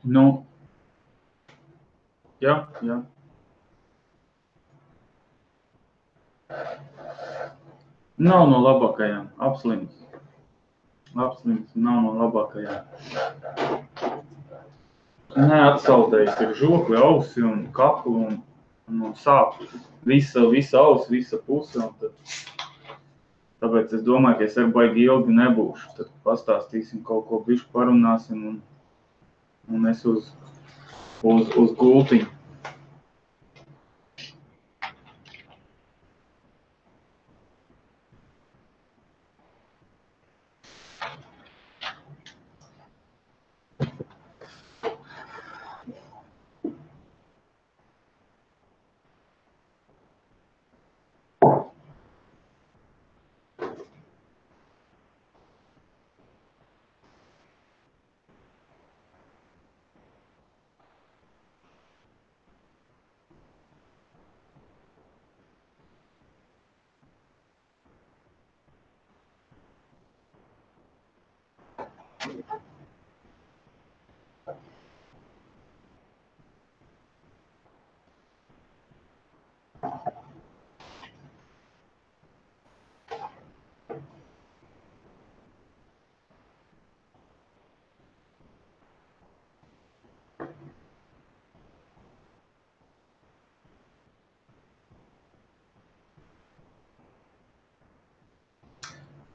Nu, jā. Nav no labākajām, apslims, nav no labākajām. Neatsaldējis ir žokli, ausi un kaklu un sāp visa ausi, visa puse. Un tāpēc es domāju, ka es ar baigi ilgi nebūšu. Tad pastāstīsim kaut ko bišķi parunāsim un es uz gultiņu.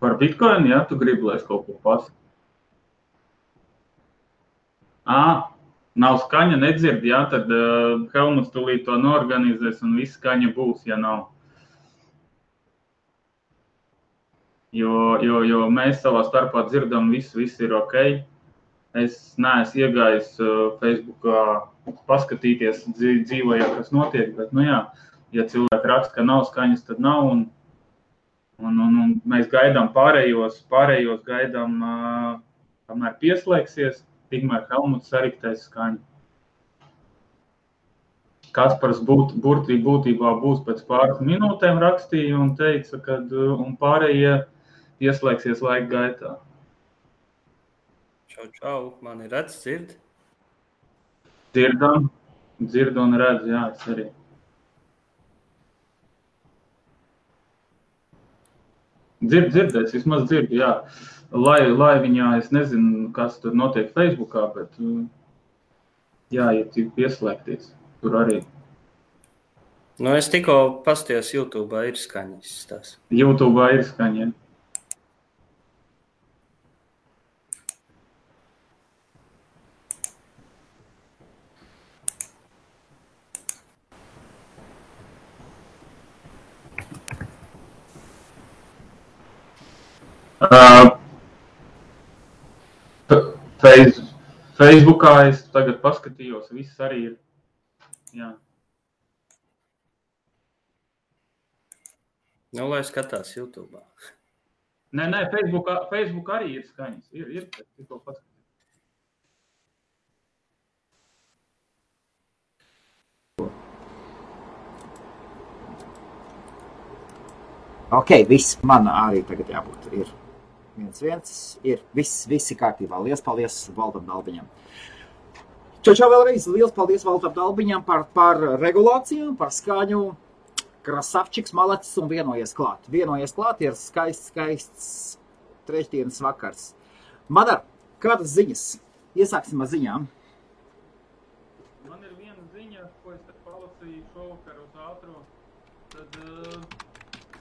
Par Bitcoin, jā, tu gribi, lai es kaut ko pasaku? Nav skaņa, nedzird, jā, tad Helmuts tūlīt to norganizēs un viss skaņa būs, ja nav. Jo mēs savā starpā dzirdam, viss ir ok. Es neesmu iegājis Facebookā paskatīties dzīvojā, kas notiek, bet, ja cilvēki raksta, ka nav skaņas, tad nav, un mēs gaidām pārējos gaidām, kamēr pieslēgsies, tikmēr Helmuts sariktēs skaņu. Kaspars būtībā būs pēc pāris minūtēm rakstīja un teica, ka un pārējie pieslēgsies laika gaitā. Čau, mani redz, dzird? Dzird un redz, jā, es arī. Dzirdēs, vismaz dzirdu, jā. Lai viņā, es nezinu, kas tur notiek Facebookā, bet jā, ja cik pieslēgties, tur arī. Es tikko pastījos YouTube'ā ir skaņas tās. YouTube'ā ir skaņa, jā. Facebookā es tagad paskatījos, viss arī ir, jā. Lai skatās YouTube'ā. Nē, Facebook arī ir skaņas, ir tikko paskatījos. Ok, viss, man arī tagad jābūt ir 1-1, ir viss kārtībā. Liels paldies Valdam Dalbiņam. Čau vēlreiz, liels paldies Valdam Dalbiņam par regulāciju, par skaņu. Krasavčiks, malacis un vienojies klāt. Ir skaists trešdienas vakars. Madar, kādas ziņas? Iesāksim ar ziņām. Man ir viena ziņa, ko es palasīju šovakar uz ātro. Tad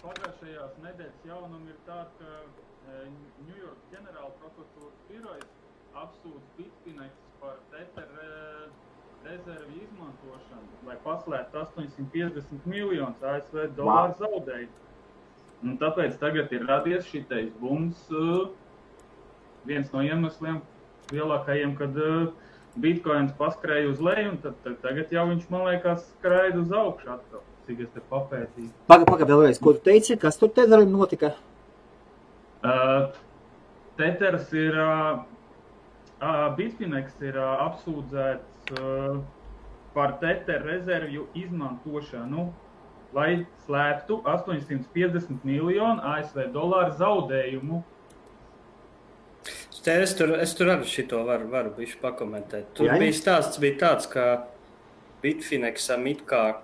pagājušajās nedēļas jaunumi ir tā, ka Ņujorkas ģenerāla prokuratūras birojas apsūdz Bitfinex par Tether rezervi izmantošanu, lai paslēptu 850 miljonus ASV dolāru zaudējumu. Un tāpēc tagad ir radies šitais bums, viens no iemesliem lielākajiem, kad Bitcoins paskrēja uz leju, un tad tagad jau viņš, man liekas, skraida uz augšu atkal, cik es te papētīju. Paga vēlreiz, ko tu teici, kas tur Tetherim notika? Tethers ir, Bitfinex ir apsūdzēts par Tether rezervju izmantošanu, lai slēptu 850 miljonu ASV dolāru zaudējumu. Es tur arī šito varu bišķi pakomentēt. Tur Jā. bija stāsts tāds, ka Bitfinexam it kā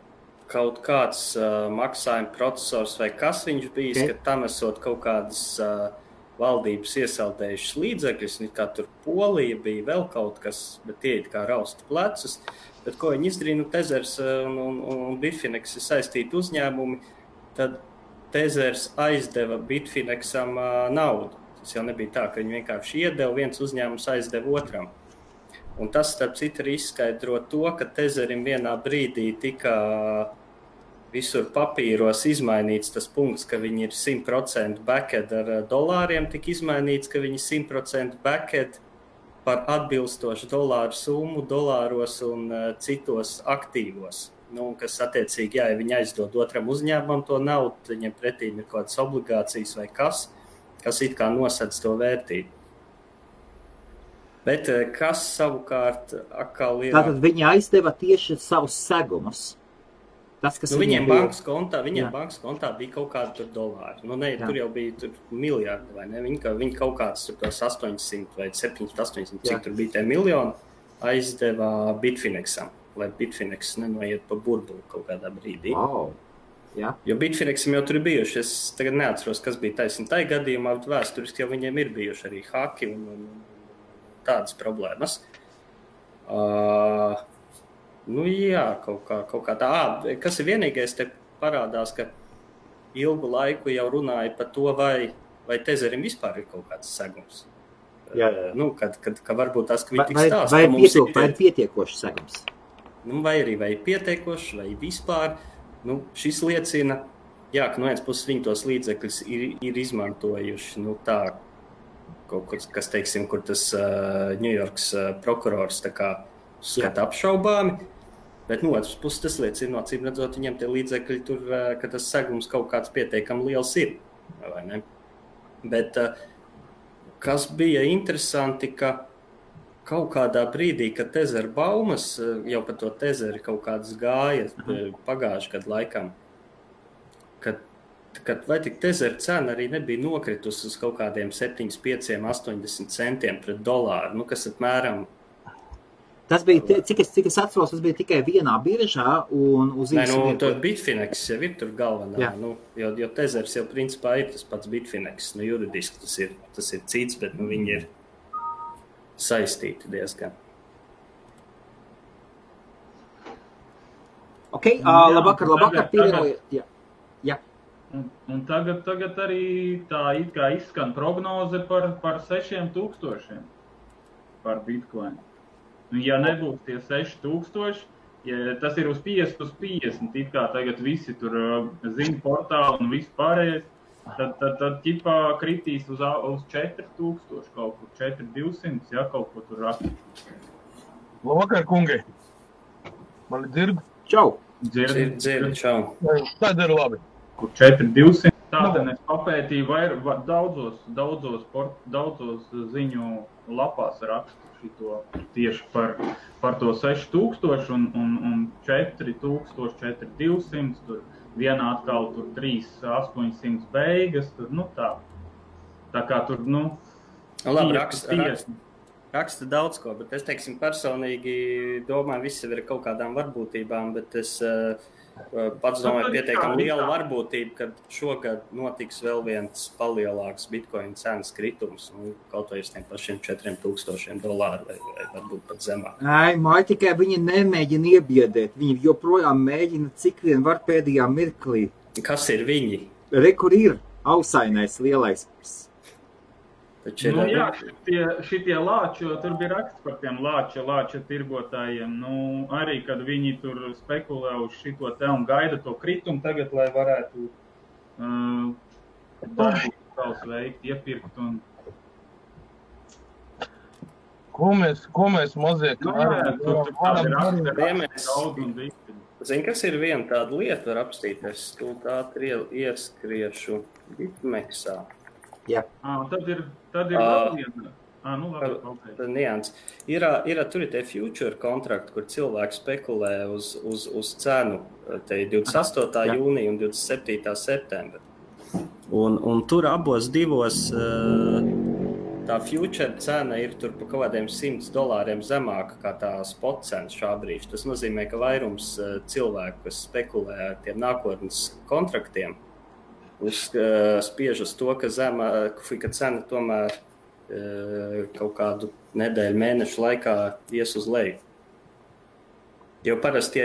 kaut kāds maksājuma procesors vai kas viņš bijis, ka tam esot kaut kādas valdības iesaldējušas līdzekļus, kā tur Polija bija vēl kaut kas, bet tie it kā rausta plecus. Bet ko viņi izdarīja, Tezers un Bitfinex ir saistīti uzņēmumi, tad Tezers aizdeva Bitfinexam naudu. Tas jau nebija tā, ka viņi vienkārši iedeva, viens uzņēmums aizdeva otram. Un tas, starp citu, arī izskaidro to, ka Tezerim vienā brīdī tika visur papīros izmainīts tas punkts, ka viņi ir 100% backend ar dolāriem, tika izmainīts, ka viņi 100% backend par atbilstošu dolāru summu, dolāros un citos aktīvos. Kas attiecīgi, ja viņi aizdod otram uzņēmumam to naudu, viņiem pretī ir kaut kādas obligācijas vai kas it kā nosedz to vērtību. Bet kas savukārt atkal ir... Tātad viņi aizdeva tieši savus segumus. Tas, kas viņiem bankas kontā bija kaut kādi tur dolāri. Tur jau bija tur miljardi, vai ne? Viņi kaut kāds tur tos 800 vai 700-800, cik tur bija tie miljoni, aizdeva Bitfinexam, lai Bitfinex nenoiet pa burbuli kaut kādā brīdī. Wow. Jā. Jo Bitfinexam jau tur ir bijuši, es tagad neatceros, kas bija taisni tai gadījumā, bet vēsturiski jau viņiem ir bijuši arī haki un tādas problēmas. Jā, kaut kā tā. Kas ir vienīgais, te parādās, ka ilgu laiku jau runāja par to, vai Tezerim vispār ir kaut kāds segums. Jā. Ka varbūt tas, ka viņi tik stāsta. Vai ir pietiekoši segums? Vai arī vai pietiekoši, vai vispār. Šis liecina, ka no vienas puses viņi tos līdzekļus ir izmantojuši, tā, kaut kas, teiksim, kur tas New Yorks prokurors tā kā skata apšaubāmi, bet no otras puses tas liecina, acīm redzot, viņiem tie līdzekļi tur, ka tas segums kaut kāds pietiekami liels ir, vai ne? Bet kas bija interesanti, ka kaut kādā brīdī, kad Tezer baumas, jau par to Tezeri kaut kādas gāja pagājuši gadu laikam, kad vai tik Tezer cena arī nebija nokritusi uz kaut kādiem 7, 5, 80 centiem pret dolāru, kas apmēram... Tas bija, cik es atceros, tas bija tikai vienā biržā un uz īsu... Tur Bitfinex jau ir tur galvenā, jo Tezers jau principā ir tas pats Bitfinex, juridiski tas ir cits, bet viņi ir saistīti diezgan. Labvakar, pievienojiet. Jā. Un tagad arī tā it kā izskan prognoze par 6,000 par Bitcoin. Ja nebūs tie 6,000, ja tas ir uz 50, it kā tagad visi tur zina portāli un viss pārējais, tad ķipā kritīs uz 4,000 kaut kur, 4,200, kaut ko tur rakstīt. Labvakar, kungi! Mani dzird? Čau! Dzird, čau! Tad ir labi. Kur 4,200. Tātad es papētīju daudzos ziņu lapās rakstu šito tieši par to 6,000 un 4,000, 4,200, tur vienā atkal tur 3,800 beigas, tur, tā. Tā kā tur, Labi, raksta daudz ko, bet es, teiksim, personīgi domāju, visi ir kaut kādām varbūtībām, bet es pats domāju pietiekami liela varbūtība, ka šogad notiks vēl viens palielāks Bitcoin cenas kritums, kaut vai uz tiem pašiem $4,000 vai varbūt pat zemāk. Tikai viņi nemēģina iebiedēt, viņi joprojām mēģina cik vien var pēdējā mirklī. Kas ir viņi? Kur ir ausainais lielais. Šitie lāči, jo tur bija raksts par tiem lāča tirgotājiem, arī, kad viņi tur spekulē uz šito te un gaida to kritumu tagad, lai varētu savus veikt, iepirkt un... Ko mēs mazie Zini, kas ir viena tāda lieta, var apstīties, stūt ātri ieskriešu Bitmexā. Jā. Tad ir vēl viena. Tad nians. Tur ir tie future kontrakti, kur cilvēki spekulē uz cenu, te 28. jūnija un 27. septembra. Un tur abos divos tā future cena ir tur pa kaut kādiem $100 zemāka kā tā spot cena šā brīža. Tas nozīmē, ka vairums cilvēku, kas spekulē ar tiem nākotnes kontraktiem, spiež uz to, ka cena tomēr kaut kādu nedēļu, mēnešu laikā ies uz leju. Jo parasti,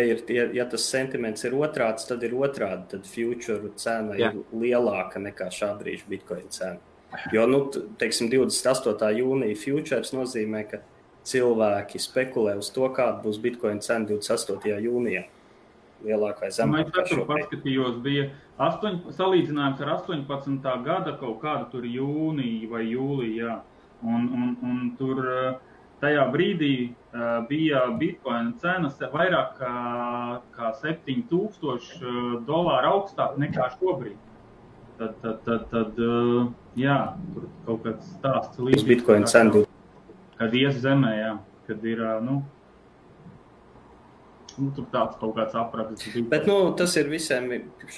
ja tas sentiments ir otrāds, tad ir otrādi, tad future cena ir lielāka nekā šā brīža Bitcoin cena. Jo, teiksim, 28. jūnija futures nozīmē, ka cilvēki spekulē uz to, kāda būs Bitcoin cena 28. jūnijā. Lielāk vai zemāk. Es paskatījos, bija salīdzinājums ar 18. gada kaut kādu tur jūniju vai jūliju, jā. Un tur tajā brīdī bija Bitcoin cenas vairāk kā $7,000 augstāk nekā šobrīd. Tad jā, tur kaut kāds stāsts līdz Bitcoin cenu. Kad ies zemē, jā, kad ir, tur tāds kaut kāds apraksts. Bet, tas ir visiem,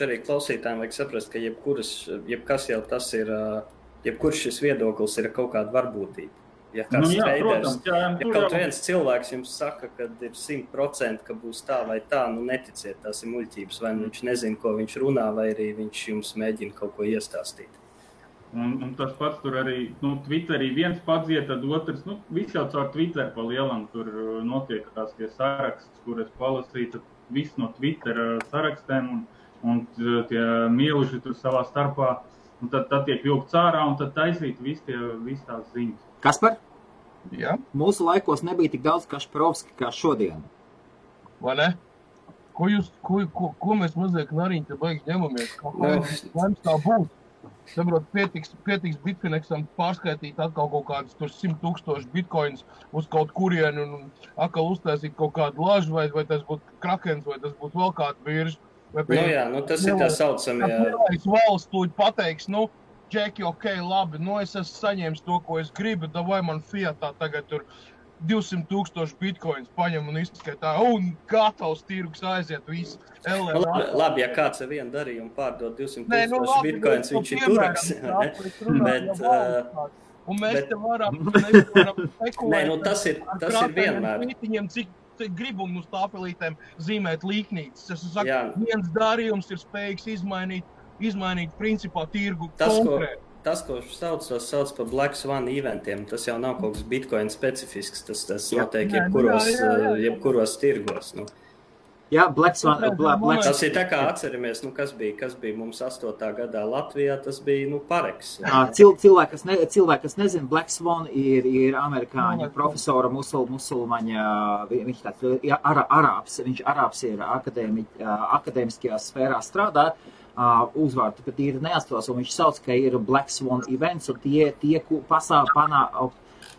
arī klausītājiem vajag saprast, ka jebkas jau tas ir, jebkurš šis viedoklis ir kaut kāda varbūtība. Ja kāds traders, kaut viens cilvēks jums saka, ka ir 100%, ka būs tā vai tā, neticiet, tās ir muļķības, vai viņš nezina, ko viņš runā, vai arī viņš jums mēģina kaut ko iestāstīt. Un tas pats tur arī, Twitterī viens padziet, tad otrs, viss jau caur Twitter pa lielam tur notiekās tie saraksts, kur es palasīju, tad viss no Twitter sarakstēm un tie mieluši tur savā starpā, un tad tiek vilkts ārā un tad taisīt viss tās ziņas. Kaspar? Jā. Mūsu laikos nebija tik daudz Kašparovski kā šodien. Vai ne? Ko mēs mazliet nariņi te baigs ņemamies? Laims tā būs. Saprot, pietiks Bitfinexam pārskaitīt atkal kaut kādus 100,000 bitcoins uz kaut kurienu un atkal uztaisīt kaut kādu lažu, vai tas būtu Krakens, vai tas būtu vēl kāda birža. Tas ir tā saucamie. Lielais valsts tūļ pateiks, Džeki, labi, es esmu saņēmis to, ko es gribu, vai man fiatā tagad tur 200,000 bitcoins paņem un izskaitā, un gatavs tirgus aiziet visu. Labi, ja kāds ar vienu darījumu pārdod 200,000 bitcoins, viņš ir turaks. Un mēs te varam spekulēt. Tas ir vienmēr. Cik gribu un uz tāpelītēm zīmēt līknītes. Es saku, viens darījums ir spējīgs izmainīt principā tirgu konkrēti. Tas, ko sauc par Black Swan eventiem, tas jau nav kaut kas Bitcoin specifisks, tas notiek jebkuros tirgos. Jā, Black Swan. Tas ir tā kā atceramies, kas bija mums 8. gadā Latvijā, tas bija, Pareks. Cilvēki, kas nezina, Black Swan ir amerikāņu profesora musulmaņa, viņš tāds arābs, viņš ir akadēmiskajā sfērā strādā. Uzvārdu pat ir neatceros, un viņš sauc, ka ir Black Swan events, un tie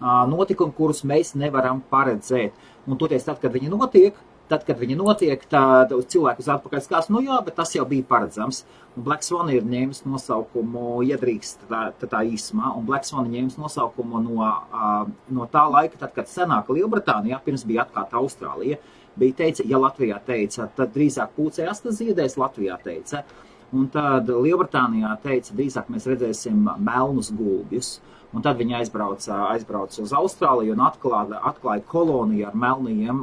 notikumi, kurus mēs nevaram paredzēt. Un toties, tad, kad viņi notiek, tad cilvēku uz atpakaļ skās, bet tas jau bija paredzams. Un Black Swan ir ņēmis nosaukumu, iedrīkst tā īsumā, un Black Swan ņēmis nosaukumu no tā laika, tad, kad senāka Lielbritānijā, pirms bija atklāta Austrālija, bija teica, ja Latvijā teica, tad drīzāk pūcējās, tas ziedēs, Latvijā teica. Un tad Lielbritānijā teica, drīzāk mēs redzēsim melnus gulbjus. Un tad viņi aizbrauca uz Austrāliju un atklāja koloniju ar melniem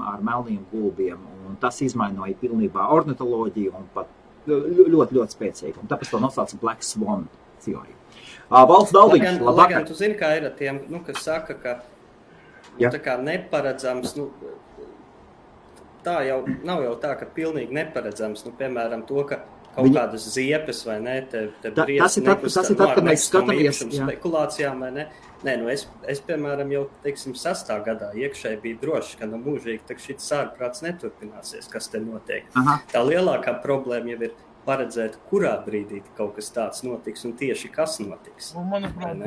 gulbiem. Un tas izmainoja pilnībā ornitoloģiju un pat ļoti, ļoti spēcīgi. Un tāpēc to nosauca Black Swan teoriju. Valsts Daldiņš, labvakar. Lai gan tu zini, kā ir ar tiem, kas saka, ka tā kā neparedzams, tā jau nav jau tā, ka pilnīgi neparedzams, piemēram, to, ka kaut kādas ziepes vai ne, te tas ir tad, kad mēs skatāmies spekulācijām vai ne. Nē, es piemēram, jau, 6. gadā iekšēji bija droši, ka mūžīgi šis sārprāts neturpināsies, kas te notiek. Aha. Tā lielākā problēma jau ir paredzēt, kurā brīdī kaut kas tāds notiks un tieši kas notiks. Un, manuprāt,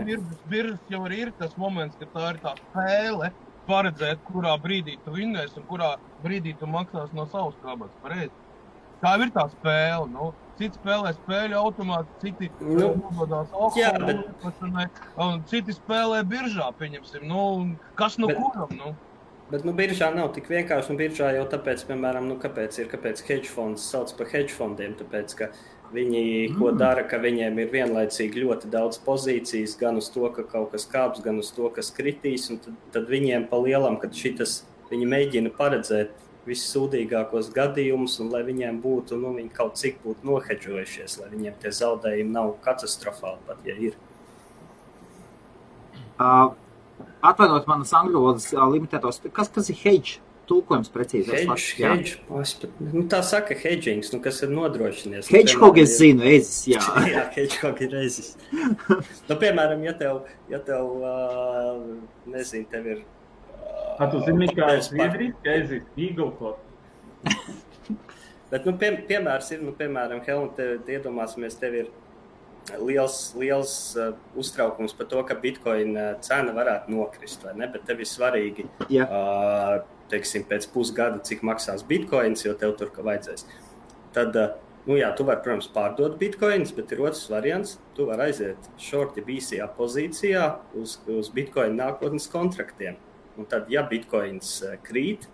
biržas jau arī ir tas moments, ka tā ir tā spēle paredzēt, kurā brīdī tu vinnēsi un kurā brīdī tu maksās no savas kabatas, pareizi. Tā ir tā spēle, citi spēlē spēļu automāti, citi nododās alkoholu, un citi spēlē biržā, pieņemsim, kas kuram, Bet, biržā nav tik vienkārši, biržā jau tāpēc, piemēram, kāpēc hedge fonds sauc par hedge fondiem, tāpēc, ka Viņi ko dara, ka viņiem ir vienlaicīgi ļoti daudz pozīcijas, gan uz to, ka kaut kas kāps, gan uz to, kas kritīs, un tad viņiem pa lielam, kad viņi mēģina paredzēt vissūdīgākos gadījumus, un lai viņiem būtu, viņi kaut cik būtu nohedžojušies, lai viņiem tie zaudējumi nav katastrofāli, pat ja ir. Atvainot manas angļu valodas limitētos, kas ir hedge? Tulkojums precīzi. Hedge. Tā saka hedgings, kas ir nodrošinies. Hedgehog es zinu, ezis, jā. Jā, hedgehog ir ezis. Piemēram, ja tev nezinu, tev ir... Tu zini, kā ir zviedriski ezis, eagle-cod. Bet, piemērs ir, piemēram, Helmut, te iedomāsimies, tev ir liels uztraukums par to, ka Bitcoin cena varētu nokrist, vai ne? Bet tev ir svarīgi, teiksim, pēc pusgada, cik maksās Bitcoins, jo tev tur vajadzēs. Tad, tu vari, protams, pārdot Bitcoins, bet ir otrs variants. Tu vari aiziet shorti BCA pozīcijā uz Bitcoin nākotnes kontraktiem. Un tad, ja Bitcoins krīt,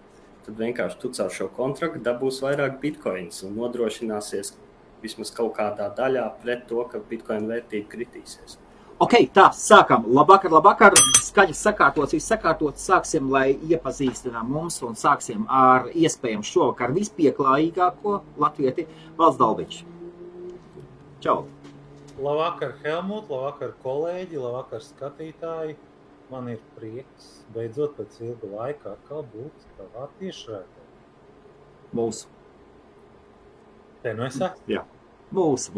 tad vienkārši tu caur šo kontraktu dabūs vairāk Bitcoins un nodrošināsies vismaz kaut kādā daļā pret to, ka Bitcoin vērtība kritīsies. Ok, tā, sākam. Labvakar. Skaņas sakārtots, viss sakārtots. Sāksim, lai iepazīstinām mums un sāksim ar iespējams šovakar vispieklājīgāko latvieti Valds Dalbiņš. Čau! Labvakar, Helmut, labvakar, kolēģi, labvakar, skatītāji. Man ir prieks beidzot pēc ilga laika atkal būt tavā tiešraidē. Mūsu. Te nu es esmu? Jā. Mūsu.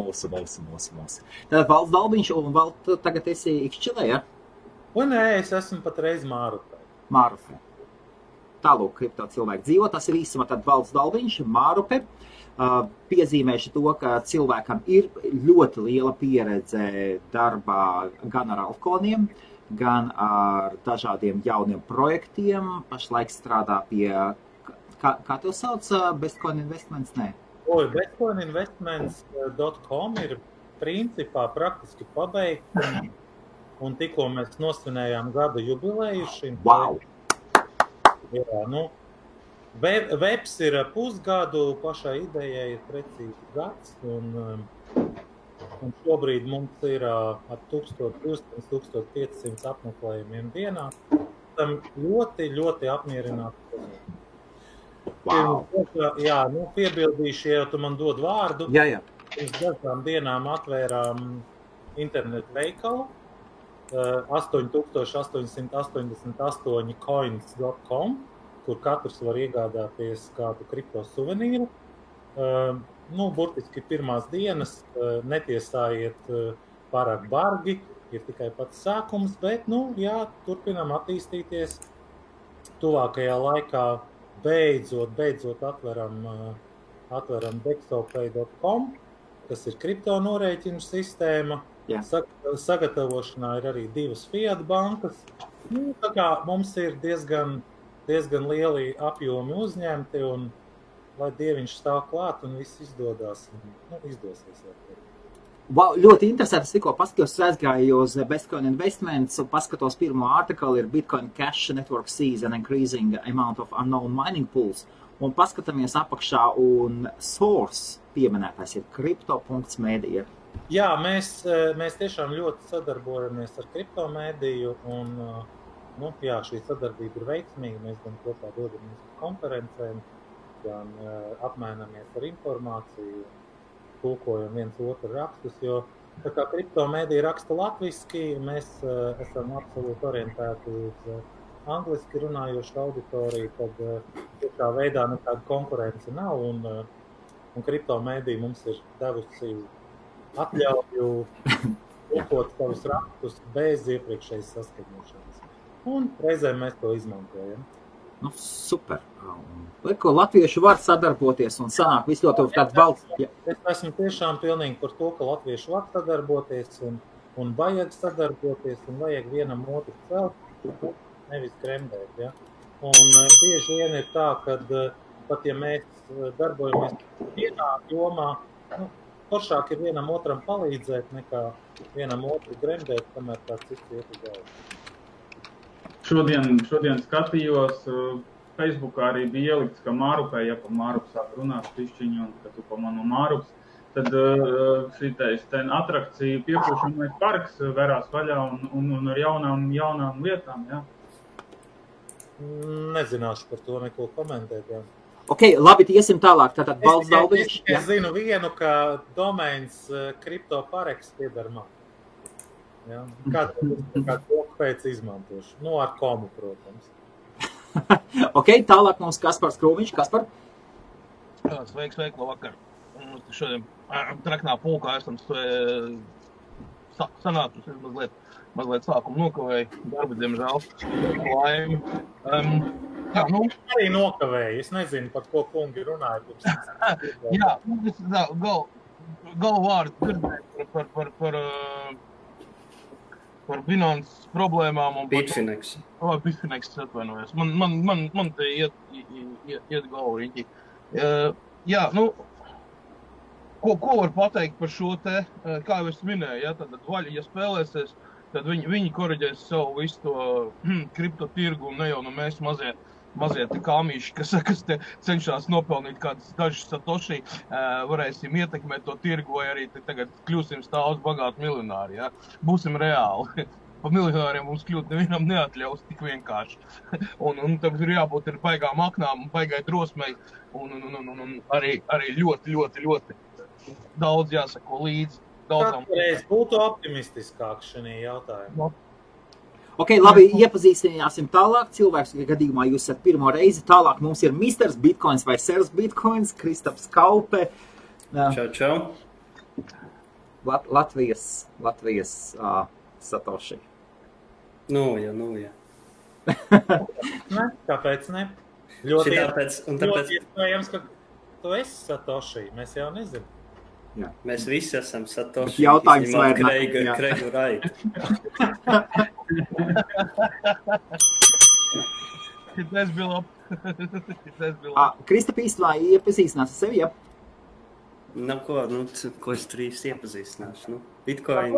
Tātad Valds Dalbiņš un Valds tagad esi Ikšķilē, ja? Un nē, es esmu patreiz Mārupē. Mārupē. Tālūk, kripto cilvēki dzīvo, tas ir īsumā tad Valds Dalbiņš, Mārupē. Piezīmēšu to, ka cilvēkam ir ļoti liela pieredze darbā gan ar altcoiniem, gan ar dažādiem jauniem projektiem. Pašlaik strādā pie, kā tev sauc, Bestcoin Investments, nē? Bestcoininvestments.com ir principā praktiski pabeigts, un tikko mēs nosvinējām gada jubileju šim. Wow! Jā, webs ir pusgadu, pašai idejai ir precīzi gads, un šobrīd mums ir ap 1200–1500 apmeklējumiem dienā. Tam ļoti, ļoti apmierināti. Wow. Jā, piebildīšu, ja tu man dod vārdu. Jā. Pirms dažām dienām atvērām internetu veikalu 8888coins.com, kur katrs var iegādāties kādu kripto suvenīru. Burtiski pirmās dienas, netiesājiet pārāk bargi, ir tikai pats sākums, bet, turpinām attīstīties. Tuvākajā laikā beidzot atveram dexopay.com, kas ir kripto norēķinu sistēma. Jā. Sagatavošanā ir arī 2 fiat bankas. Tā kā mums ir diezgan lieli apjomi uzņemti, un lai Dieviņš stāv klāt un viss izdodās, izdosies. Wow, ļoti interesanti. Es tikko paskatījos, aizgāju uz Bestcoin Investments un paskatos pirmo artiklu, ir Bitcoin Cash Network sees an increasing amount of unknown mining pools. Un paskatāmies apakšā, un source pieminētais ir crypto.media. Jā, mēs tiešām ļoti sadarbojamies ar kriptomēdiju, un šī sadarbība ir veiksmīga. Mēs gan kopā dodamies uz konferencēm, gan apmainamies ar informāciju, tulkojam viens otru rakstus, jo tā kā kriptomēdija raksta latviski, mēs esam absolūti orientēti uz angliski runājošu auditoriju, tad tā veidā nekāda konkurence nav, un kriptomēdija mums ir devusi atļauju tulkot savus rakstus bez iepriekšējas saskaņošanas. Un reizēm mēs to izmantojam. Super. Ko latvieši var sadarboties un sanāk visu ļoti tādu valsts. Ja. Es esmu tiešām pilnīgi par to, ka latvieši var sadarboties un vajag sadarboties un vajag vienam otru celt, nevis gremdēt. Ja? Un bieži vien ir tā, ka pat ja mēs darbojamies vienā jomā, foršāk ir vienam otram palīdzēt nekā vienam otru gremdēt, kamēr tāds cits iet uz galvu. Šodien skatījos, Facebookā arī bija ielikts, ka Mārupē, ja pa Mārupu sāk runāt pišķiņu, un ka tu pa manu Mārups, tad šitais ten atrakcija piepūšamais parks verās vaļā un ar jaunām lietām, jā. Nezināšu par to neko komentēt, jā. Ok, labi, iesim tālāk. Tātad Valds Dalbiņš. Es zinu vienu, ka domains CryptoParex pieder man. Jā. Kā to pēc izmantošu. Nu, ar komu, protams. Ok, tālāk mums Kaspars Krūmiņš. Kaspar? Sveiks, labvakar. Šodien traknā pulkā esam sanātus mazliet sākumu nokavēju. Darba, diemžēl. Laimi. Jā, nu. Arī nokavēju. Es nezinu, par ko kungi runāja. Jā, galvārdu dzirdēju par Binance problēmām un Bitfinex. Bitfinex atvainojos. Man te iet galvu riņķi. Jā, nu, ko var pateikt par šo te, kā jau es minēju, ja, tad vaļa, ja spēlēsies, tad viņi koriģēs savu visu to kriptotirgu un ne jau mēs mazie te kāmīši, kas te cenšas nopelnīt kādas dažas satoši, varēsim ietekmēt to tirgu vai arī tagad kļūsim stāvus bagāti miljonāri, ja? Būsim reāli. Pa miljonāriem mums kļūt nevienam neatļaus tik vienkārši. Un tam ir jābūt ir baigām aknām, baigai drosmei un arī ļoti daudz jāsako līdzi. Katreiz būtu optimistiskāk šajā jautājumā. Ok, labi, iepazīstināsim tālāk. Cilvēks, gadījumā jūs esat pirmo reizi. Tālāk mums ir Misters Bitcoins vai Sers Bitcoins, Kristaps Kaupe. Čau. Latvijas Satoši. Nu, jā. Ne, kāpēc ne? Ļoti iespējams, ka tu esi Satoši. Mēs jau nezinām. Jā. Mēs visi esam Satoši. Jautājums vai Kreigu Raitu. Tas bija labi. Kristap īstenībā iepazīstinās ar sevi, ja? Ko es tur īsti iepazīstināšu? Bitcoin.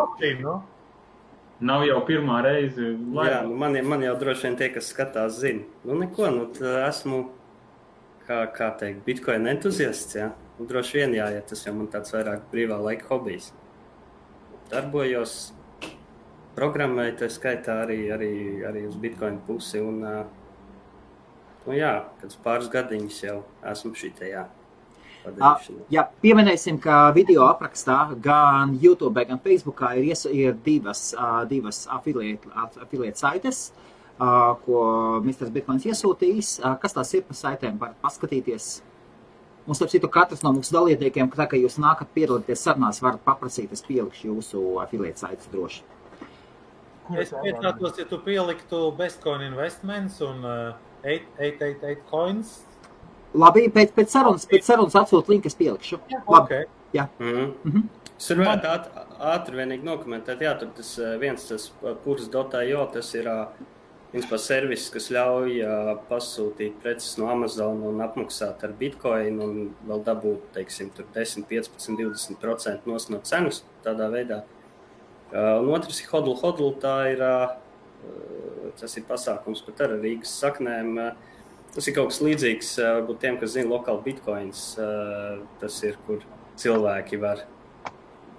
Nav jau pirmā reize. Jā, man jau droši vien tie, kas skatās, zina. Esmu, kā teikt, Bitcoin entuziasts, jā. Droši vien ja tas jau man tāds vairāk brīvā laika hobijs. Darbojos, programmēju, tā skaitā arī uz Bitcoin pusi un, kāds pāris gadiņus jau esmu šitajā padarīšanā. Jā, pieminēsim, ka video aprakstā gan YouTube, gan Facebookā ir divas affiliate saites, ko Mr. Bitcoins iesūtījis. Kas tās ir par saitēm, var paskatīties? Un, starp citu, katrs no mūsu dalībniekiem, tā, ka jūs nākat piedalīties sarunās, varat paprasīt, es pielikšu jūsu affiliate saites droši. Es pietātos, ja tu pieliktu Bestcoin Investments un 888 coins. Labi, pēc sarunas atsūt linku, es pielikšu. Okay. Jā. Es varētu ātri vienīgi nokomentēt, jā, tur tas purs.io, tas ir servis, kas ļauj pasūtīt preces no Amazon un apmaksāt ar Bitcoin un vēl dabūt, teiksim, tur 10, 15, 20% no cenas tādā veidā. Un otrs ir Hodl, tas ir pasākums pat ar Rīgas saknēm. Tas ir kaut kas līdzīgs, varbūt tiem, kas zina Local Bitcoins, tas ir, kur cilvēki var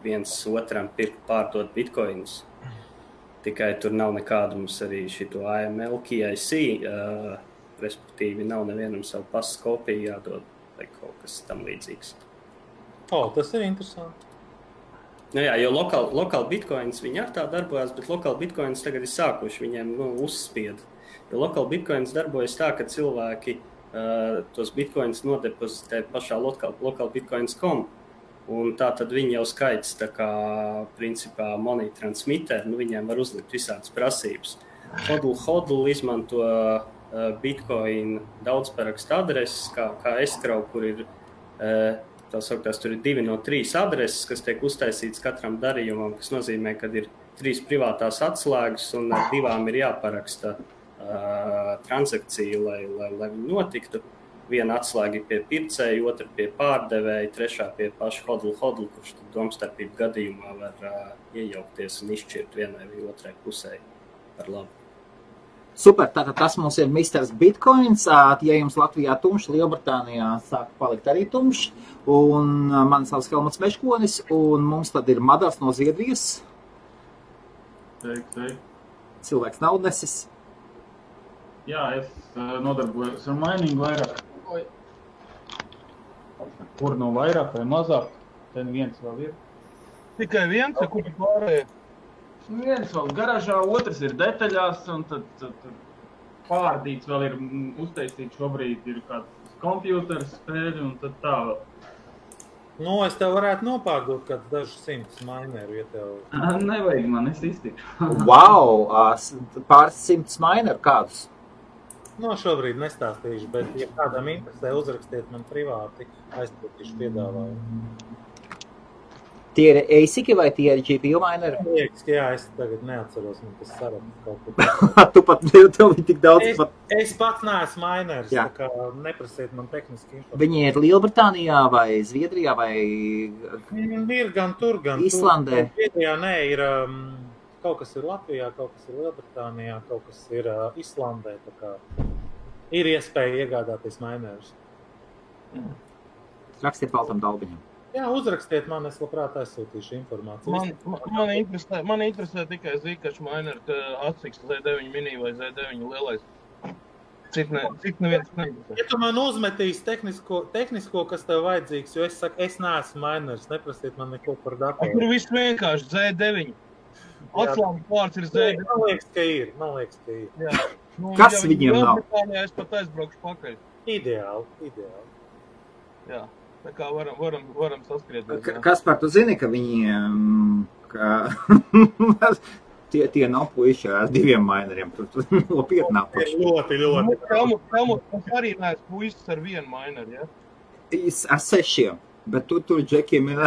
viens otram pirkt, pārdot Bitcoinus. Tikai tur nav nekādu mums arī šito AML, KIC, respektīvi nav nevienam savu pasas kopiju jādod vai kaut kas tam līdzīgs. Tas ir interesanti. Jo Local Bitcoins, viņi ar tā darbojās, bet Local Bitcoins tagad ir sākuši viņiem uzspied. Jo Local Bitcoins darbojas tā, ka cilvēki tos Bitcoins nodepozitē pašā localbitcoins.com. Un tā tad viņi jau skaits tā kā, principā, money transmitter, viņiem var uzlikt visādas prasības. Hodl izmanto Bitcoin daudzparakstu adreses, kā escrow, kur ir, tā sauktās, tur ir 2 no 3 adreses, kas tiek uztaisītas katram darījumam, kas nozīmē, ka ir 3 privātās atslēgas un ar 2 ir jāparaksta transakcija, lai notiktu. Viena atslēga pie pircēja, otra pie pārdevēja, trešā pie paša hodl, kurš domstarpību gadījumā var iejaukties un izšķirt vienai vai otrai pusē par labu. Super, tātad tas mums ir Mr. Bitcoins. Ja jums Latvijā tumšs, Lielbritānijā sāk palikt arī tumšs. Un man savs Helmuts Meškonis, un mums tad ir Madars no Zviedrijas. Sveiki. Cilvēks naudnesis. Jā, es nodarbojos ar miningu vairāk. Kur no vairāk vai mazāk, ten viens vēl ir. Tikai viens, kur pārējie? Viens vēl garažā, otrs ir detaļās, un tad pārdīts vēl ir uztaisīts šobrīd, ir kāds kompjūters spēļi, un tad tā vēl. Nu, es tev varētu nopārdot kāds dažus 100 mineru, ja tev... Nevajag man, es iztikšu. Wow, pāris 100 mineru kādus? No, šobrīd nestāstīšu, bet, ja kādam interesē, uzrakstiet man privāti, aizpūtīšu piedāvājumu. Tie ir ASIC vai tie ir GPU mineri? Liekas, jā, es tagad neatceros, man tas saraksts kaut ko. Tu pat tev ir tik daudz. Es pats neesmu miners, Jā. tā kā neprasiet man tehniski informāciju. Viņi ir Lielbritānijā vai Zviedrijā vai Ir gan tur, gan Islandē. tur. Zviedrijā nē, ir kaut kas ir Latvijā, kaut kas ir Lielbritānijā, kaut kas ir Islandē, tā kā ir iespēja iegādāties minerus. Rakstiet Valtam Dalbiņam. Jā, uzrakstiet man, es labprāt aizsūtīšu informāciju. Man interesē tikai Zcash miner, atsiks Z9 mini vai Z9 lielais. Cik neviens neinteresē. Ja tu man uzmetīs tehnisko, kas tev vajadzīgs, jo es saku, es neesmu miners, neprasiet man neko par datoru. Tur viss vienkārši Z9. Atslāņu pārts ir Z9. Man liekas, ka ir. Jā. Nu, Kas ja viņiem nav? Lielbritānijā es pat aizbraukšu pakaļ. Ideāli. Jā. Tā kā varam saskriet. Kaspar, tu zini, ka viņiem tie nav puiši ar 2 mineriem. Tur nopietnā puiši. Ļoti. Helmuts arī neesmu puisis ar 1 mineru, ja? Ar 6, bet tur džekiem ir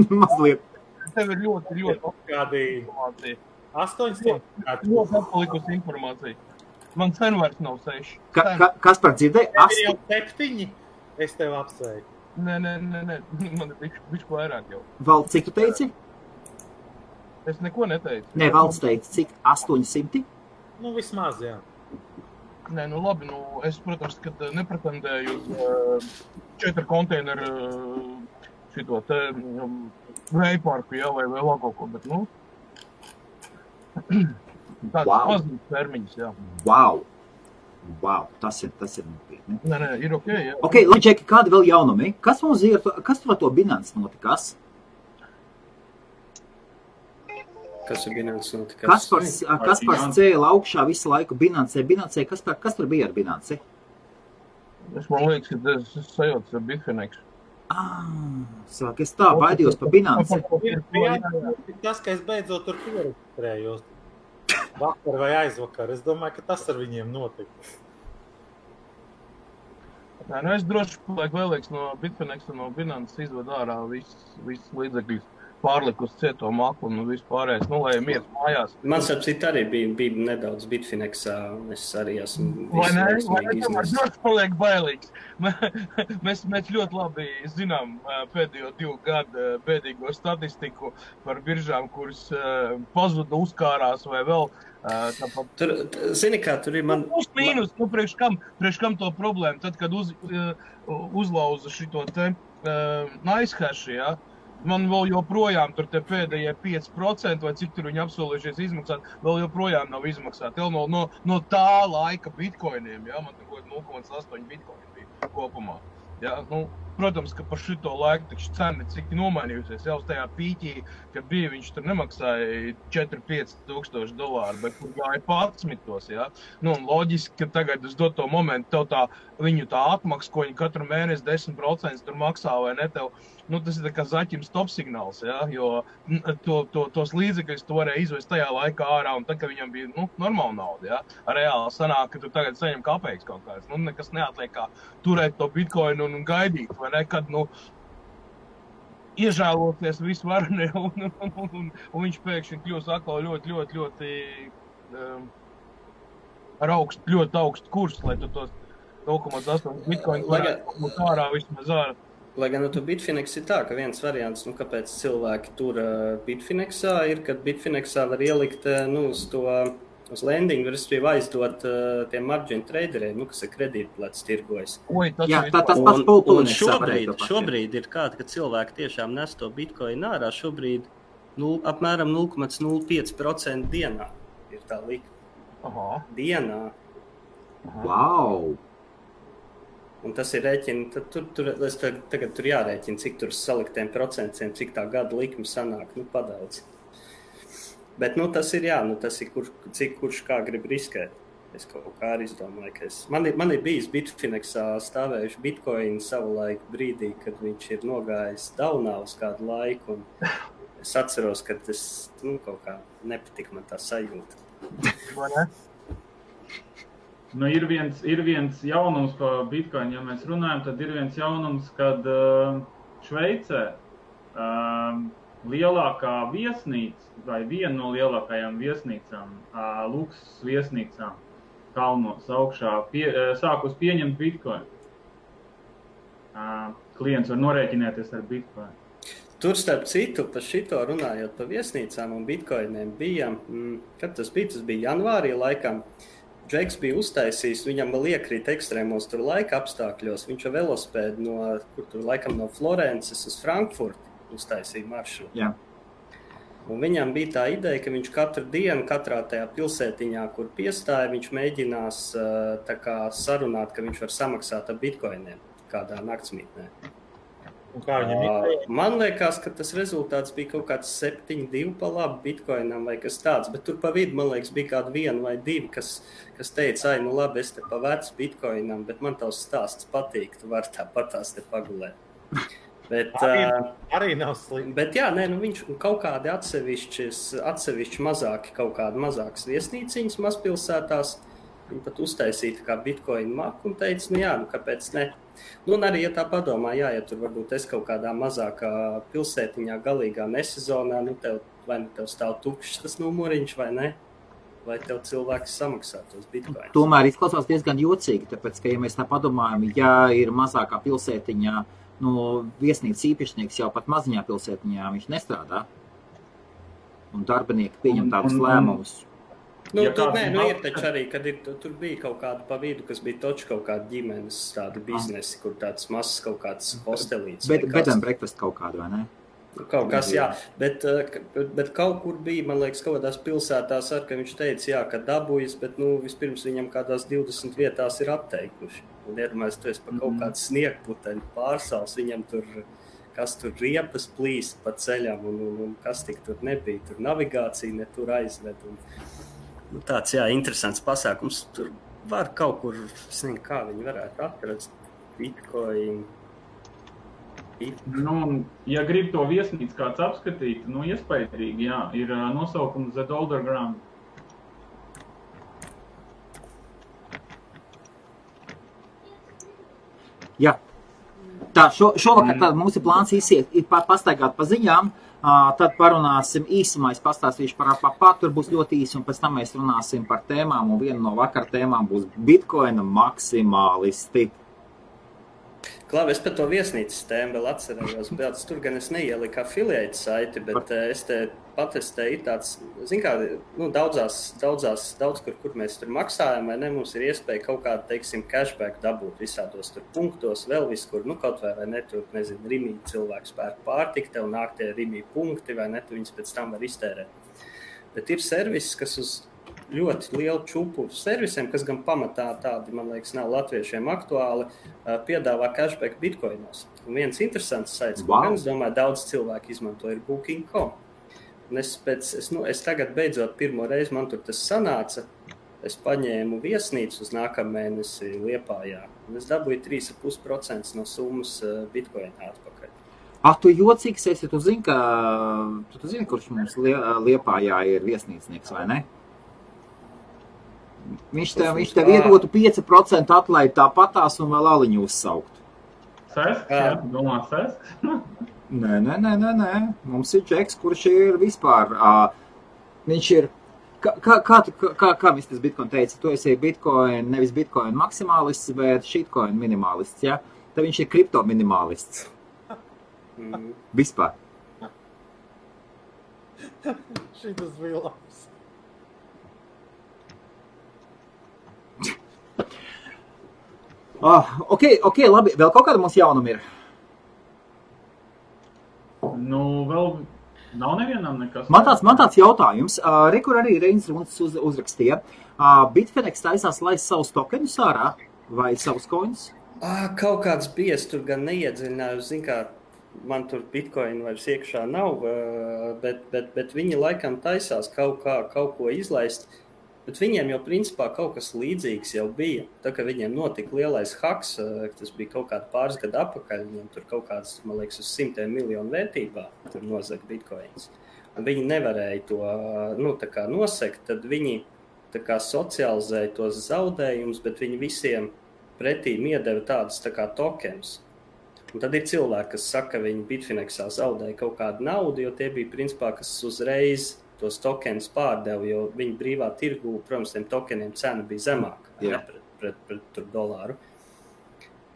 mazliet. Tev ir ļoti Kādi informācija. 800? Ļoti atpalikusi informācija. Man sen vairs nav 6. Kaspar, dzirdēji? Tev ir jau 7? Es tev apsveiku. Nē, man ir bišķi vairāk jau. Valds, cik tu teici? Es neko neteicu. Nē, Valds teica, cik? 800? Nu, vismaz, jā. Nē, nu labi, es, protams, kad nepretendēju uz 4 konteineru šito te vējparku, jā, vai vēl kaut ko, bet, tāds mazliet termiņus, jā. Wow, tas ir nopietni. Nē, ir ok, jā. Ok, labi, Džeki, kādi vēl jaunumi? Kas mums ir, kas tur ar to Binance notikas? Kas ir Binance notikas? Kaspars cēla augšā visu laiku Binance. Kas tur bija ar Binance? Man liekas, ka es sajaucu ar Bitfinex. Sāk, es tā baidījos par Binance. Tas, ka es beidzot tur pieregistrējos. Vakar vai aizvakar. Es domāju, ka tas ar viņiem notika. Nē, es droši palieku vēlīgs no Bitfinex un no Binance izved ārā viss līdzekļus pārlikus cieto maklu un viss pārējais, lai mieras mājās. Man sapcīt arī bija nedaudz Bitfinexā, un es arī esmu Vai ne? Droši paliek bailīgs. Mēs ļoti labi zinām pēdējo 2 gadu bēdīgo statistiku par biržām, kuras pazuda, uzkārās vai vēl. Tur, zini kā, tur ir man... Mīnus, priekš kam to problēmu? Tad, kad uzlauza šito te NiceHash, ja? Man vēl joprojām tur te pēdējie 5%, vai cik tur viņi apsolījušies izmaksāt, vēl joprojām nav izmaksāti. No tā laika bitcoiniem, ja? Man tur 0,8 bitcoini bija kopumā. Ja? Protams, ka par šito laiku taču cena cik nomainījusies. Jau uz tajā pīķī, kad bija, viņš tur nemaksāja 4-5 tūkstoši dolāru, bet kur gāja 11. Ja? Un loģiski, ka tagad uz doto momentu tev viņu tā atmaksa, ko viņi katru mēnesi 10% tur maksā vai ne tev, tas ir tā kā zaķim stop signāls, ja? Jo tos līdzekļus tu varēja izvest tajā laikā ārā, un tad, kad viņam bija normāla nauda, ja? Reāli sanāk, ka tu tagad saņem kapeiks kaut kāds. Nekas neatliek kā turēt to bitcoinu un gaidīt, vai ne, kad, iežēloties visu varni, un viņš pēkšņi kļūs atkal ļoti ar ļoti augstu kursu, lai tu tos 0,8 bitcoinu varētu būt ārā vismaz ārā. Lai gan tu Bitfinex ir tā, ka viens variants, kāpēc cilvēki tur Bitfinexā ir, kad Bitfinexā var ielikt uz to uz lendingu, respektīvi aizdot tiem margin traderiem, kas ir kredītplats tirgojas. Jā, tas pats un šobrīd ir kāda, ka cilvēki tiešām nes to bitcoin ārā, šobrīd apmēram 0,05% dienā ir tā likme. Dienā. Wow! Un tas ir rēķini, tagad tur jārēķina, cik tur saliktiem procentiem, cik tā gada likme sanāk, padaudz. Bet, tas ir, tas ir, cik kurš kā grib riskēt. Es kaut kā arī izdomāju, ka man ir bijis Bitfinexā stāvējuši bitcoin savulaik brīdī, kad viņš ir nogājis daunā uz kādu laiku, un es atceros, ka tas, kaut kā nepatika man tā sajūta. Ir viens jaunums par Bitcoin, ja mēs runājam, tad ir viens jaunums, kad Šveicē lielākā viesnīca, vai viena no lielākajām viesnīcām, luksus viesnīcām kalnos augšā, sākus pieņemt Bitcoin. Klients var norēķināties ar Bitcoin. Tur starp citu, par šito runājot par viesnīcām un Bitcoiniem bija, kad tas bija janvārī laikam, Džeks bija uztaisījis, viņam vēl iekrīt ekstrēmos tur laika apstākļos, viņš ar velospēdu no Florences uz Frankfurtu uztaisīja maršrutu. Jā. Un viņam bija tā ideja, ka viņš katru dienu, katrā tajā pilsētiņā, kur piestāja, viņš mēģinās tā kā sarunāt, ka viņš var samaksāt ar bitcoiniem kādā naktsmītnē. Man liekas, ka tas rezultāts bija kaut kāds 7,2 pa labu bitcoinam vai kas tāds, bet tur pa vidu, man liekas, bija kādi 1 vai 2, kas teica, labi, es te pa vecu bitcoinam, bet man tavs stāsts patīk, tu vari tāpatās te pagulēt. Bet, arī nav slikti. Bet jā, viņš kaut kādi atsevišķi mazāki, kaut kādi mazākas viesnīciņas mazpilsētās, viņi pat uztaisīja kā bitcoin maku un teica, kāpēc ne? Un arī, ja tā padomā, ja tur varbūt es kaut kādā mazākā pilsētiņā galīgā nesezonā, vai tev stāv tukšs tas numuriņš vai ne? Vai tev cilvēks samaksā tos bitcoins? Tomēr izklausās diezgan jocīgi, tāpēc, ka, ja mēs tā padomājam, ja ir mazākā pilsētiņā, viesnīcas īpašnieks jau pat maziņā pilsētiņā viņš nestrādā. Un darbinieki pieņem tādus lēmumus. Ir taču arī, kad tur bija kaut kāda pa vidu, kas bija toči kaut kāda ģimenes tāda biznesi, kur tāds mazs kaut kāds hostelīts. Bed and breakfast kaut kādu, vai ne? Kaut kas, jā. Bet kaut kur bija, man liekas, kaut kādās pilsētās ar, ka viņš teica, ka dabūjas, bet vispirms viņam kādās 20 vietās ir apteikuši. Un iedomājies, tu esi pa kaut kādu sniegputeņu pārsals, viņam tur, kas tur riepas plīst pa ceļam un kas tik tur nebija. Tur navigācija ne tur aizved. Tāds, interesants pasākums. Tur var kaut kur, es nezinu, kā viņi varētu atrast Bitcoin. Ja grib to viesnīcu kāds apskatīt, iespaidrīgi, ir nosaukums The Dollar Ground. Jā. Tā, šovakar tad mums ir plāns pastaigāt pa ziņām. Tad parunāsim īsumā, es pastāstīšu par tur būs ļoti īsi, un pēc tam mēs runāsim par tēmām, un viena no vakar tēmām būs Bitcoina maksimālisti. Klāvi, es par to viesnīcas tēmu vēl atcerējos, bet tur gan es neieliku affiliate saiti, bet es te patestēju tāds, daudz kur mēs tur maksājam, vai ne, mums ir iespēja kaut kādu, teiksim, cashback dabūt visādos tur punktos, vēl viskur, kaut vai ne, tur, nezinu, Rimī cilvēks pērk pārtik, tev nāk tie Rimī punkti, vai ne, tu viņus pēc tam var iztērēt. Bet ir servis, kas uz ļoti lielu čupu servisiem, kas gan pamatā tādi, man liekas, nav latviešiem aktuāli, piedāvā cashback bitcoinos. Un viens interesants saits, ko gan, es domāju, daudz cilvēku izmanto, ir Booking.com. Un es tagad beidzot pirmo reizi, man tur tas sanāca, es paņēmu viesnīcu uz nākamā mēnesi Liepājā. Un es dabūju 3,5% no summas bitcoinā atpakaļ. Tu jocīgs esi, tu zini, kurš mums Liepājā ir viesnīcnieks, vai ne? Viņš tev iedotu 5% atlaidi tāpatās un vēl aliņu uzsaukt. Sesks, jā? Domā sesks? Nē. Mums ir Džeks, kurš ir vispār. Viņš ir... Kā viņš tas Bitcoin teica? Tu esi Bitcoin, nevis Bitcoin maksimālists, bet shitcoin minimālists, ja? Tad viņš ir kripto minimālists. Vispār. Šitas bija labs. Ok, labi. Vēl kaut kāda mums jaunuma ir? Nu, vēl nav nevienam nekas. Man tāds jautājums. Kur arī Reinis Runts uzrakstīja. Bitfinex taisās laist savus tokenus ārā vai savus coins? Kaut kāds bija, es tur gan neiedziļinājos, zin kā, man tur bitcoin vairs iekšā nav, bet viņi laikam taisās kaut ko izlaist, bet viņiem jau principā kaut kas līdzīgs jau bija. Tā kā viņiem notika lielais haks, tas bija kaut kādi pāris gadu atpakaļ, viņiem tur kaut kāds, man liekas, uz 100 miljonu vērtībā tur nozaga bitcoins. Un viņi nevarēja to tā kā nosekt, tad viņi tā kā socializēja tos zaudējumus, bet viņi visiem pretī iedeva tādas tā kā tokens. Un tad ir cilvēki, kas saka, ka viņi Bitfinexā zaudēja kaut kādu naudu, jo tie bija principā, kas uzreiz tos tokens pārdeva, jo viņi brīvā tirgu, protams, tiem tokeniem cena bija zemāka pret dolāru.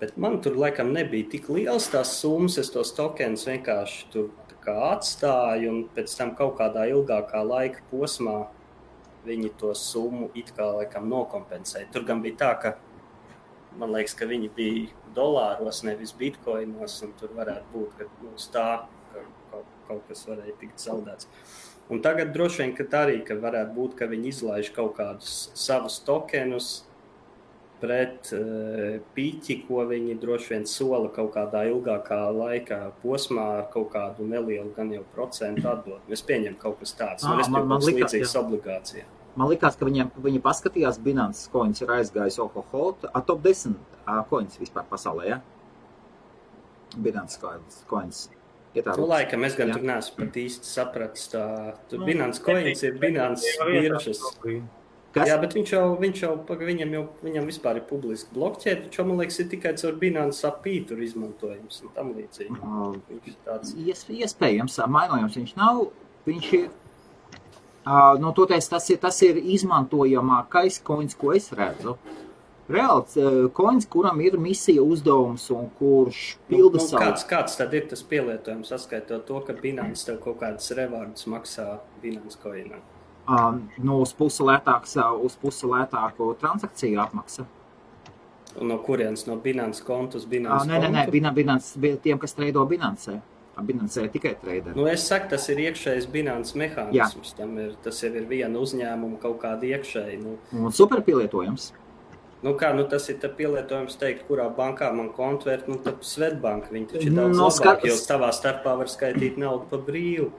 Bet man tur laikam nebija tik liels tās summas, es tos tokens vienkārši tur tā kā atstāju, un pēc tam kaut kādā ilgākā laika posmā viņi to summu it kā laikam nokompensēja. Tur gan bija tā, ka man liekas, ka viņi bija dolāros, nevis bitcoinos, un tur varētu būt, ka tā kaut kas varēja tikt zaudēts. Un tagad droši vien, ka varētu būt, ka viņi izlaiž kaut kādus savus tokenus pret piķi, ko viņi droši vien sola kaut kādā ilgākā laika posmā ar kaut kādu nelielu gan jau procentu atdot. Es pieņemu kaut kas tāds, man līdzīgas obligācijā. Man likās, ka viņi paskatījās, Binance coins ir aizgājis top 10 coins vispār pasaulē, ja? Binance coins. Laikam, es gan tur neesmu pat īsti sapratis tā. Tur Binance coins ir Binance biržas. Kas? Jā, bet viņam vispār ir publiski blokķēde, taču, man liekas, ir tikai caur Binance API tur izmantojums un tam līdzīgi. Viņš ir tāds. Iespējams, mainojums viņš nav, viņš ir. Toties, tas ir izmantojamākais coins, ko es redzu. Reāls coins, kuram ir misija uzdevums un kurš pilda savu. Kāds tad ir tas pielietojums, saskaitot to, ka Binance tev kaut kādas rewardus maksā Binance coinā? Uz pusi lētāku transakciju atmaksa. Un no kurienes? No Binance kontu uz Binance kontu? Nē, Binance, tiem, kas treido Binance. Binance tikai trader. Es saku, tas ir iekšējs Binance mehānisms. Tas jau ir viena uzņēmuma kaut kāda iekšēji. Un super pielietojums. Tas ir pielietojums teikt, kurā bankā man kontvērt, tad Svetbank, viņi taču ir daudz labāk, jo tavā starpā var skaitīt naudu pa brīvu.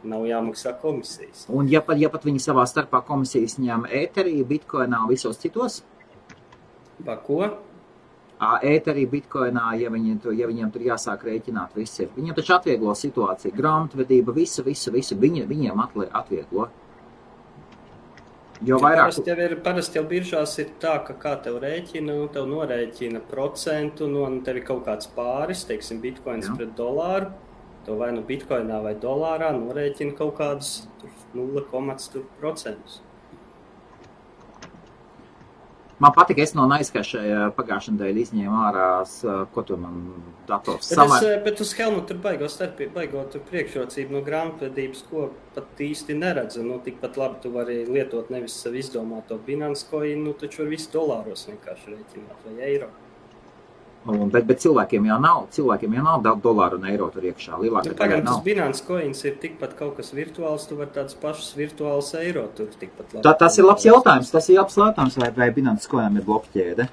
Nav jāmaksā komisijas. Un ja pat viņi savā starpā komisijas ņem ēterī, bitcoinā un visos citos? Ko? Ēterī, bitcoinā, ja viņiem tur jāsāk rēķināt visi. Viņiem taču atvieglo situāciju, grāmatvedība, visu, viņiem atvieglo. Jo vairāk... Parasti jau biržās ir tā, ka kā tev rēķina, tev norēķina procentu, un tev ir kaut kāds pāris, teiksim, bitcoins pret dolāru, tev vai bitcoinā vai dolārā norēķina kaut kādus 0,% Man patika, es no Naizkašai pagājušajā dēļ izņēmu ārā, ko tu man dators samēr. Bet uz Helmu tur baigot priekšrocību no grāmatvedības, ko pat īsti neredzu. Tikpat labi tu vari lietot nevis savu izdomāto Binance coin, taču var visu dolāros vienkārši rēķināt vai eiro. Bet cilvēkiem jau nav dolāru un eiro tur iekšā. Pagaidām, tas Binance coins ir tikpat kaut kas virtuāls, tu var tāds pašs virtuāls eiro tur tikpat labi. Tas ir labs jautājums, vai Binance coinam ir blokķēde?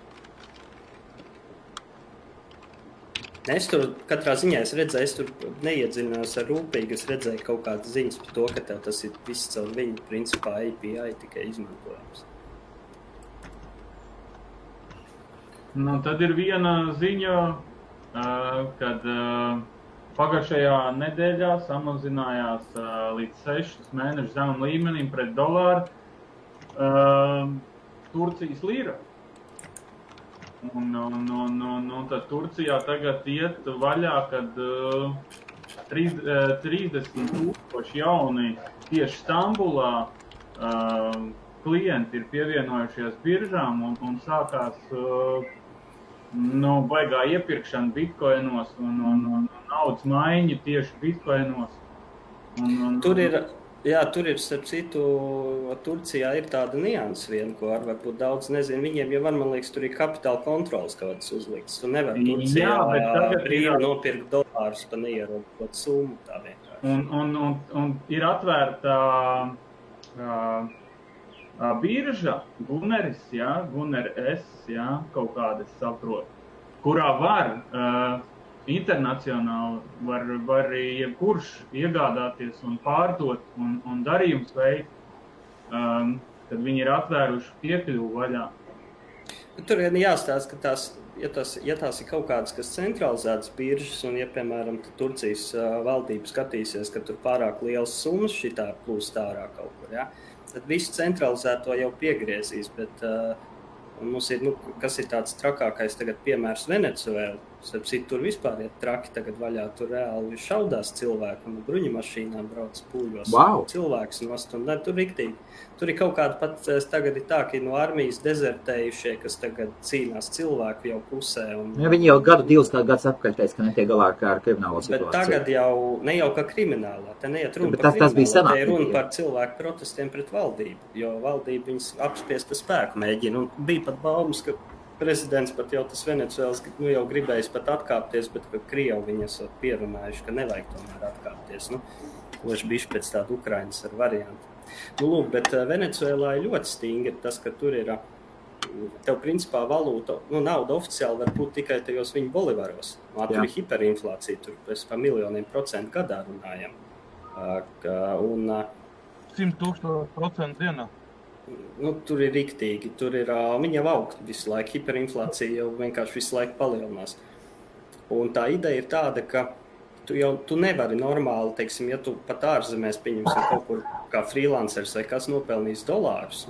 Es tur katrā ziņā es tur neiedziļinājos ar rūpīgi, es redzēju kaut kādas ziņas par to, ka tev tas ir viss caur viņu principā API tikai izmantojams. Tad ir viena ziņa, kad pagājušajā nedēļā samazinājās līdz 6 mēnešu zemam līmenim pret dolāru Turcijas lira. Un tad Turcijā tagad iet vaļā, kad 30,000 jauni tieši Stambulā klienti ir pievienojušies biržām un sākās baigā iepirkšana bitcoinos un naudas maiņa tieši bitcoinos. Tur ir Jā, tur ir, starp citu, Turcijā ir tāda nianses viena, ko varbūt daudz nezinu. Viņiem jau var, man liekas, tur ir kapitāla kontrolas kaut kādas uzliktas. Tu nevar Turcijā brīvi nopirkt dolārus pa neierobežotu summu tā vienkārši. Un ir atvērta birža, Guneris, Guner S, kaut kāda es saprotu, kurā var internacionāli var jebkurš iegādāties un pārdot un darījums veikt, kad viņi ir atvēruši piekļuvu vaļā. Tur ir jāstāsta, ka tās ir kaut kādas, kas centralizētas biržas, un ja, piemēram, Turcijas valdība skatīsies, ka tur pārāk liels summas šitā plūst ārā kaut kur, tad visu centralizēto jau piegriezīs, bet mums ir, kas ir tāds trakākais tagad piemērs Venecuēla. Tur vispār ir traki tagad vaļā, tur reāli šaudās cilvēki un bruņumašīnām brauc pūļos. Wow. Cilvēks nost, un tur riktīgi. Tur ir kaut kāda pat, tagad ir tā, ka no armijas dezertējušie, kas tagad cīnās cilvēku jau pusē. Viņi jau divus gadus atpakaļ teica, ka netiek galā ar kriminālo situāciju. Bet tagad jau ne jau kā kriminālā, te neiet runa par kriminālā, te ir runa par cilvēku protestiem pret valdību, jo valdība viņas apspiesta spēku mēģina. Un bija pat baumas, ka prezidents pat jau tas Venecuēlas jau gribējis pat atkāpties, bet ka Krievi viņi esot pierunājuši, ka nevajag tomēr atkāpties. Loši bišķi pēc tāda Ukrainas ar variantu. Lūk, bet Venecuēlā ir ļoti stingri tas, ka tur ir, tev principā valūta, nauda oficiāli var būt tikai tajos viņu bolivaros. Tur ir hiperinflācija, tur mēs pa miljoniem procentu gadā runājam. 100,000% dienā. Tur ir riktīgi, tur ir, viņa jau aug visu laiku, hiperinflācija jau vienkārši visu laiku palielinās. Un tā ideja ir tāda, ka tu nevari normāli, teiksim, ja tu pat ārzemēs pieņemsim kaut kur kā freelancers vai kas nopelnīs dolārus,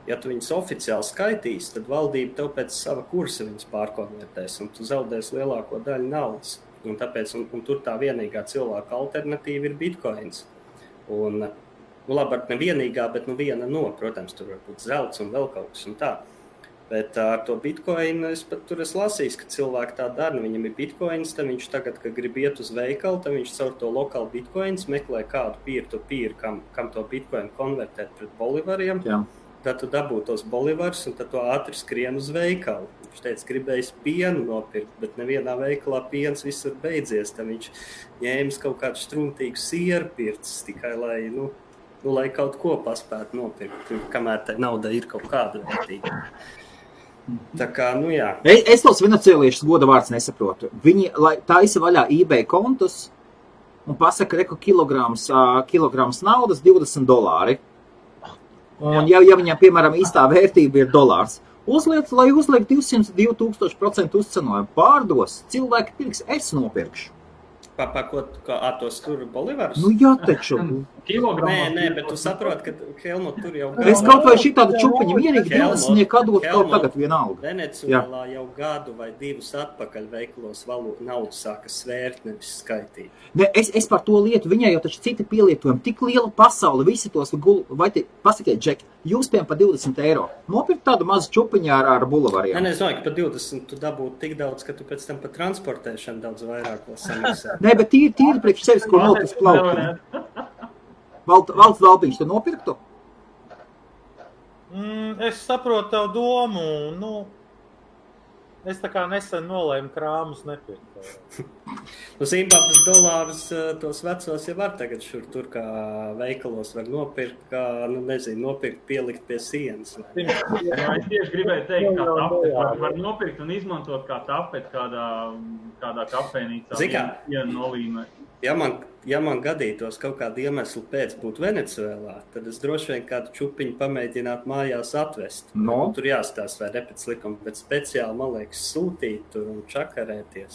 ja tu viņus oficiāli skaitīs, tad valdība tev pēc sava kursa viņus pārkonvertēs un tu zaudēs lielāko daļu naudas. Un tāpēc, un tur tā vienīgā cilvēka alternatīva ir bitcoins. Un labāk ne vienīgā, bet viena protams, tur var būt zelts un vēl kaut kas un tā. Bet ar to bitcoinu es lasīju, ka cilvēki tā dara, viņam ir bitcoins, tad viņš tagad, kad grib iet uz veikalu, tad viņš caur to lokālu bitcoins meklē kādu peer-to-peer, kam to bitcoinu konvertēt pret bolivariem. Jā. Tad tu dabū tos bolivars un tad tu ātri skrien uz veikalu. Viņš teica, gribējis pienu nopirkt, bet nevienā veikalā piens visur beidzies. Tad viņš ņēmis kaut kādu struntīgu sieru pircis, tikai lai kaut ko paspētu nopirkt, kamēr tā nauda ir kaut kāda vērtīga. Tā kā, jā. Es tos venecuēliešus goda vārds nesaprotu. Viņi taisa vaļā eBay kontus un pasaka, ka kilograms naudas $20. Un ja viņam, piemēram, īstā vērtība ir dolārs, lai uzliek 200-2000% uzcenojumu, pārdos, cilvēki pirks, es nopirkšu. Tos tur bolivarus? Jā, taču. Nē, bet tu saproti, ka Helmut tur jau gadu. Es kaut vai šitādu čupiņu mierīgi 20 atdot kaut tagad vienalga. Venecuēlā jau gadu vai 2 atpakaļ veikalos naudu sāka svērt, nevis skaitīt. Ne, es par to lietu, viņai jau taču citi pielietojumi, tik liela pasaule, visi tos vai pasakiet, Džeki, jūs piem par €20. Nopirkt tādu mazu čupiņu ar bulavariem. Nē, es domāju, ka par 20 tu dabūtu tik daudz, ka tu pēc tam par transportēšanu daudz vairāk vēl samaksā. Nē, bet tīri priekš sevis, ko nopirkt plaukt. Valsts Dalpiņš, tu nopirktu? Es saprotu tavu domu. Es tā kā nesen nolēmu krāmus nepirkt. Zimbabves dolārus tos vecos jau var tagad šur tur kā veikalos var nopirkt, kā, nopirkt, pielikt pie sienas. Es tieši gribēju teikt, ka tapeti var nopirkt un izmantot kā tapeti kādā kafejnīcā. Ja man gadītos kaut kādu iemeslu pēc būt Venecuēlā, tad es droši vien kādu čupiņu pamēģinātu mājās atvest. Tur jāstāst vai repēc likuma, bet speciāli, man liekas, sūtīt tur un čakarēties.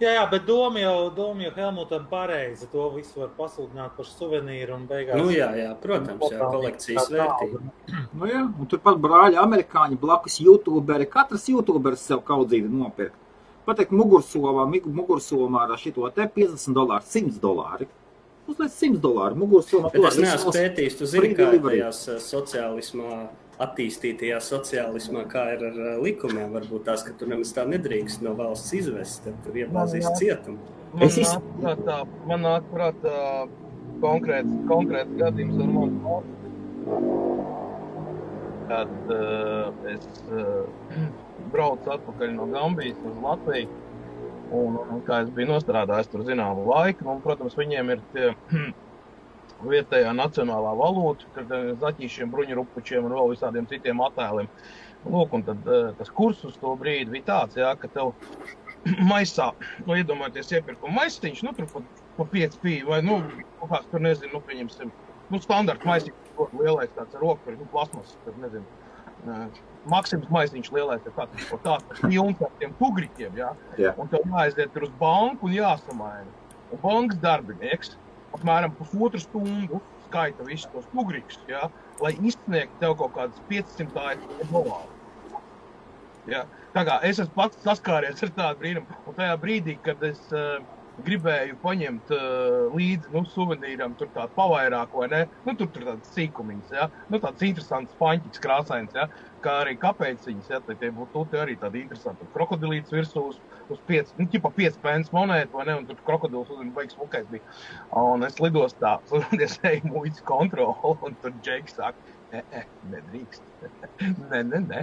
Jā, bet doma jau Helmutam pareizi. To visu var pasludināt par suvenīru un beigās. Jā, protams, kolekcijas vērtība. Jā, un turpat brāļi amerikāņi, blakus youtuberi, katrs youtuberis sev kaudzīti nopirkt. Pateikt mugursomā ar šito te $50, $100. Uzliec $100 mugursomā. Bet es neesmu pētījis, tu zini, kā tajās sociālismā, attīstītajā sociālismā, kā ir ar likumiem, varbūt tās, ka tu nemaz tā nedrīkst no valsts izvest, tad tur iebāzīs cietumu. Man nāk prātā konkrēts gadījums ar manu valsti. Kad es braucu atpakaļ no Gambijas uz Latviju, un kā es biju nostrādājis tur zināmu laiku, un, protams, viņiem ir tie vietējā nacionālā valūta, kad zaķīšiem, bruņurupučiem un vēl visādiem citiem attēliem. Lūk, un tad tas kurs uz to brīdi bija tāds, jā, ka tev maisā, iedomājieties iepirkuma maisiņš, tur pa 5 pīju, vai, kaut kāds tur, nezinu, pieņemsim, standarta maisiņš, lielais tāds ar roku, plasmas, tad, nezinu, Maksims maisiņš lielais ir tāds pilns ar tiem tugriķiem, jā, un tev jāaiziet tur uz banku un jāsamaina. Un bankas darbinieks apmēram pusotru stundu skaita visus tos tugriķus, jā, lai izsniegtu tev kaut kādas $500. Jā. Tā kā es esmu pats saskāries ar tādu brīnumu, un tajā brīdī, kad es gribēju paņemt līdzi, suvenīram tur tādu pavairāk, vai ne? Tur tāds sīkumiņas, jā. Tāds interesants paņķis krāsains, jā. Kā arī kapeciņas, jā. Tie būtu arī tādi interesanti. Krokodilīts virsū uz 5, ķipa 5 pence monētu, vai ne? Un tur krokodils baigs smukais bija. Un es lidostā, es eju muitas kontroli, un tur Džeks saka, nedrīkst. Nē.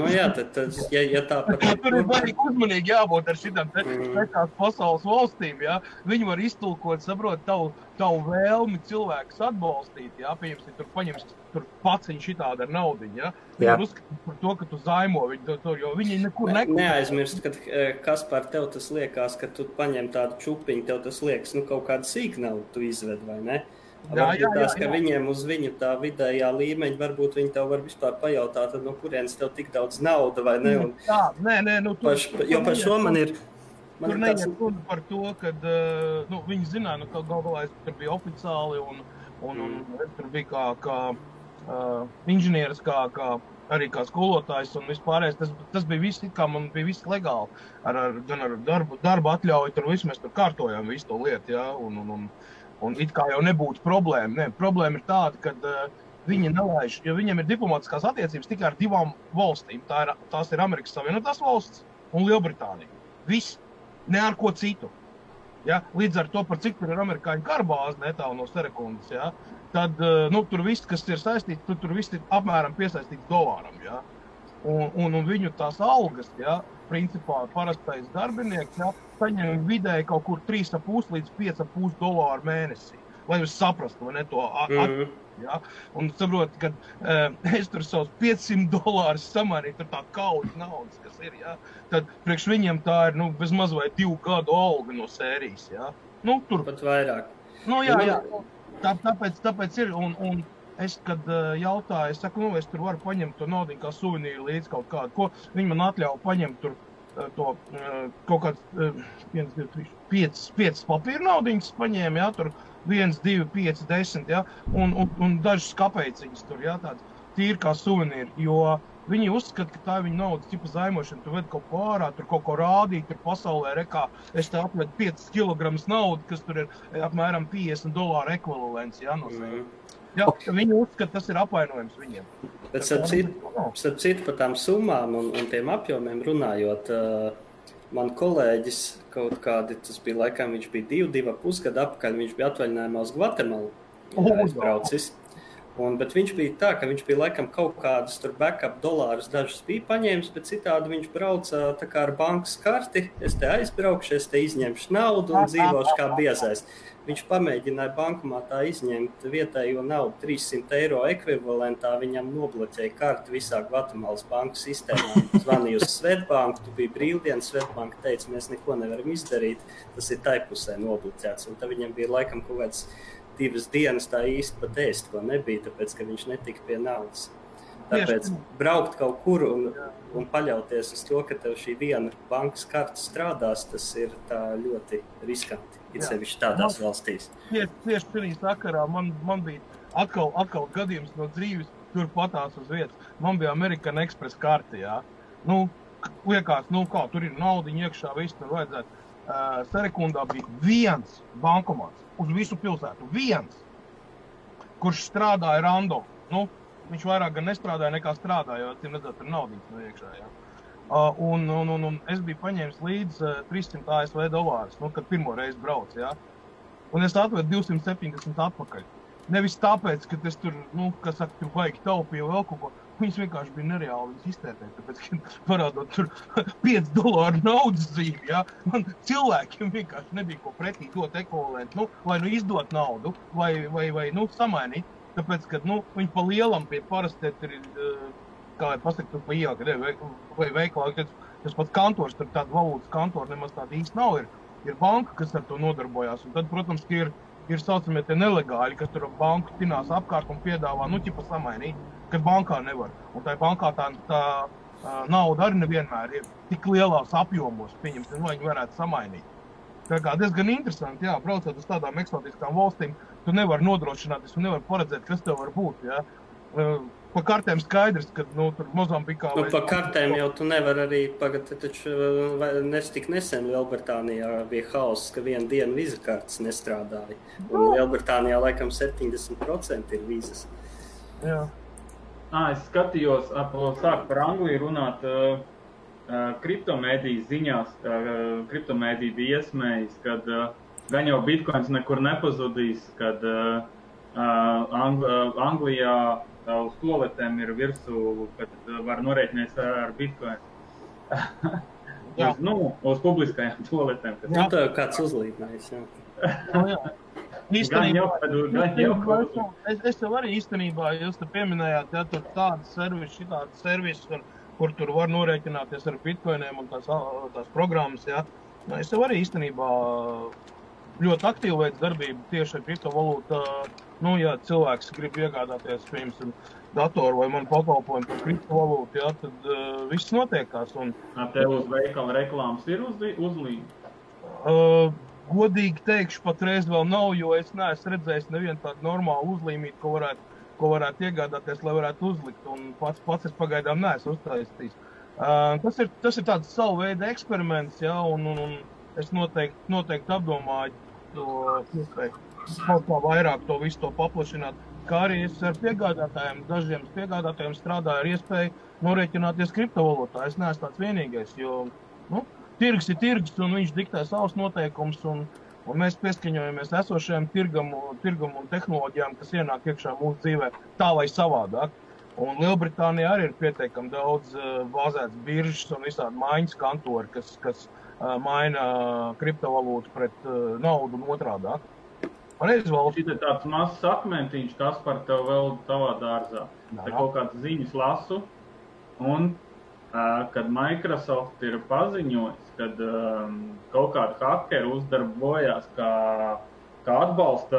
Jā, tad ja tā par... Tur ir baigi uzmanīgi jābūt ar šitām tās pasaules valstīm, jā. Viņi var iztulkot, saprot, tavu vēlmi cilvēkus atbalstīt, jā. Pieņemsim, tur paņems paciņu šitādu ar naudiņu, jā. Viņi var uzskatīt par to, ka tu zaimo viņu tur, jo viņi nekur nekur. Neaizmirst, kad Kaspar tev tas liekas, ka tu paņem tādu čupiņu, tev tas liekas, kaut kādu sīknaudu tu izved, vai ne? Varbūt tās, ka viņiem uz viņu tā vidējā līmeņa, varbūt viņi tev var vispār pajautāt, tad no kurienes tev tik daudz nauda, vai ne? Nē, jo par šo man ir... Tur neiet runa par to, kad viņi zināja, ka galvā es tur bija oficiāli un es tur biju kā inženieris, arī kā skolotājs un vispārējais. Tas bija viss, kā man bija viss legāli. Gan ar darba atļauju, tur visu mēs tur kārtojām visu to lietu, jā, un it kā jau nebūtu problēma. Ne, problēma ir tāda, ka viņi nelaiž, jo viņiem ir diplomātiskās attiecības tikai ar 2 valstīm. Tās ir Amerikas Savienotās valsts un Lielbritānija. Viss, ne ar ko citu. Ja? Līdz ar to, par cik tur ir amerikāņu karbāzi netālu no Serekundas, ja? Tad tur viss, kas ir saistīts, tur viss ir apmēram piesaistīts dolāram. Ja? Un viņu tās algas, ja? Principā parastais darbinieks, ja? Saņem vidēji kaut kur $3,5 līdz $5,5 mēnesī, lai jūs saprastu, vai ne, to ja? Un saprot, kad es tur savus $500 samainīju, tur tā kaujas naudas, kas ir, ja? Tad priekš viņiem tā ir, bez maz vai 2 gadu alga no sērijas, ja? Tur. Pat vairāk. Jā. Tāpēc ir, un es, kad jautāju, es saku, es tur varu paņemt to naudiņu kā suvenīru līdz kaut kādu, ko viņi man atļauj paņemt tur to kaut kāds 5 papīra naudiņas paņēma, jā, tur 1, 2, 5, 10, jā, un dažas kapeciņas tur, jā, tāds tīri kā suvenīri, jo viņi uzskata, ka tā ir viņa naudas tipa zaimošana, tu ved kaut ko ārā, tur kaut ko rādīt, tur pasaulē rekā, es te atvedu 5 kilogramus naudu, kas tur ir apmēram $50 ekvivalents, jā, no sevi. Jā, viņi uzskata, tas ir apvainojums viņiem. Bet starp citu par tām summām un tiem apjomiem runājot, man kolēģis kaut kādi, tas bija laikam, viņš bija 2,5 gadu apakaļ, viņš bija atvaļinājumā uz Gvatemalu aizbraucis. Bet viņš bija tā, ka viņš bija laikam kaut kādus tur backup dolārus dažus bija paņēmis, bet citādi viņš brauca tā kā ar bankas karti, es te aizbraukšu, es te izņemšu naudu un dzīvošu kā biezais. Viņš pamēģināja bankomātā izņemt vietējo naudu €300 ekvivalentā, viņam nobloķēja karti visā Gvatemalas banku sistēmā. Zvanīja uz Svetbanku, tu biji brīvdienas, Svetbanka teica, mēs neko nevaram izdarīt, tas ir tai pusē nobloķēts. Un tad viņam bija laikam kaut kāds 2 dienas tā īsti pat ēst, ko nebija, tāpēc, ka viņš netika pie naudas. Tāpēc braukt kaut kur un paļauties uz to, ka tev šī viena bankas karta strādās, tas ir tā ļoti riskanti, it sevišķi tādās valstīs. Tieši šī sakarā man bija atkal gadījums no dzīves, tur patās uz vietas. Man bija American Express karta, jā. Liekas, kā, tur ir naudiņa iekšā, viss tur vajadzētu. Serekundā bija 1 bankomāts uz visu pilsētu, 1, kurš strādāja random. Viņš vairāk gan nestrādāja nekā strādāja, jo tur redzēt, tur naudiņas no iekšā, jā. Un es biju paņēmis līdz $300 ASV, kad pirmo reizi braucu, jā. un es atvedu 270 atpakaļ. Nevis tāpēc, ka es tur, kas saka, tur vajag taupīju vēl kaut ko. Viņas vienkārši bija nereāli viņas iztērēt, tāpēc, ka parādot tur $5 naudas zīmi, ja? Man cilvēkiem vienkārši nebija ko pretī dot ekvivalentu, vai izdot naudu, vai samainīt. Tāpēc, ka, viņi pa lielam pie parasti ir, kā lai pasaka, tur pa ielga, vai veikalā, tas pats kantors, tur tāda valūtas kantora nemaz tāda īsti nav, ir banka, kas ar to nodarbojās, un tad, protams, ka ir saucamie tie nelegāļi, kas tur banku tinās apkārt un piedāvā, ķipa samainīt, kad bankā nevar. Un tā bankā tā nauda arī nevienmēr ir tik lielās apjomos, pieņemsim, lai viņi varētu samainīt. Tā kā diezgan interesanti, jā, braucot uz tādām eksotiskām valstīm, tu nevar nodrošināties un nevar paredzēt, kas tev var būt, jā. Pa kartēm skaidrs, ka, tur Mozambikā... Pa kartēm jau tu nevar arī, taču tik nesen Lielbritānijā bija hauss, ka vienu dienu viza kartes nestrādāja. Un Lielbritānijā laikam 70% ir vizas. Jā. Es skatījos, sāk par Angliju runāt, kriptomēdiju ziņās, kriptomēdiju bija iesmējis, kad gan jau bitcoins nekur nepazudīs, kad Anglijā uz toaletēm ir virsū, kad var norēķinies ar bitcoin. Uz publiskajām toaletēm. Tā jau kāds uzlīdnājis, jā. Jā. Es tev arī īstenībā, jūs te pieminējāt, ja tur tādas servisi, kur tur var norēķināties ar bitcoiniem un tās programmas, ja. Es tev arī īstenībā ļoti aktīvi veids darbību tieši ar kriptovalūtu. Ja cilvēks grib iegādāties, piemēram, datoru vai manu pakalpojumu par kriptovalūtu, ja, tad viss notiekās. Tev uz veikala reklāmas ir uzlīme? Godīgi teikšu, patreiz vēl nav, jo es neesmu redzējis nevienu tādu normālu uzlīmīti, ko varētu iegādāties, lai varētu uzlikt, un pats es pagaidām neesmu uztaisījis. Tas ir tāds savu veidu eksperiments, ja, un es noteikti apdomāju to iespēju kaut kā vairāk to visu to paplašināt, kā arī es ar dažiem piegādātājiem strādāju ar iespēju norēķināties kriptovalūtā. Es neesmu tāds vienīgais, jo, tirgs ir tirgs, un viņš diktē savus noteikumus, un mēs pieskaņojamies esošajām tirgam un tehnoloģijām, kas ienāk iekšā mūsu dzīvē tā vai savādāk. Un Lielbritānijā arī ir pietiekami daudz bāzētas biržas un visādi maiņas kantori, kas maina kriptovalūtu pret naudu un otrādāk. Šit ir tāds mazs akmentiņš, kas par tev vēl tavā dārzā. Te kaut kāds ziņas lasu, un kad Microsoft ir paziņojis, kad kaut kādi hakeri uzdarbojās kā atbalsta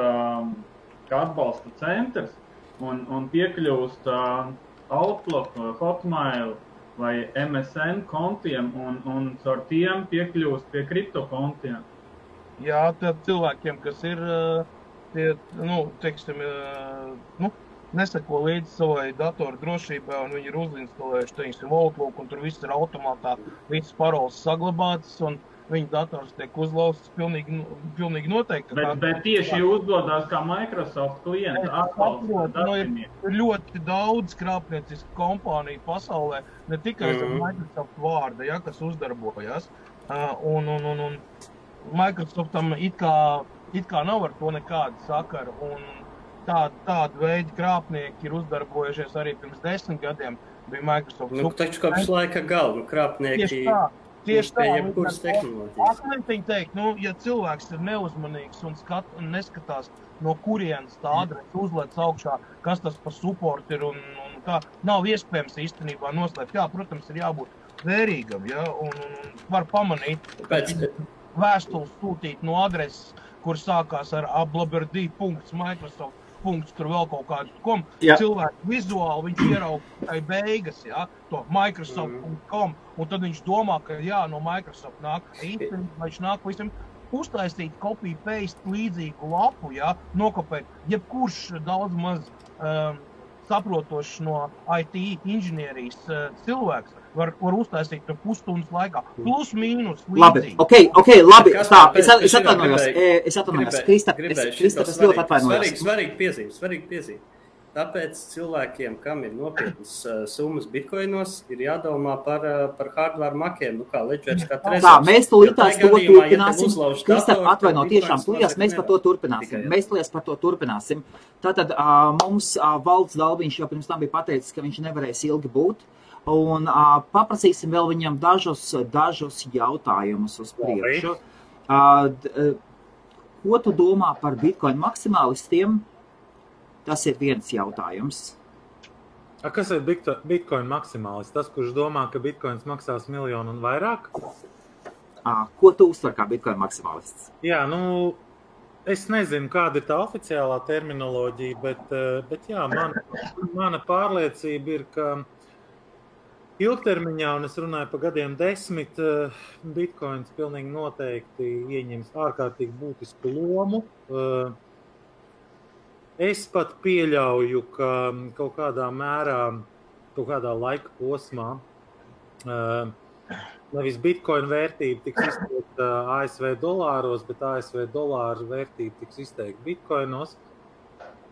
centrs un piekļūst Outlook, Hotmail vai MSN kontiem un caur tiem piekļūst pie kriptokontiem. Jā, tad cilvēkiem, kas ir, neseko līdzi savai datoru drošībai, un viņi ir uzinstalējuši, teiksim, Outlook, un tur viss ir automātā, visas paroles saglabātas, un viņa dators tiek uzlauzts pilnīgi noteikti. Bet tieši uzdodās kā Microsoft klienta atbalsta darbinieki. Ir ļoti daudz krāpniecisku kompāniju pasaulē, ne tikai ar Microsoft vārda, ja, kas uzdarbojas, un Microsoftam it kā nav ar to nekāda sakara, un tādu veidu krāpnieki ir uzdarbojušies arī pirms 10 gadiem. Bija Microsoft. Taču kopš laika galva krāpnieki tieši tā, jebkuras tehnoloģijas. Akmentiņi teikt, ja cilvēks ir neuzmanīgs un neskatās, no kurienes tā adrese uzlēc augšā, kas tas pa support ir un kā, nav iespējams īstenībā noslēpt. Jā, protams, ir jābūt vērīgam, ja, un var pamanīt, vēstules sūtīt no adreses, kur sākās ar ablaberdi.microsoft. Tur vēl kaut kādu cilvēku vizuāli, viņš ierauga tai beigas, ja, to Microsoft.com, un tad viņš domā, ka no Microsoft nāk īstenībā, viņš nāk visam uztaisīt copy-paste līdzīgu lapu, ja, nokopēt, jebkurš daudz maz saprotošs no IT inženierijas cilvēks var uztaisīt pusstundas laikā, plus mīnus līdzīgi. Labi, labi, stop, es atvainojos, Kristap, es ļoti atvainojos. Svarīgi piezīme. Tāpēc cilvēkiem, kam ir nopietnas summas bitkoinos, ir jādomā par hardware makiem, kā Ledgers, kā Trezors. Tā, mēs tūlītās to turpināsim. Kristap, atvaino, tiešām tūlījās mēs par to turpināsim. Mēs tūlījās par to turpināsim. Tātad mums Valds Dalbiņš jau pirms tam bija pateicis, ka viņš nevarēs ilgi būt. Un paprasīsim vēl viņam dažus jautājumus uz priekšu. Ko tu domā par bitcoin maksimālistiem? Tas ir viens jautājums. Kas ir bitcoin maksimālists? Tas, kurš domā, ka bitcoins maksās 1 miljonu un vairāk? Ko tu uztver kā bitcoin maksimālists? Jā, es nezinu, kāda ir tā oficiālā terminoloģija, bet jā, mana pārliecība ir, ka ilgtermiņā, un es runāju par gadiem 10, bitcoins pilnīgi noteikti ieņems ārkārtīgi būtisku lomu. Es pat pieļauju, ka kaut kādā mērā, kaut kādā laika posmā nevis bitcoin vērtība tiks izteikta ASV dolāros, bet ASV dolāru vērtība tiks izteikta bitcoinos.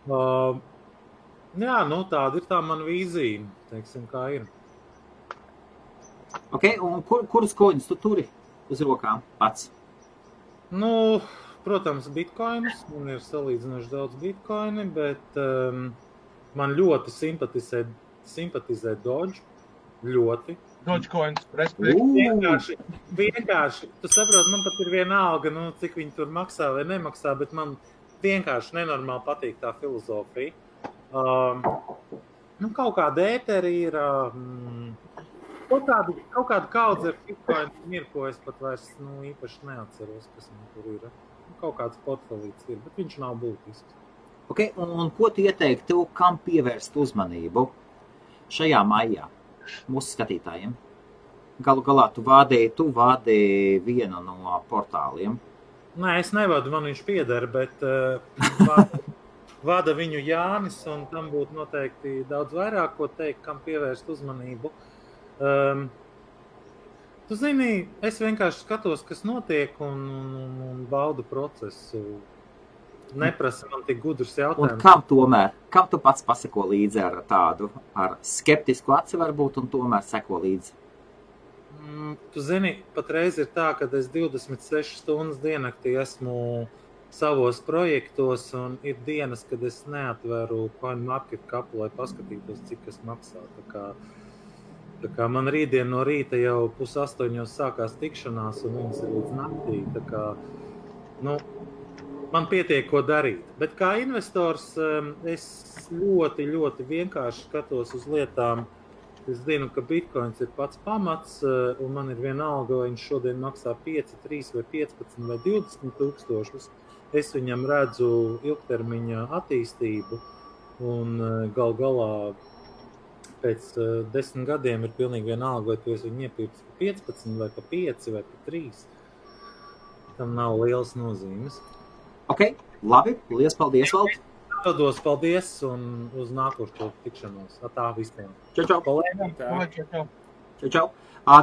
Jā, tāda ir tā mana vīzija, teiksim, kā ir. Ok, un kurus koņus tu turi uz rokām pats? Protams, bitkoinus. Man ir salīdzinoši daudz bitkoini, bet man ļoti simpatizē Doge. Ļoti. Dogecoins, respektīvi. Vienkārši, tu saproti, man pat ir vienalga, cik viņi tur maksā vai nemaksā, bet man vienkārši nenormāli patīk tā filozofija. Kaut kāda ēteri ir, kaut kāda kaudze ar bitcoinu ir, ko es pat vairs īpaši neatceros, kas man tur ir. Kaut kāds portfelīts ir, bet viņš nav būtisks. Ok, un ko tu ieteiktu, kam pievērst uzmanību šajā maijā mūsu skatītājiem? Galu galā tu vādi vienu no portāliem. Nē, es nevadu, man viņš pieder, bet vada viņu Jānis, un tam būtu noteikti daudz vairāk, ko teikt, kam pievērst uzmanību. Tu zini, es vienkārši skatos, kas notiek un baudu procesu. Neprasa man tik gudrus jautājumus. Un kam tu pats paseko līdzi ar skeptisku aci varbūt un tomēr seko līdzi? Tu zini, patreiz ir tā, ka es 26 stundas diennaktī esmu savos projektos un ir dienas, kad es neatveru CoinMarketCap, lai paskatītos, cik kas maksā. Tā kā man rītdien no rīta jau 7:30 sākās tikšanās un viņas ir līdz naktī. Tā kā, man pietiek, ko darīt. Bet kā investors es ļoti, ļoti vienkārši skatos uz lietām. Es zinu, ka bitcoins ir pats pamats un man ir vienalga, vai viņš šodien maksā 5, 3 vai 15 vai 20 tūkstošus. Es viņam redzu ilgtermiņa attīstību un gal galā pēc 10 gadiem ir pilnīgi vienalga, vai tu esi viņu iepircis pa 15 vai pa 5 vai pa 3. Tam nav lielas nozīmes. Ok, labi, liels paldies, Vald. Dodos paldies un uz nākošo tikšanos. Tā visiem. Čau. Čau.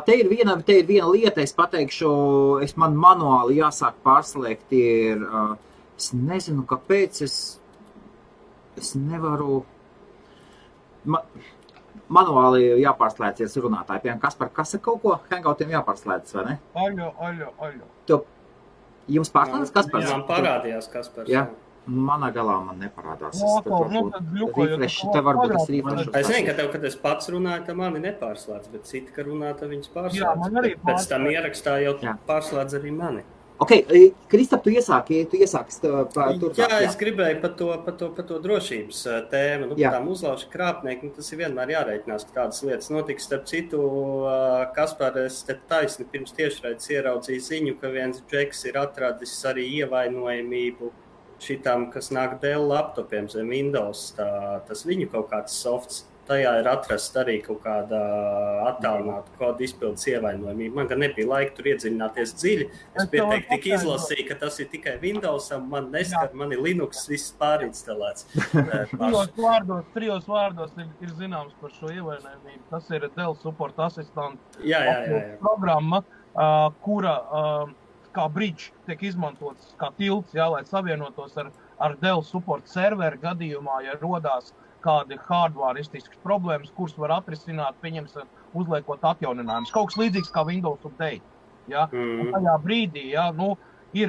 Te ir viena lieta, es pateikšu, man manuāli jāsāk pārslēgt, es nezinu, kāpēc es nevaru... Manuāli jāpārslēdzies runātāji. Piemēram, Kaspar, kas ir kaut ko? Hangoutiem jāpārslēdzas, vai ne? Aļo. Jums pārslēdzas Kaspars? Man parādījās Kaspars. Jā. Manā galā man neparādās. Te varbūt es refrešu. Es zinu, ka tev, kad es pats runāju, tā mani nepārslēdz, bet citi, ka runā, tā viņas pārslēdz. Jā, man arī pēc tam ierakstā jau pārslēdz arī mani. Ok, Kristap, tu iesāki turpāk. Jā, es gribēju par to drošības tēmu, par tām uzlaužu krāpnieku. Tas ir vienmēr jārēķinās, ka tādas lietas notiks. Starp citu, Kaspar, es te taisni pirms tiešraides ieraudzīju ziņu, ka viens džeks ir atradis arī ievainojamību šitām, kas nāk Dell laptopiem zem Windows. Tas viņu kaut kāds softs. Tajā ir atrast arī kaut kāda attālināta kodu izpildes ievainojumība. Man gan nebija laika tur iedziļināties dziļi. Es pieteikti tik izlasīju, ka tas ir tikai Windowsam, man neskar, man ir Linux, viss pārinstalēts. Trijos vārdos ir zināms par šo ievainojumību. Tas ir Dell Support Assistant programma, kura kā bridge tiek izmantots kā tilts, lai savienotos ar Dell Support serveri gadījumā, ja rodās kādi hardwareistiskas problēmas, kuras var atrisināt, pieņemsim, uzliekot atjauninājumus. Kaut kas līdzīgs kā Windows Update. Ja? Un tajā brīdī, ja, ir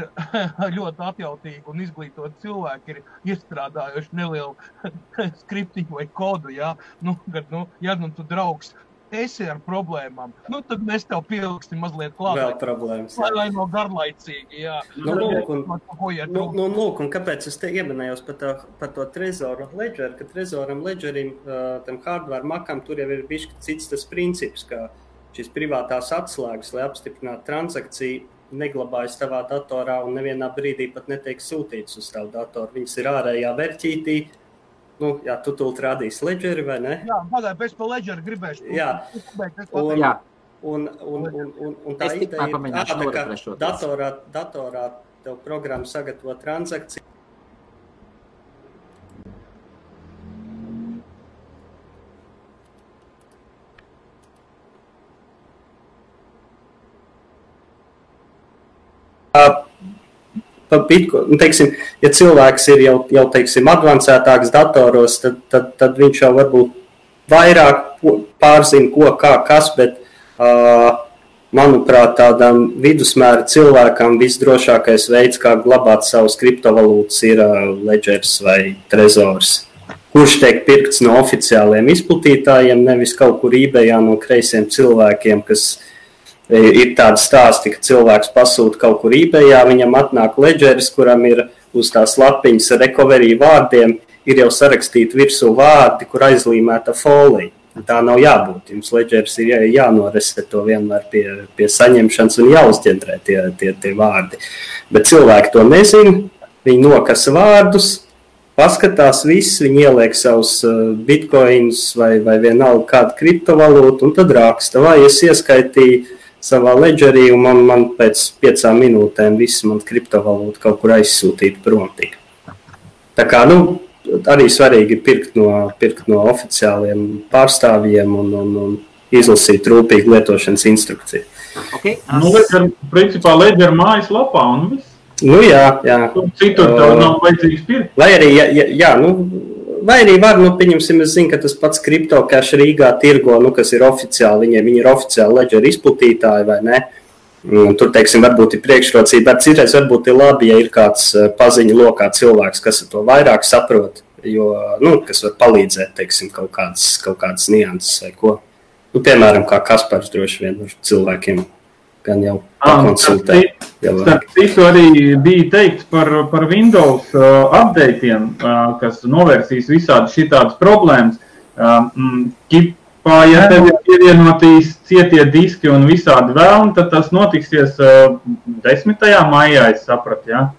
ļoti atjautīgi un izglītot cilvēki, ir iestrādājuši nelielu skriptiņu vai kodu, ja, ja tu draugs esi ar problēmām, tad mēs tev pieliksim mazliet klāt. Vēl problēmas. Lai no garlaicīgi, jā. Lūk, un kāpēc es te ieminējos par to Trezor Ledger, ka Trezoram Ledgerim, tam hardware makam, tur jau ir bišķi cits tas princips, ka šīs privātās atslēgas, lai apstiprinātu transakciju, neglabājas tavā datorā un nevienā brīdī pat netiek sūtīts uz tavu datoru. Viņas ir ārējā verķītī. Jā, tu tūlīt rādīsi Ledgeri, vai ne? Jā, pagaid, pēc pa Ledgeri gribēšu. Jā. Un tā ideja ir, ka datorā tev programma sagatavo transakciju. Teiksim, ja cilvēks ir jau teiksim, advancētāks datoros, tad viņš jau varbūt vairāk pārzina, kas, bet, manuprāt, tādam vidusmēra cilvēkam visdrošākais veids, kā glabāt savus kriptovalūtas, ir Ledgers vai Trezors, kurš tiek pirkts no oficiāliem izplatītājiem, nevis kaut kur eBayā no kreisiem cilvēkiem, kas ir tādi stāsti, ka cilvēks pasūta kaut kur eBayā, viņam atnāk Ledgeris, kuram ir uz tās lapiņas recovery vārdiem, ir jau sarakstīti virsū vārdi, kur aizlīmēta folija. Tā nav jābūt. Jums Ledgeris ir jānoresetē vienmēr pie saņemšanas un jāuzģendrē tie vārdi. Bet cilvēki to nezina, viņi nokasa vārdus, paskatās viss, viņi ieliek savus bitcoins vai vienalga kādu kriptovalūtu un tad raksta, vai es ieskaitīju savā Ledgerī, un man pēc 5 minūtēm viss man kriptovalūta kaut kur aizsūtīt prom tika. Tā kā, arī svarīgi pirkt no oficiāliem pārstāvjiem un izlasīt rūpīgi lietošanas instrukciju. Okay. Principā Ledger mājas lapā un viss. Jā. Citur tev nav vajadzīgs pirkt. Vai arī var, pieņemsim, es zinu, ka tas pats CryptoCash Rīgā tirgo, kas ir oficiāli, viņi ir oficiāli Ledger izplatītāji, vai ne? Tur, teiksim, varbūt ir priekšrocība, bet citreiz varbūt ir labi, ja ir kāds paziņu lokā cilvēks, kas to vairāk saprot, jo, kas var palīdzēt, teiksim, kaut kādas nianses vai ko. Piemēram, kā Kaspars droši vien ar cilvēkiem gan jau pakonsultē. Starp citu arī bija teikts par Windows updateiem, kas novērsīs visādi šitādas problēmas. Ja tev ir pievienotīs cietie diski un visādi vēlni, tad tas notiksies 10. maijā, es sapratu, ja?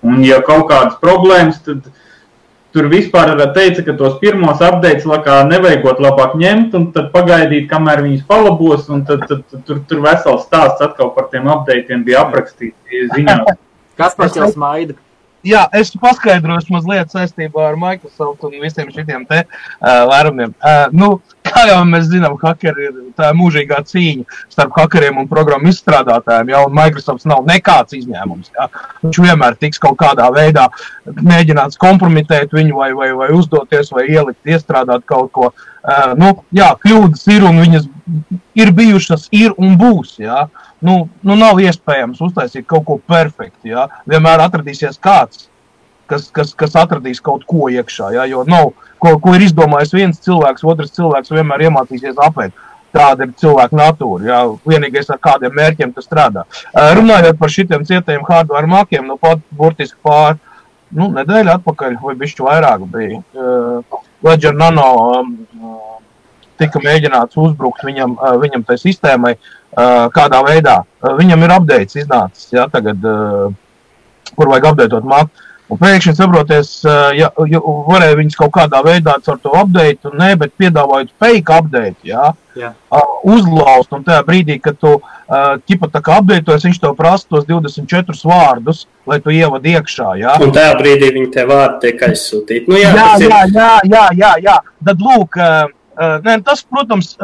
Un ja kaut kādas problēmas, tad tur vispār teica, ka tos pirmos updates nevajagot labāk ņemt un tad pagaidīt, kamēr viņus palabos, un tad tur vesels stāsts atkal par tiem updateiem bija aprakstīti ziņā. Kas par tev smaida? Jā, es paskaidrošu mazliet saistībā ar Microsoft un visiem šitiem te lērumiem. Kā jau mēs zinām, hakeri ir tā mūžīgā cīņa starp hakeriem un programmu izstrādātājiem, un Microsofts nav nekāds izņēmums. Jā. Viņš vienmēr tiks kaut kādā veidā mēģināts kompromitēt viņu vai uzdoties vai ielikt, iestrādāt kaut ko. Kļūdas ir un viņas ir bijušas, ir un būs, jā. Nav iespējams uztaisīt kaut ko perfektu, jā. Vienmēr atradīsies kāds, kas atradīs kaut ko iekšā, jā, jo nav, ko ir izdomājis viens cilvēks, otrs cilvēks vienmēr iemācīsies apēt. Tāda ir cilvēka natūra, jā, vienīgais ar kādiem mērķiem tas strādā. Runājot par šitiem cietajiem hardware makiem, pat burtiski pār nedēļu atpakaļ, vai bišķi vairāk bija, Ledger Nano tika mēģināts uzbrukt viņam tai sistēmai, kādā veidā. Viņam ir updates iznācis, jā, tagad, kur vajag updateot maku. Un pēkšņi saproties, varēja viņus kaut kādā veidā ar to update, bet piedāvājot fake update, jā. Uzlaust, un tajā brīdī, kad tu tā kā updatetojas, viņš tev prasa tos 24 vārdus, lai tu ievad iekšā, jā. Un tajā brīdī viņi tie vārdi tiek aizsūtīti. Jā. Tad lūk, tas, protams,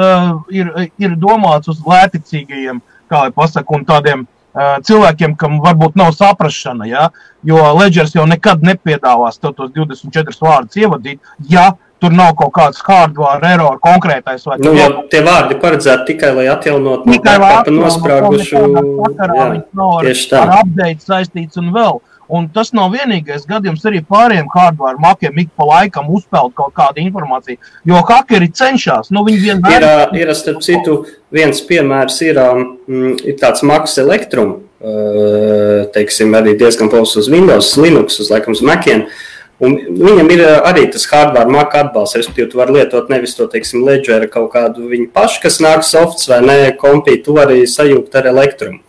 ir domāts uz lēticīgajiem, kā lai pasaka, un tādiem cilvēkiem, kam varbūt nav saprašana, ja? Jo Ledgers jau nekad nepiedāvās tos 24 vārdus ievadīt, ja tur nav kaut kāds hardware error konkrētais. Vai Nu, jo tie vārdi paredzēti tikai, lai atjaunot no backupa nosprāgušu. Tieši tā. Ar update saistīts un vēl. Un tas nav vienīgais gadījums arī pārējiem hardware makiem ik pa laikam uzpeld kaut kādu informāciju, jo hakeri cenšas. Nu, viņi vienmēr... Ir, starp citu, viens piemērs ir tāds Macs Electrum, teiksim, arī diezgan plašs uz Windows, Linux, uz laikam uz Maciem. Un viņam ir arī tas hardware Mac atbalsts, respektīvi, tu vari lietot nevis to, teiksim, Ledger kaut kādu viņu pašu, kas nāk softs vai ne, kompī, tu vari sajūgt ar Electrum.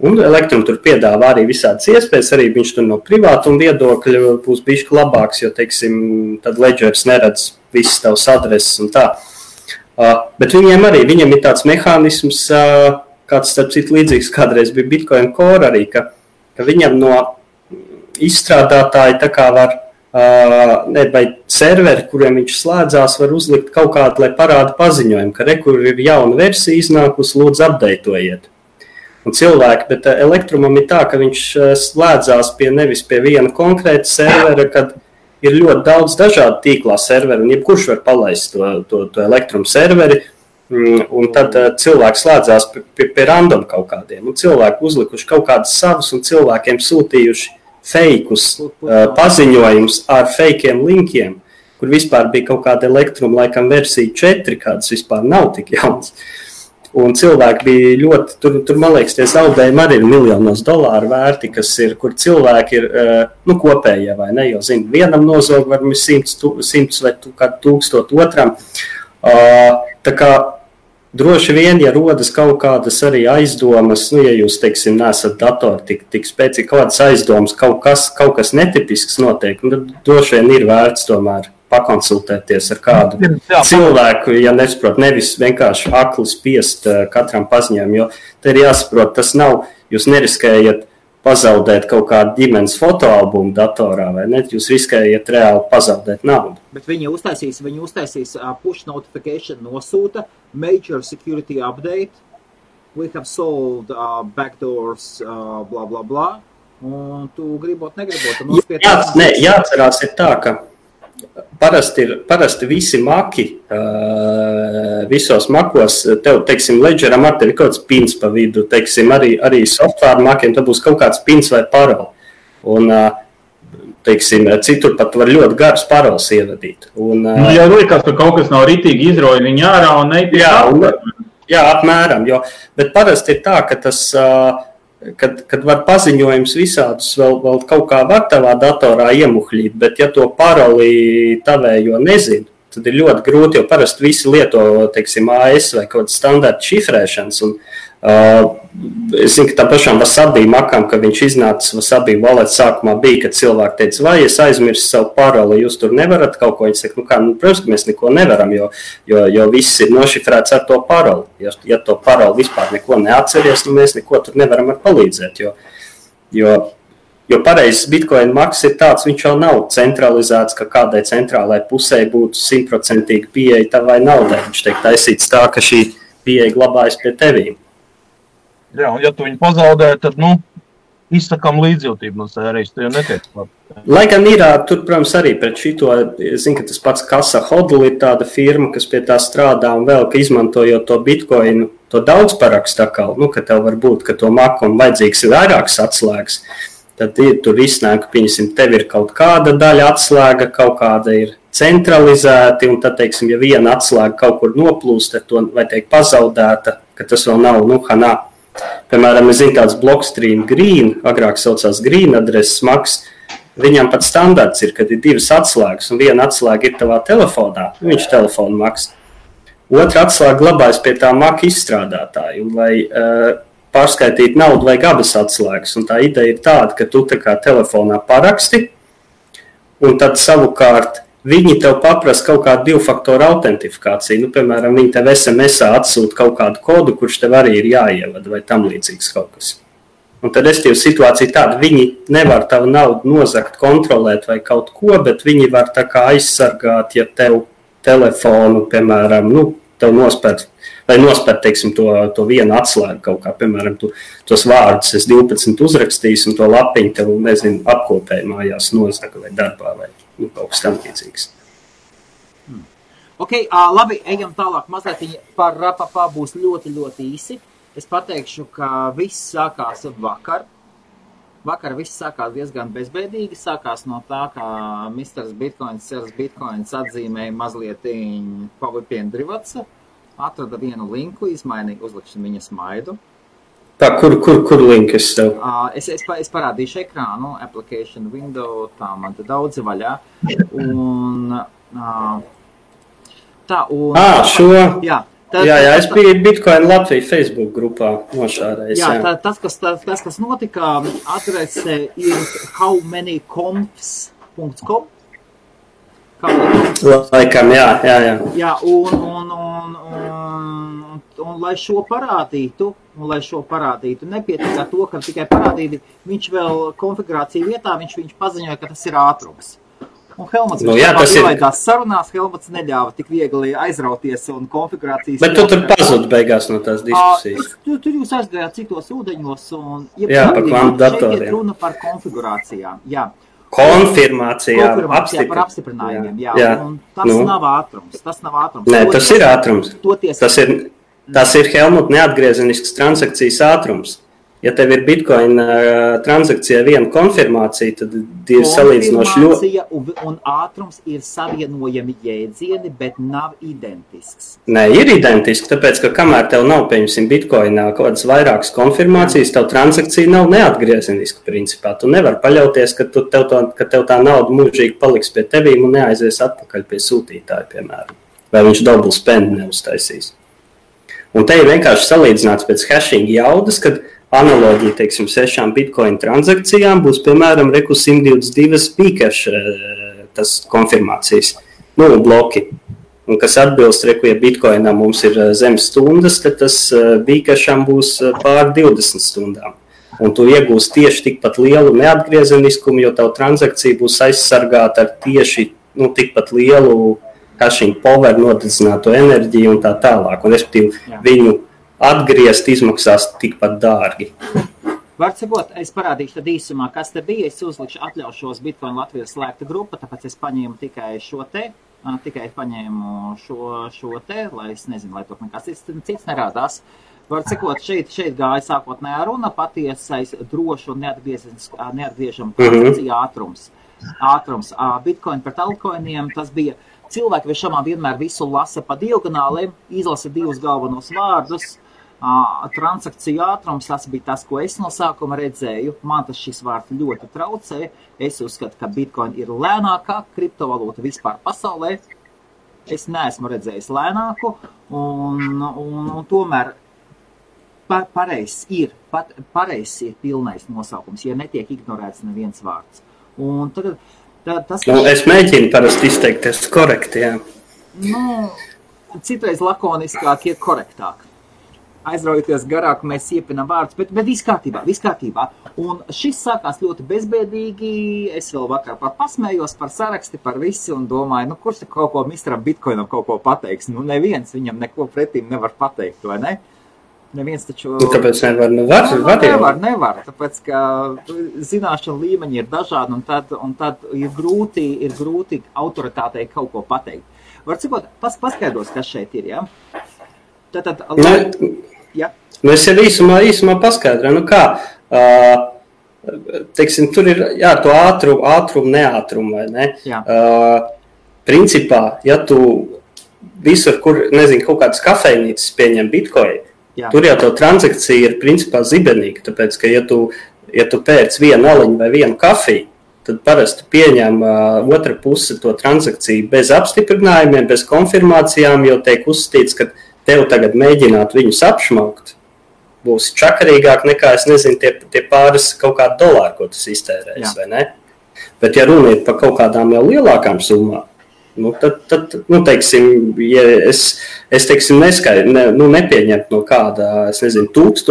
Un Electrum tur piedāvā arī visādas iespējas, arī viņš tur no privātuma viedokļa būs bišķi labāks, jo, teiksim, tad Ledgers neredz visas tavas adreses un tā. Bet viņiem ir tāds mehānisms, kāds, starp citu, līdzīgs kādreiz bija Bitcoin Core arī, ka viņam no izstrādātāji tā kā var, vai serveri, kuriem viņš slēdzās, var uzlikt kaut kādu, lai parāda paziņojumu, ka kur ir jauna versija iznākusi, lūdzu updatējiet. Un cilvēki, bet Electrumam ir tā, ka viņš slēdzās nevis pie viena konkrēta servera, kad ir ļoti daudz dažādu tīklā serveri, un jebkurš var palaist to Electrum serveri, un tad cilvēki slēdzās pie random kaut kādiem, un cilvēki uzlikuši kaut kādus savus, un cilvēkiem sūtījuši fejkus paziņojumus ar fejkiem linkiem, kur vispār bija kaut kāda Electrum, laikam versija 4, kādas vispār nav tik jaunas. Un cilvēki bija ļoti, tur man liekas, tie zaudējumi arī ir miljonos dolāru vērti, kas ir, kur cilvēki ir, kopējie vai ne, jo, zinu, vienam nozog var 100 vai kādu 1000 otram. Tā kā droši vien, ja rodas kaut kādas arī aizdomas, ja jūs, teiksim, nesat datori tik spēcīgi, kaut kādas aizdomas, kaut kas netipisks notiek, tad droši vien ir vērts tomēr pakonsultēties ar kādu cilvēku, ja nesaprot, nevis vienkārši akli spiest katram paziņojumam, jo te ir jāsaprot, tas nav, jūs neriskējat pazaudēt kaut kādu ģimenes fotoalbumu datorā, vai ne? Jūs riskējat reāli pazaudēt naudu. Bet viņi uztaisīs push notification nosūta, major security update, we have solved backdoors, blah, blah, blah, un tu gribot, negribot. Jāatcerās ir tā, ka Parasti visi maki, visos makos, tev, teiksim, Ledgeram ar tevi kaut kāds pins pa vidu, teiksim, arī software makiem, tad būs kaut kāds pins vai paroli. Un, teiksim, citur pat var ļoti garus paroles ievadīt. Un, ja liekas, ka kaut kas nav ritīgi izroja viņu ārā un neiet. Jā, apmēram, bet parasti ir tā, ka tas... Kad var paziņojums visādus vēl kaut kā var tavā datorā iemuhļīt, bet ja to paroli tavējo nezinu, tad ir ļoti grūti, jo parasti visi lieto, teiksim, AS vai kaut kādas standarta šifrēšanas. Un, es zinu, ka tā pašām Wasabi makam, ka viņš iznāca Wasabi wallet sākumā bija, kad cilvēki teica, vai es aizmirsu savu paroli, jūs tur nevarat kaut ko. Viņi saka, protams, ka mēs neko nevaram, jo viss ir nošifrēts ar to paroli. Ja to paroli vispār neko neatceries, mēs neko tur nevaram ar palīdzēt, jo pareizs Bitcoin maks ir tāds, viņš jau nav centralizēts, ka kādai centrālai pusē būtu 100% pieeja tavai naudai. Viņš tiek taisīts tā, ka šī pieeja glabājas pie tevīm. Jā, un ja tu viņu pazaudē, tad, izsakām līdzjūtību no sērijas, tu jau netiek labi. Lai gan ir, tur, protams, arī pret šito, es zinu, ka tas pats Casa Hodl ir tāda firma, kas pie tā strādā un vēl, ka izmantojot to Bitcoinu, to daudz parakstu atkal, ka tev var būt, ka to makam vajadzīgs ir vairākas atslēgas, tad tur iznāk, ka, pieņemsim, tev ir kaut kāda daļa atslēga, kaut kāda ir centralizēti, un tad, teiksim, ja viena atslēga kaut kur noplūst, tad to vai tiek pazaudēta, ka tas vēl nav, hanā. Piemēram, es zinu tāds Blockstream Green, agrāk saucās Green adreses maks, viņam pat standarts ir, kad ir 2 atslēgas, un viena atslēga ir tavā telefonā, viņš telefonu maks. Otra atslēga glabājas pie tā maka izstrādātāja, un lai pārskaitīt naudu vajag abas atslēgas, un tā ideja ir tāda, ka tu tā kā telefonā paraksti, un tad savukārt viņi tev paprasa kaut kādu 2-faktoru autentifikāciju. Piemēram, viņi tev SMS-ā atsūta kaut kādu kodu, kurš tev arī ir jāievada vai tam līdzīgs kaut kas. Un tad restīva situācija tāda, viņi nevar tavu naudu nozagt, kontrolēt vai kaut ko, bet viņi var tā kā aizsargāt, ja tev telefonu, piemēram, tev nospērt, teiksim, to vienu atslēgu kaut kā, piemēram, tos vārdus es 12 uzrakstīs un to lapiņu tev, nezinu, apkopēji mājās nozaga vai darbā vai kaut kas tam līdzīgs. Ok, labi, ejam tālāk. Mazliet par rapapā būs ļoti, ļoti īsi. Es pateikšu, ka viss sākās vakar. Vakar viss sākās diezgan bezbēdīgi. Sākās no tā, ka Mr. Bitcoins, Sers Bitcoins atzīmēja mazliet Pavipiendrivatsa. Atrada vienu linku, izmainīja, uzlikšu viņa smaidu. Kur linkas tev? Es parādīšu ekrānu, application window, tā man te daudzi vaļā. Un, šo? Jā. Jā, es biju Bitcoin Latvija Facebook grupā nošārējis. Jā, tas, kas notika, adrese ir howmanyconfs.com. Laikam, jā. Jā, un lai šo parādītu, nepietiek ar to, ka tikai parādīja, viņš vēl konfigurāciju vietā, viņš paziņoja, ka tas ir ātrums. Un Helmuts ielaidās sarunās, Helmuts neļāva tik viegli aizrauties un konfigurācijas... Bet tu tur pazud beigās no tās diskusijas. Tur jūs aizgājāt citos ūdeņos un... Jā, par kvantu šeit ir runa par konfigurācijām, jā. Konfirmācijām, par apstiprinājumiem, jā. Un tas nav ātrums. Nē, tas ir ātrums. Tas ir Helmut neatgriezenisks transakcijas ātrums. Ja tev ir Bitcoin transakcijā viena konfirmācija, tad ir salīdzinoši ļoti... Konfirmācija un ātrums ir savienojami jēdzieni, bet nav identisks. Nē, ir identisks, tāpēc, ka kamēr tev nav, pieņemsim, Bitcoinā kaut kādas vairākas konfirmācijas, tev transakcija nav neatgriezeniska principā. Tu nevar paļauties, ka tev tā nauda mūžīgi paliks pie tevīm un neaizies atpakaļ pie sūtītāja, piemēram. Vai viņš double spend neuztaisīs. Un te ir vienkārši salīdzināts pēc hashing jaudas, kad analoģija, teiksim, 6 Bitcoin transakcijām būs, piemēram, 122 Bcash tas konfirmācijas, bloki. Un kas atbilst, ja Bitcoinā mums ir zem stundas, tad tas Bcasham būs pār 20 stundām. Un tu iegūsi tieši tikpat lielu neatgriezeniskumu, jo tavu transakcija būs aizsargāta ar tieši tikpat lielu hashing power, nodedzināto enerģiju un tā tālāk. Un, respektīvi, viņu atgriezt izmaksās tikpat dārgi. Var sakot, es parādīšu tad īsumā, kas te bija. Es uzlikšu atļaušos Bitcoin Latvijas slēgta grupa, tāpēc es paņēmu tikai šo te, lai es nezinu, lai tur nekas cits nerādās. Var sakot, šeit gāja sākotnējā runa, patiesais drošu un neatgriežamu transakciju ātrums. Bitcoin pret altcoiniem, tas bija cilvēki viešamā vienmēr visu lasa pa diagonāliem, izlasa 2 galvenos vārdus. Transakciju ātrums, tas bija tas, ko es no sākuma redzēju. Man tas šis vārds ļoti traucē. Es uzskatu, ka Bitcoin ir lēnākā kriptovalūta vispār pasaulē. Es neesmu redzējis lēnāku, un tomēr pareizs ir pilnais nosaukums, ja netiek ignorēts neviens vārds. Un tad tas, es mēģinu parasti izteikties korekti, jā. Citreiz lakoniskāk ir korektāk. Aizraujoties garāk, mēs iepinām vārdus, bet viss kārtībā. Un šis sākās ļoti bezbēdīgi. Es vēl vakar pasmējos par saraksti, par visu un domāju, kurš kaut ko Mr. Bitcoinam kaut ko pateiks? Neviens viņam neko pretīm nevar pateikt, vai ne? Neviens taču... Kāpēc nevar? Nevar, tāpēc, ka zināšana līmeņi ir dažādi un tad ir grūti autoritātei kaut ko pateikt. Var cikot, paskaidros, kas šeit ir, jā? Ja? Es jau īsumā paskaidroju, teiksim, tur ir, to ātrumu, neātrumu, vai ne? Principā, ja tu visur, kur, kaut kādas kafejnīcas pieņem Bitcoin, tur jau tev transakcija ir principā zibenīga, tāpēc, ka ja tu pērc vienu aliņu vai vienu kafiju, tad parasti pieņem otra puse to transakciju bez apstiprinājumiem, bez konfirmācijām, jo tiek uzskatīts, ka tev tagad mēģināt viņus apšmaukt, būs čakarīgāk nekā, es nezinu, tie pāris kaut kādi dolāri, ko tas iztērēs, vai ne? Bet, ja runa ir par kaut kādām jau lielākām summām, tad teiksim, ja es teiksim, nepieņemt no kāda, es nezinu, 1000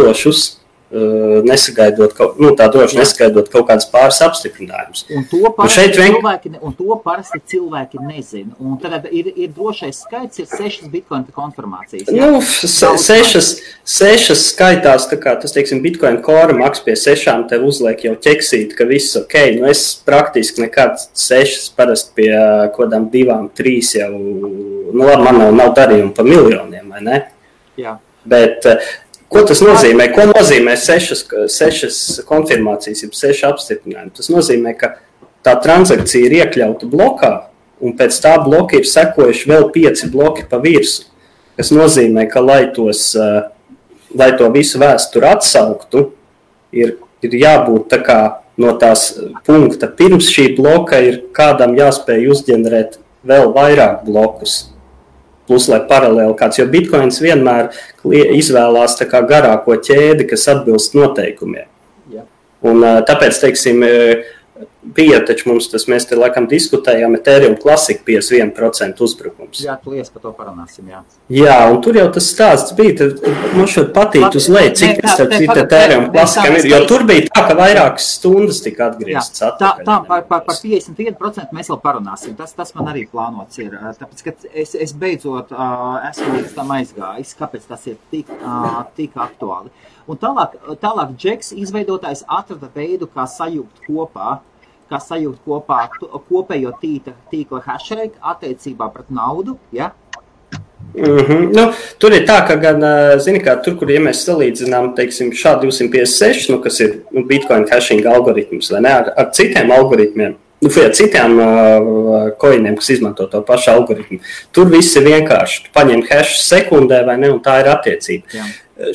nesagaidot kaut kādas pāris apstiprinājumus. Un to parasti cilvēki nezina. Un tad ir drošais skaits, ir 6 bitcoin konfirmācijas. Ja? Nu, 6 skaitās, tā kā tas, teiksim, bitcoin core maks pie 6 tev uzliek jau ķeksīt, ka viss ok. Nu, es praktiski nekad 6 parasti pie kodām 2, 3 jau, nu labi, man nav darījumi pa miljoniem, vai ne? Jā. Bet ko tas nozīmē? Ko nozīmē 6 konfirmācijas, jeb 6 apstiprinājumi? Tas nozīmē, ka tā transakcija ir iekļauta blokā, un pēc tā bloka ir sekojuši vēl 5 bloki pa virsu. Tas nozīmē, ka, lai to visu vēsturi atsauktu, ir jābūt tā kā no tās punkta. Pirms šī bloka ir kādam jāspēj uzģenerēt vēl vairāk blokus. Plus, lai paralēli kāds, jo bitcoins vienmēr izvēlās tā kā garāko ķēdi, kas atbilst noteikumiem. Jā. Un tāpēc, teiksim, bija taču mums tas, mēs te laikam diskutējām, Ethereum Classic 51% uzbrukums. Jā, lies par to parunāsim, jā. Jā, un tur jau tas stāsts bija, tad man šodien patīk uz leju, cik tas Ethereum Classicam ir, jo tur bija tā, ka vairākas stundas tika atgrieztas atpakaļ. Tā, par 51% mēs vēl parunāsim, tas man arī plānots ir, tāpēc, ka es beidzot esmu līdz tam aizgājis, kāpēc tas ir tik aktuāli. Un tālāk Džeks izveidotājs atrada veidu, kā sajūgt kopā kopējo tīkla hashrate attiecībā pret naudu, ja? Nu, tur ir tā, ka gan, zini kā, tur, kur, ja mēs salīdzinām, teiksim, SHA-256, nu, kas ir Bitcoin hashing algoritms, vai ne, ar citiem algoritmiem, citiem coiniem, kas izmanto to pašu algoritmu, tur viss ir vienkārši. Tu paņem hash sekundē, vai ne, un tā ir attiecība. Jā.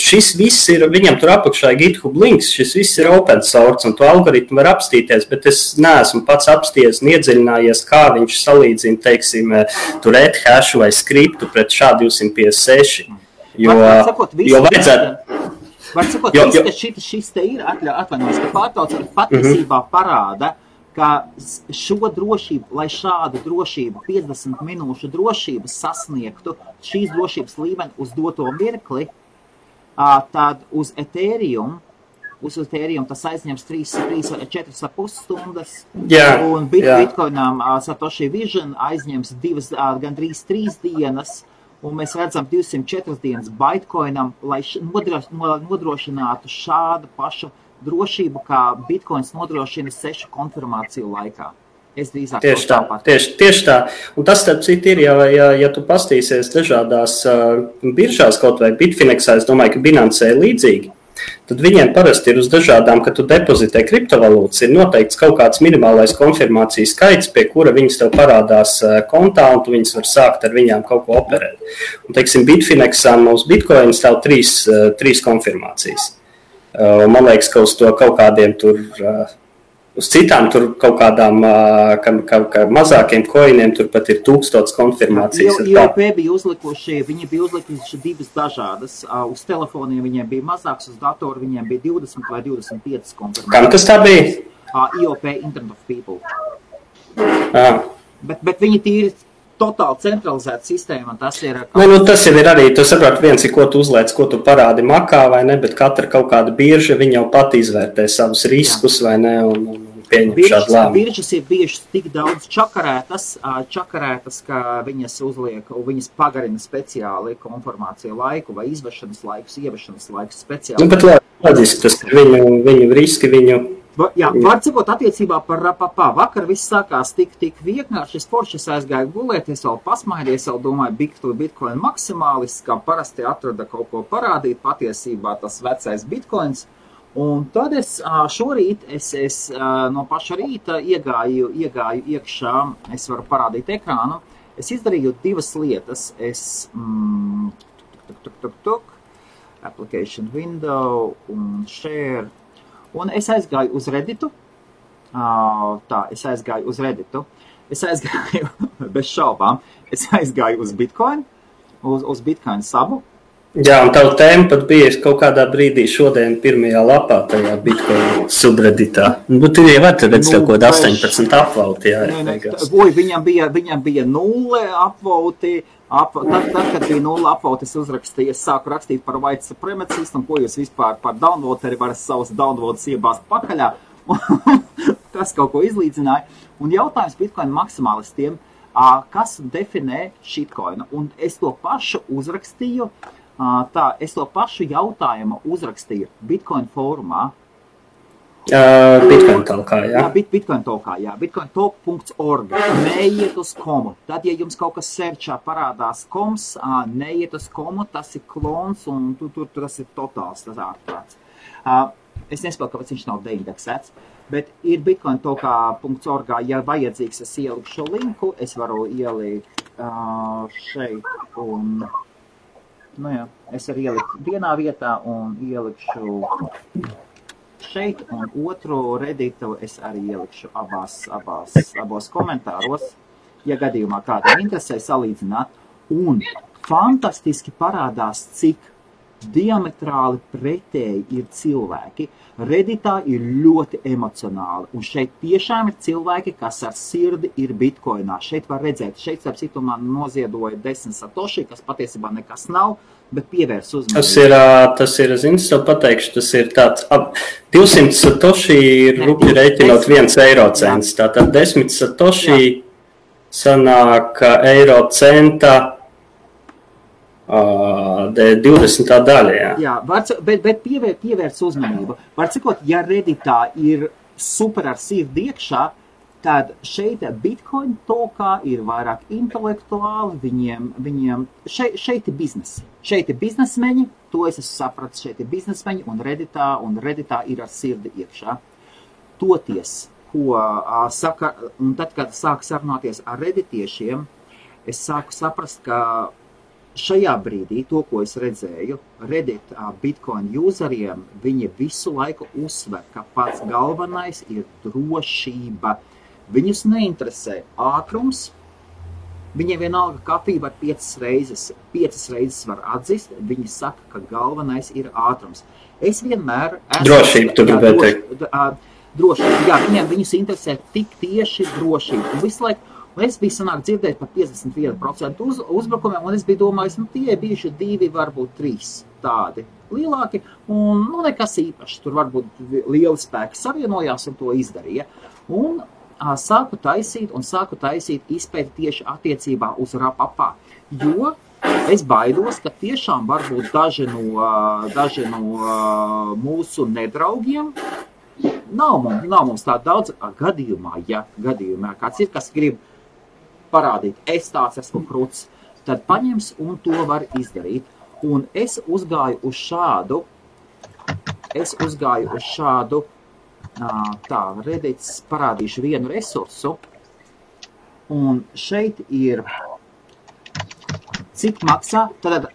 Šis viss ir, viņam tur apakšā GitHub links, šis viss ir open source, un to algoritmu var apstīties, bet es neesmu pats apsties un iedziļinājies, kā viņš salīdzina, teiksim, tur hashu vai skriptu pret SHA-256. Jo vajadzētu... Var sakot, ka šis te ir atvainojos, ka pārtauc patiesībā parāda, ka šo drošību, lai šādu drošību, 50 minūšu drošību sasniegtu šīs drošības līmeni uz doto mirkli, tad uz Ethereum tas aizņems 4,5 stundas, un Bitcoinam Satoshi Vision aizņems gandrīz 3 dienas, un mēs redzam 204 dienas Bitcoinam, lai nodrošinātu šādu pašu drošību, kā Bitcoins nodrošina 6 konfirmāciju laikā. Es drīzāk tieši tā. Un tas, starp citu, ir, ja tu pastīsies dažādās biržās, kaut vai Bitfinexā, es domāju, ka Binance ir līdzīgi, tad viņiem parasti ir uz dažādām, kad tu depozitē kriptovalūtas, ir noteikts kaut kāds minimālais konfirmācijas skaits, pie kura viņas tev parādās kontā, un tu viņas var sākt ar viņām kaut ko operēt. Un, teiksim, Bitfinexā uz Bitcoin stāv 3 konfirmācijas. Man liekas, ka uz to kaut kādiem tur... Uz citām tur kaut kādām mazākiem coiniem tur pat ir 1000 konfirmācijas. IOP bija uzlikuši 2 dažādas. Uz telefoniem viņiem bija mazāks, uz datoru viņiem bija 20 vai 25 konfirmācijas. Kam tas tā bija? IOP, Internet of People. Bet viņi tīri totāli centralizēta sistēma, un tas ir... tas jau ir arī, tu saproti, viens ir, ko tu uzliec, ko tu parādi makā, vai ne, bet katra kaut kāda birža, viņa jau pat izvērtē savus riskus, vai ne, un pieņem šādu lēmumu. Biržas ir bijušas tik daudz čakarētas, ka viņas uzliek, viņas pagarina speciāli konformāciju laiku, vai izvešanas laikus speciāli. Bet loģiski, tas ir viņu riski, Jā, var cikot attiecībā par rapapā. Vakar viss sākās tik vienkārši. Es foršas aizgāju gulēt, es vēl pasmaidies, vēl domāju, Bitcoin maksimālists, kā parasti atrada kaut ko parādīt, patiesībā tas vecais Bitcoins. Un tad es šorīt, no paša rīta iegāju iekšā, es varu parādīt ekrānu. Es izdarīju 2 lietas. Application window un share. Un es aizgāju uz Redditu. Es aizgāju bez šaubām. Es aizgāju uz Bitcoin, uz Bitcoin sabu. Jā, un tavu tēmu pat bija kaut kādā brīdī šodien pirmajā lapā tajā Bitcoin subredditā. Nu, tu jau vari redzēt kaut ko 18 apvauti, jā. Viņam bija 0 apvauti. Tad, kad bija 0 apvauti, es uzrakstīju, es sāku rakstīt par white supremacist, un ko jūs vispār par downvoteri varat savus downvotes iebāzt pakaļā. Tas kaut ko izlīdzināja. Un jautājums Bitcoin maksimālistiem, kas definē shitcoinu? Un es to pašu uzrakstīju, es to pašu jautājumu uzrakstīju Bitcoin fórumā. Bitcoin talkā, jā. Bitcoin talkā, jā. bitcointalk.org. Neiet uz komu. Tad, ja jums kaut kas searchā parādās koms, neiet uz komu, tas ir klons un tur tas ir totāls, tas ārprāts. Es nespēju, kāpēc viņš nav deindeksēts, bet ir bitcointalkā.org, ja vajadzīgs, es ieliku šo linku, es varu ielikt šeit un... Nu jā, es arī ieliku vienā vietā un ielikšu šeit, un otru redditu es arī ielikšu abos komentāros, ja gadījumā kādam interesē salīdzināt. Un fantastiski parādās, cik diametrāli pretēji ir cilvēki. Redditā ir ļoti emocionāli, un šeit tiešām ir cilvēki, kas ar sirdi ir bitcoinā. Šeit var redzēt, šeit starp citu man noziedoja 10 satoshi, kas patiesībā nekas nav, bet pievērs uzmanību. Tas ir, zinu, tev pateikšu, tas ir tāds 200 satoshi ir rupi reiķinot 1 eiro cents. Tātad 10 satoshi sanāk eiro centa 20. daļa, jā. Jā, bet pievērs uzmanību. Var cikot, ja Redditā ir super ar sirdi iekšā, tad šeit Bitcoin talkā ir vairāk intelektuāli, viņiem šeit ir biznesi. Šeit ir biznesmeņi, to es esmu sapratis, šeit ir biznesmeņi, un Redditā ir ar sirdi iekšā. Toties, ko saka, un tad, kad sāku sarunāties ar redditiešiem, es sāku saprast, ka šajā brīdī, to, ko es redzēju, Reddit Bitcoin useriem, viņi visu laiku uzsver, ka pats galvenais ir drošība. Viņus neinteresē ātrums, viņiem vienalga kafija var 5 reizes var atzist, viņi saka, ka galvenais ir ātrums. Es vienmēr... Drošība, tu gribēji teikt. Drošība, jā, viņus interesē tik tieši drošība. Un visu laiku, es biju sanāk dzirdēt par 51% uzbrukumiem, un es biju domājis, tie bijuši 2, varbūt 3 tādi lielāki, un nekas īpašs. Tur varbūt lieli spēki savienojās un to izdarīja. Un sāku taisīt izpēti tieši attiecībā uz rapapā, jo es baidos, ka tiešām varbūt daži no mūsu nedraugiem nav mums tā daudz gadījumā, kāds ir, kas grib parādīt, es tāds esmu kruts, tad paņems un to var izdarīt. Un es uzgāju uz šādu, Reddits parādīšu vienu resursu, un šeit ir, cik maksā, tad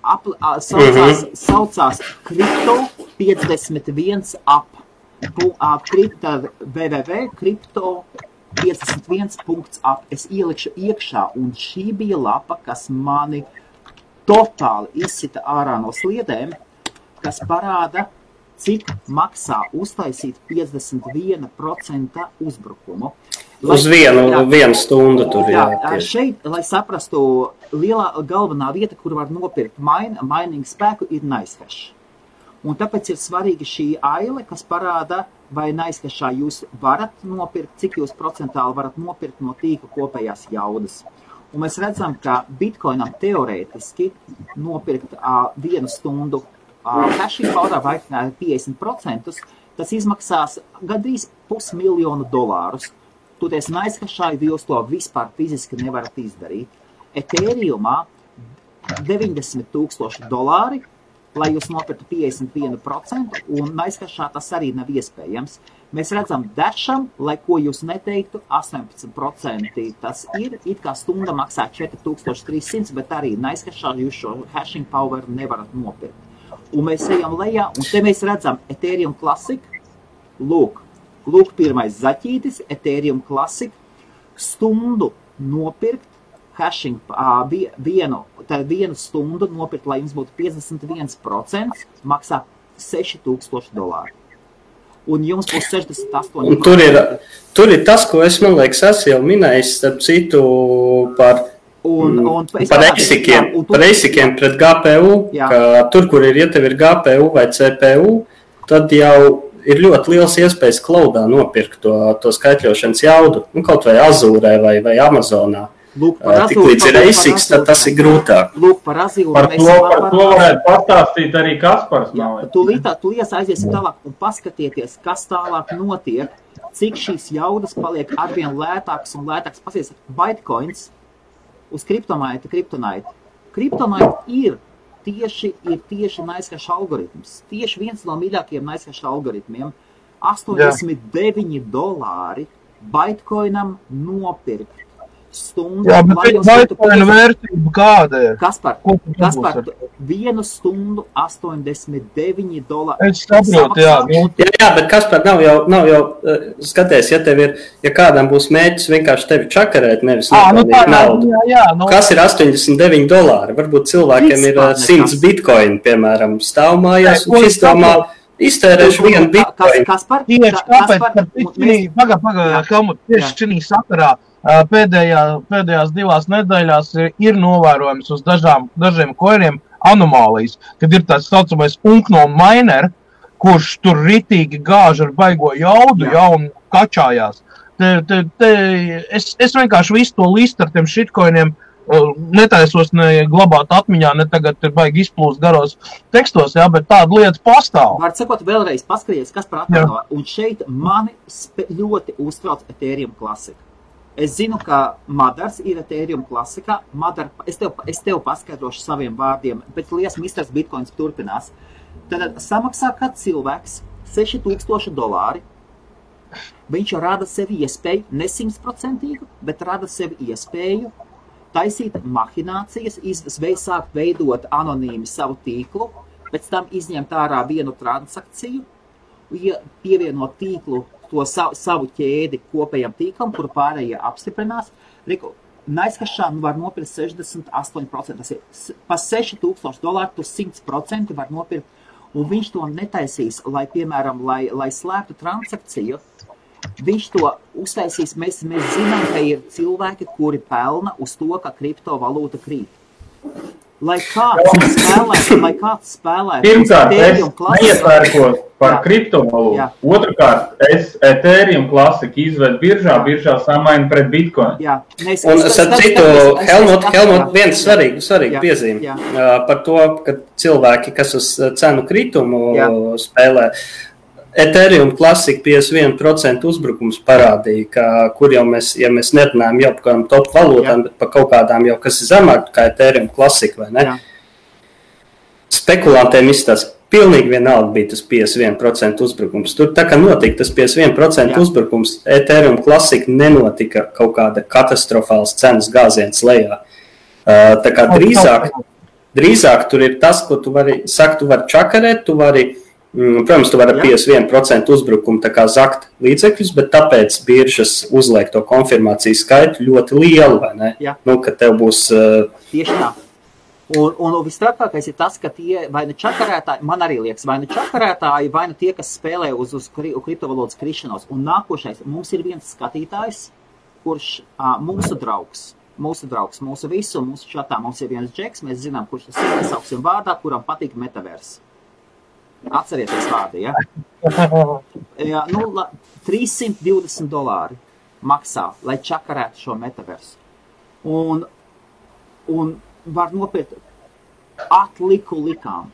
saucās Crypto 51 app, www.crypto51.app. Es ielikšu iekšā, un šī bija lapa, kas mani totāli izsita ārā no sliedēm, kas parāda, cik maksā uztaisīt 51% uzbrukumu. Uz vienu stundu tur, jā. Šeit, lai saprastu, galvenā vieta, kur var nopirkt mining spēku, ir NiceHash. Un tāpēc ir svarīgi šī aile, kas parāda, vai NiceHashā jūs varat nopirkt, cik jūs procentāli varat nopirkt no tīkla kopējās jaudas. Un mēs redzam, ka Bitcoinam teorētiski nopirkt 1 stundu hashing powerā vai 50%, tas izmaksās gandrīz $500,000. Toties NiceHashā jūs to vispār fiziski nevarat izdarīt. Ethereumā $90,000, lai jūs nopirktu 51%, un NiceHashā tas arī nav iespējams. Mēs redzam Dasham, lai ko jūs neteiktu, 18% tas ir, it kā stunda maksā 4300, bet arī NiceHashā jūs šo hashing power nevarat nopirkt. Un mēs ejam lejā, un te mēs redzam Ethereum Classic, lūk pirmais zaķītis, Ethereum Classic, stundu nopirkt hashing vienu stundu nopirkt, lai jums būtu 51%, maksā $6,000. Un jums būs 68%. Un tur ir tas, ko es, man liekas, esmu jau minējis, starp citu, par ASIC-iem pret GPU, ka tur, kur ja tev ir GPU vai CPU, tad jau ir ļoti liels iespējas cloudā nopirkt to skaitļošanas jaudu, kaut vai Azūrē vai Amazonā. Tik līdz ir ASICs, tad tas ir grūtāk. Lūk, par Azūru. Par to varētu pastāstīt arī Kaspars. Tūlīt aiziesim tālāk un paskatieties, kas tālāk notiek, cik šīs jaudas paliek arvien lētāks un lētāks. Pasies, Bitcoins uz Kryptonite. Kryptonite ir tieši NiceHash algoritms. Tieši viens no mīļākajiem NiceHash algoritmiem. $89 Bitcoinam nopirkt stundu. Jā, bet Bitcoina vērtība kāda ir? Kaspar, vienu stundu $89. Es saprotu, jā. Jā, bet Kaspar, nav jau skaties, ja kādam būs mēģis vienkārši tevi čakarēt, nevis nopelnīt naudu. Jā, kas ir $89? Varbūt cilvēkiem ir 100 bitcoini, piemēram, stāv mājās, un šis domā, iztērēšu vienu bitcoinu. Kaspar, tieši šī sakarā pēdējās 2 nedēļās ir novērojams uz dažiem koiniem anomālijas, kad ir tāds saucamais Unkno miner, kurš tur ritīgi gāž ar baigo jaudu, un kačājās. Es vienkārši visu to listu ar tiem shitcoiniem netaisos ne glabāt atmiņā, ne tagad ir baigi izplūst garos tekstos, bet tāda lieta pastāv. Var sakot vēlreiz, paskaties, kas par atmiņā. Un šeit mani ļoti uztrauc Ethereum klasika. Es zinu, ka Madars ir Ethereum klasikā. Es tev paskaidrošu saviem vārdiem, bet liels misters Bitcoins turpinās. Tad samaksā kāds cilvēks $6,000. Viņš rada sevi iespēju, ne 100%, bet rada sevi iespēju taisīt mahinācijas, sākt veidot anonīmi savu tīklu, pēc tam izņemt ārā vienu transakciju, pievienot tīklu to savu ķēdi kopējam tīklam, kuru pārējie apstiprinās. NiceHashā var nopirkt 68%. Tas ir pa $6,000 tu 100% var nopirkt, un viņš to netaisīs, lai, piemēram, lai slēptu transakciju. Viņš to uztaisīs, mēs zinām, ka ir cilvēki, kuri pelna uz to, ka kriptovalūta krīt. Lai kāds spēlētu Pirmkārt, es neiepērkos par kriptovalūtu. Otrakārt, es Ethereum klasiku izvedu biržā samainu pret Bitcoin. Un es citu, Helmut, viens svarīgi piezīme par to, ka cilvēki, kas uz cenu kritumu spēlē, Ethereum klasika 51% uzbrukums parādīja, kur jau mēs nerunājam jau par kādām top valūtām, bet par kaut kādām jau, kas ir zemāk kā Ethereum klasika, vai ne? Spekulantiem izstāsta, pilnīgi vienalga bija tas 51% uzbrukums. Tur tā kā notika tas 51% uzbrukums, Ethereum klasika nenotika kaut kāda katastrofāls cenas gāziens lejā. Tā kā drīzāk tur ir tas, ko tu vari čakarēt, protams, tu vari 51% uzbrukumu tā kā zakt līdzekļus, bet tāpēc biržas uzliek to konfirmāciju skaitu ļoti lielu, vai ne? Ka tev būs... Tieši tā. Un visstrakākais ir tas, ka tie vai nu čakarētāji, man arī liekas, vai nu čakarētāji, vai nu tie, kas spēlē uz kriptovalūtas krišanos. Un nākošais, mums ir viens skatītājs, kurš mūsu draugs, mūsu visu, mūsu čatā mums ir viens džeks, mēs zinām, kurš tas ir, sauksim vārdā, kuram patīk metaverse. Atcerieties vārdu, ja? $320 maksā, lai čakarētu šo metaversu. Un var nopirkt atliku likām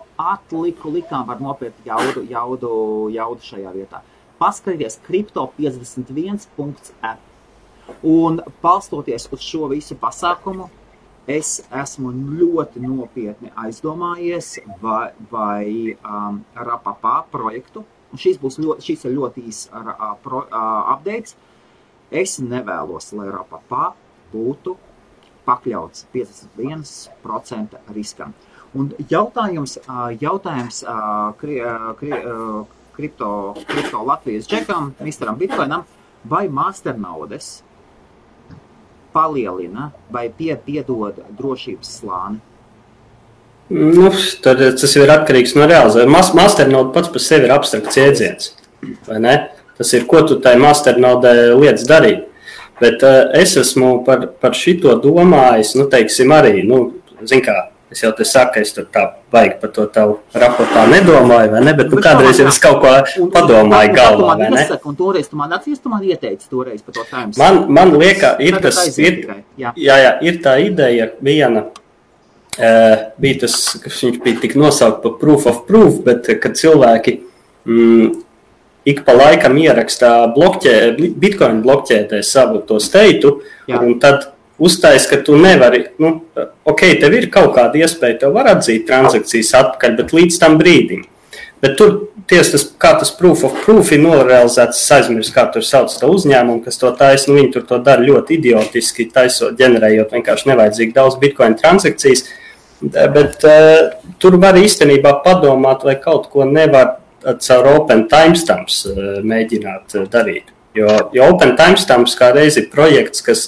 var nopirkt jaudu šajā vietā. Paskatieties crypto51.app. Un balstoties uz šo visu pasākumu, es esmu ļoti nopietni aizdomājies vai Rapapā projektu, un šis ir ļoti īs updates. Es nevēlos, lai Rapapā būtu pakļauts 51% riskam. Un jautājums kripto Latvijas džekam, Misteram Bitcoinam, vai masternaudes palielina vai piedod drošības slāni? Nu, tad tas ir atkarīgs no realizēšanas. Masternode pats par sevi ir abstrakts jēdziens, vai ne? Tas ir, ko tu tai masternodē lietas darīt. Bet es esmu par šito domājis, nu, teiksim, arī, nu, zin kā, es jau te saku, ka es tur tā baigi par to tavu raportā nedomāju, vai ne? Bet nu, kādreiz jau es kaut ko padomāju galvā, vai ne? Un toreiz tu man atsies, tu man ieteici toreiz par to time. Man liekas, ir tā ideja viena, bija tas, ka viņš bija tik nosaukt par proof of proof, bet kad cilvēki ik pa laikam ierakstā Bitcoin blokķētē savu to steitu, un tad uztais, ka tu nevari, nu, ok, tev ir kaut kāda iespēja, tev var atzīt transakcijas atpakaļ, bet līdz tam brīdim. Bet tur tieši kā tas proof of proof ir norealizēts, es aizmirstu, kā tur sauc to uzņēmumu, kas to taisa, nu, viņi tur to dara ļoti idiotiski, taisot, ģenerējot vienkārši nevajadzīgi daudz Bitcoin transakcijas, bet tur var īstenībā padomāt, vai kaut ko nevar caur Open Timestamps mēģināt darīt. Jo Open Timestamps kā reiz ir projekts, kas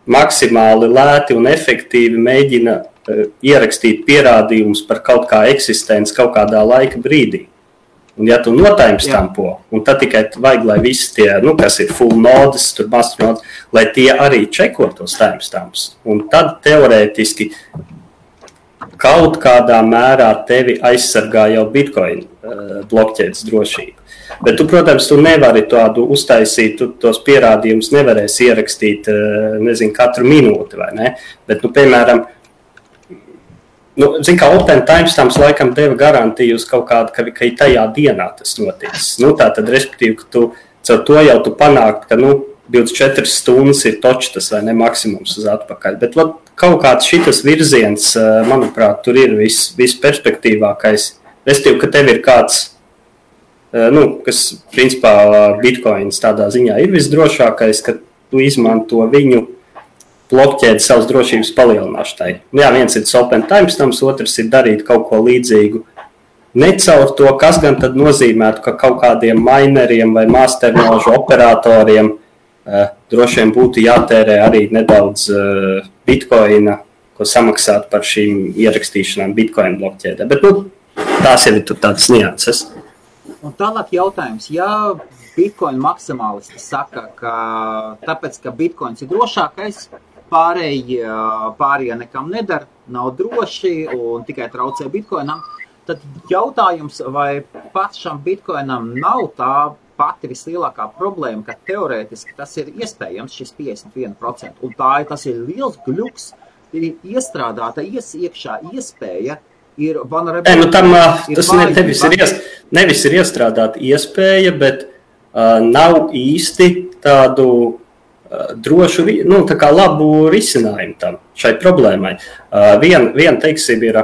maksimāli lēti un efektīvi mēģina ierakstīt pierādījumus par kaut kā eksistenci kaut kādā laika brīdī. Un ja tu notimestampo, un tad tikai vajag, lai visi tie, nu, kas ir full nodes, tur masternodes, lai tie arī čeko tos timestamps. Un tad teorētiski kaut kādā mērā tevi aizsargā jau Bitcoin blokķēdes drošība. Bet tu, protams, tu nevari tādu uztaisīt, tu tos pierādījumus nevarēsi ierakstīt, nezinu, katru minūti, vai ne? Bet, nu, piemēram, nu, zin kā Open Timestamps laikam deva garantiju uz kaut kādu, ka ir tajā dienā tas noticis. Nu, tā tad, respektīvi, ka tu caur to jau tu panākt, ka, nu, 24 stundas ir točs tas, vai ne, maksimums uz atpakaļ. Bet, kaut kāds šitas virziens, manuprāt, tur ir viss perspektīvākais. Respektīvi, ka tev ir kāds, nu, kas, principā, Bitcoins tādā ziņā ir visdrošākais, ka tu izmanto viņu blokķēdi savas drošības palielināšanai. Jā, viens ir Open Timestamps, otrs ir darīt kaut ko līdzīgu. Ne caur to, kas gan tad nozīmētu, ka kaut kādiem mineriem vai masternožu operatoriem droši vien būtu jātērē arī nedaudz Bitcoina, ko samaksāt par šīm ierakstīšanām Bitcoin blokķēdē. Bet, nu, tās jau ir tur tādas nianses. Un tālāk jautājums, ja Bitcoin maksimālisti saka, ka tāpēc, ka Bitcoins ir drošākais, pārējie nekam nedara, nav droši un tikai traucē Bitcoinam, tad jautājums, vai pašam Bitcoinam nav tā pati vislielākā problēma, ka teorētiski tas ir iespējams, šis 51%, un tas ir liels gļuks, ir iestrādāta iekšā iespēja, ir vulnerability. Nu, tam, tas nevis ir iestrādāta iespēja, bet nav īsti tādu drošu, nu, tā kā labu risinājumu tam, šai problēmai. Vien teiksim, ir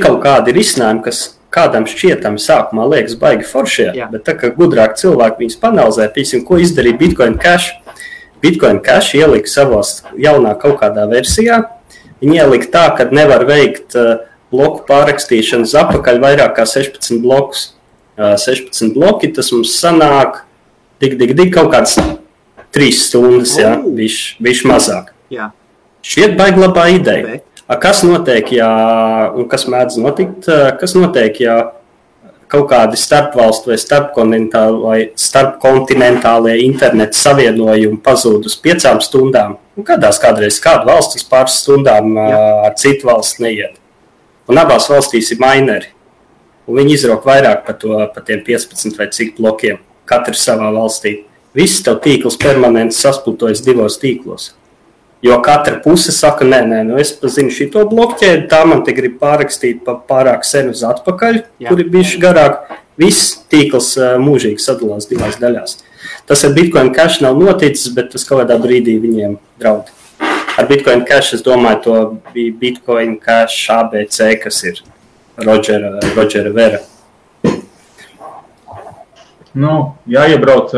kaut kādi risinājumi, kas kādam šķietami sākumā liekas baigi foršie, bet tā kā gudrāk cilvēki viņus panalizē, piemēram, ko izdarīja Bitcoin Cash. Bitcoin Cash ielika savos jaunā kaut kādā versijā. Viņi ielika tā, ka nevar veikt bloku pārrakstīšanas atpakaļ vairāk kā 16 blokus. 16 bloki, tas mums sanāk kaut kāds 3 stundas, viš mazāk. Jā. Šķiet baigi labā ideja. Kas notiek, un kas mēdz notikt, kas notiek, ja kaut kādi starpvalstu vai starpkontinentālie interneta savienojumi pazūd uz 5 stundām? Un kādreiz kāda valsts uz pāris stundām ar citu valsts neiet. Un abās valstīs ir mineri. Un viņi izrok vairāk par tiem 15 vai cik blokiem, katrs savā valstī. Viss tev tīkls permanenti sasplitojas 2 tīklos. Jo katra puse saka, nē, es pazinu šito blokķēdi, tā man te grib pārrakstīt pārāk sen uz atpakaļ, kur ir bijuši garāk. Viss tīkls mūžīgi sadalās 2 daļās. Tas ar Bitcoin Cash nav noticis, bet tas kaut kādā brīdī viņiem draud. Ar Bitcoin Cash, es domāju, to bija Bitcoin Cash ABC, kas ir Rodžera Vera. Nu, jāiebrauc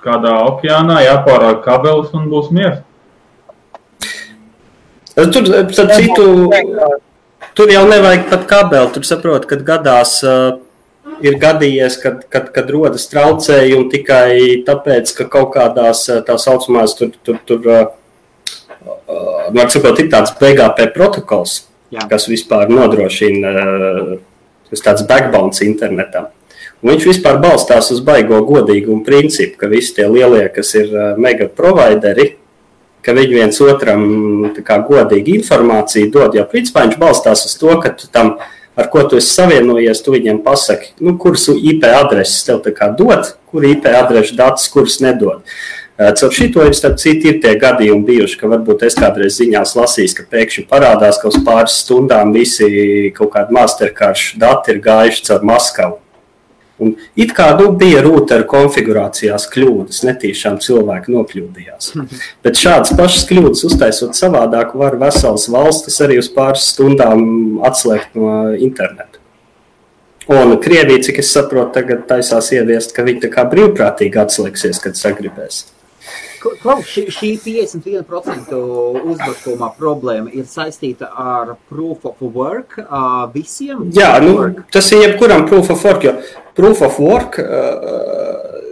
kādā okeānā, jāpārāk kabelis un būs miers. Tur jau nevajag pat kabeli, tur saprot, kad gadās ir gadījies, kad rodas traucējumi tikai tāpēc, ka kaut kādās tā saucamās var sakot, ir tāds BGP protokols, kas vispār nodrošina tāds backbones internetam. Un viņš vispār balstās uz baigo godīgumu principu, ka visi tie lielie, kas ir mega provideri, ka viņi viens otram tā kā godīgi informāciju dod, jo principā viņš balstās uz to, ka tu tam, ar ko tu esi savienojies, tu viņiem pasaki, kuras IP adreses tev tā kā dod, kur IP adrešu datus, kuras nedod. Caur šito starp citu ir tie gadījumi bijuši, ka varbūt es kādreiz ziņās lasījis, ka pēkšņi parādās, ka uz pāris stundām visi kaut kādi masterkaršu dati ir gājuši caur Maskavu. Un it kā bija rūteru konfigurācijās kļūdas, netīšām cilvēki nokļūdījās. Bet šādas pašas kļūdas uztaisot savādāk var veselas valstis arī uz pāris stundām atslēgt no interneta. Un Krievija, cik es saprotu, tagad taisās ieviest, ka viņi tā kā brīvprātīgi atslēgsies, kad sagribēs. Klaus, šī 51% uzbrukuma problēma ir saistīta ar proof of work visiem? Jā, tas ir jebkuram proof of work, jo proof of work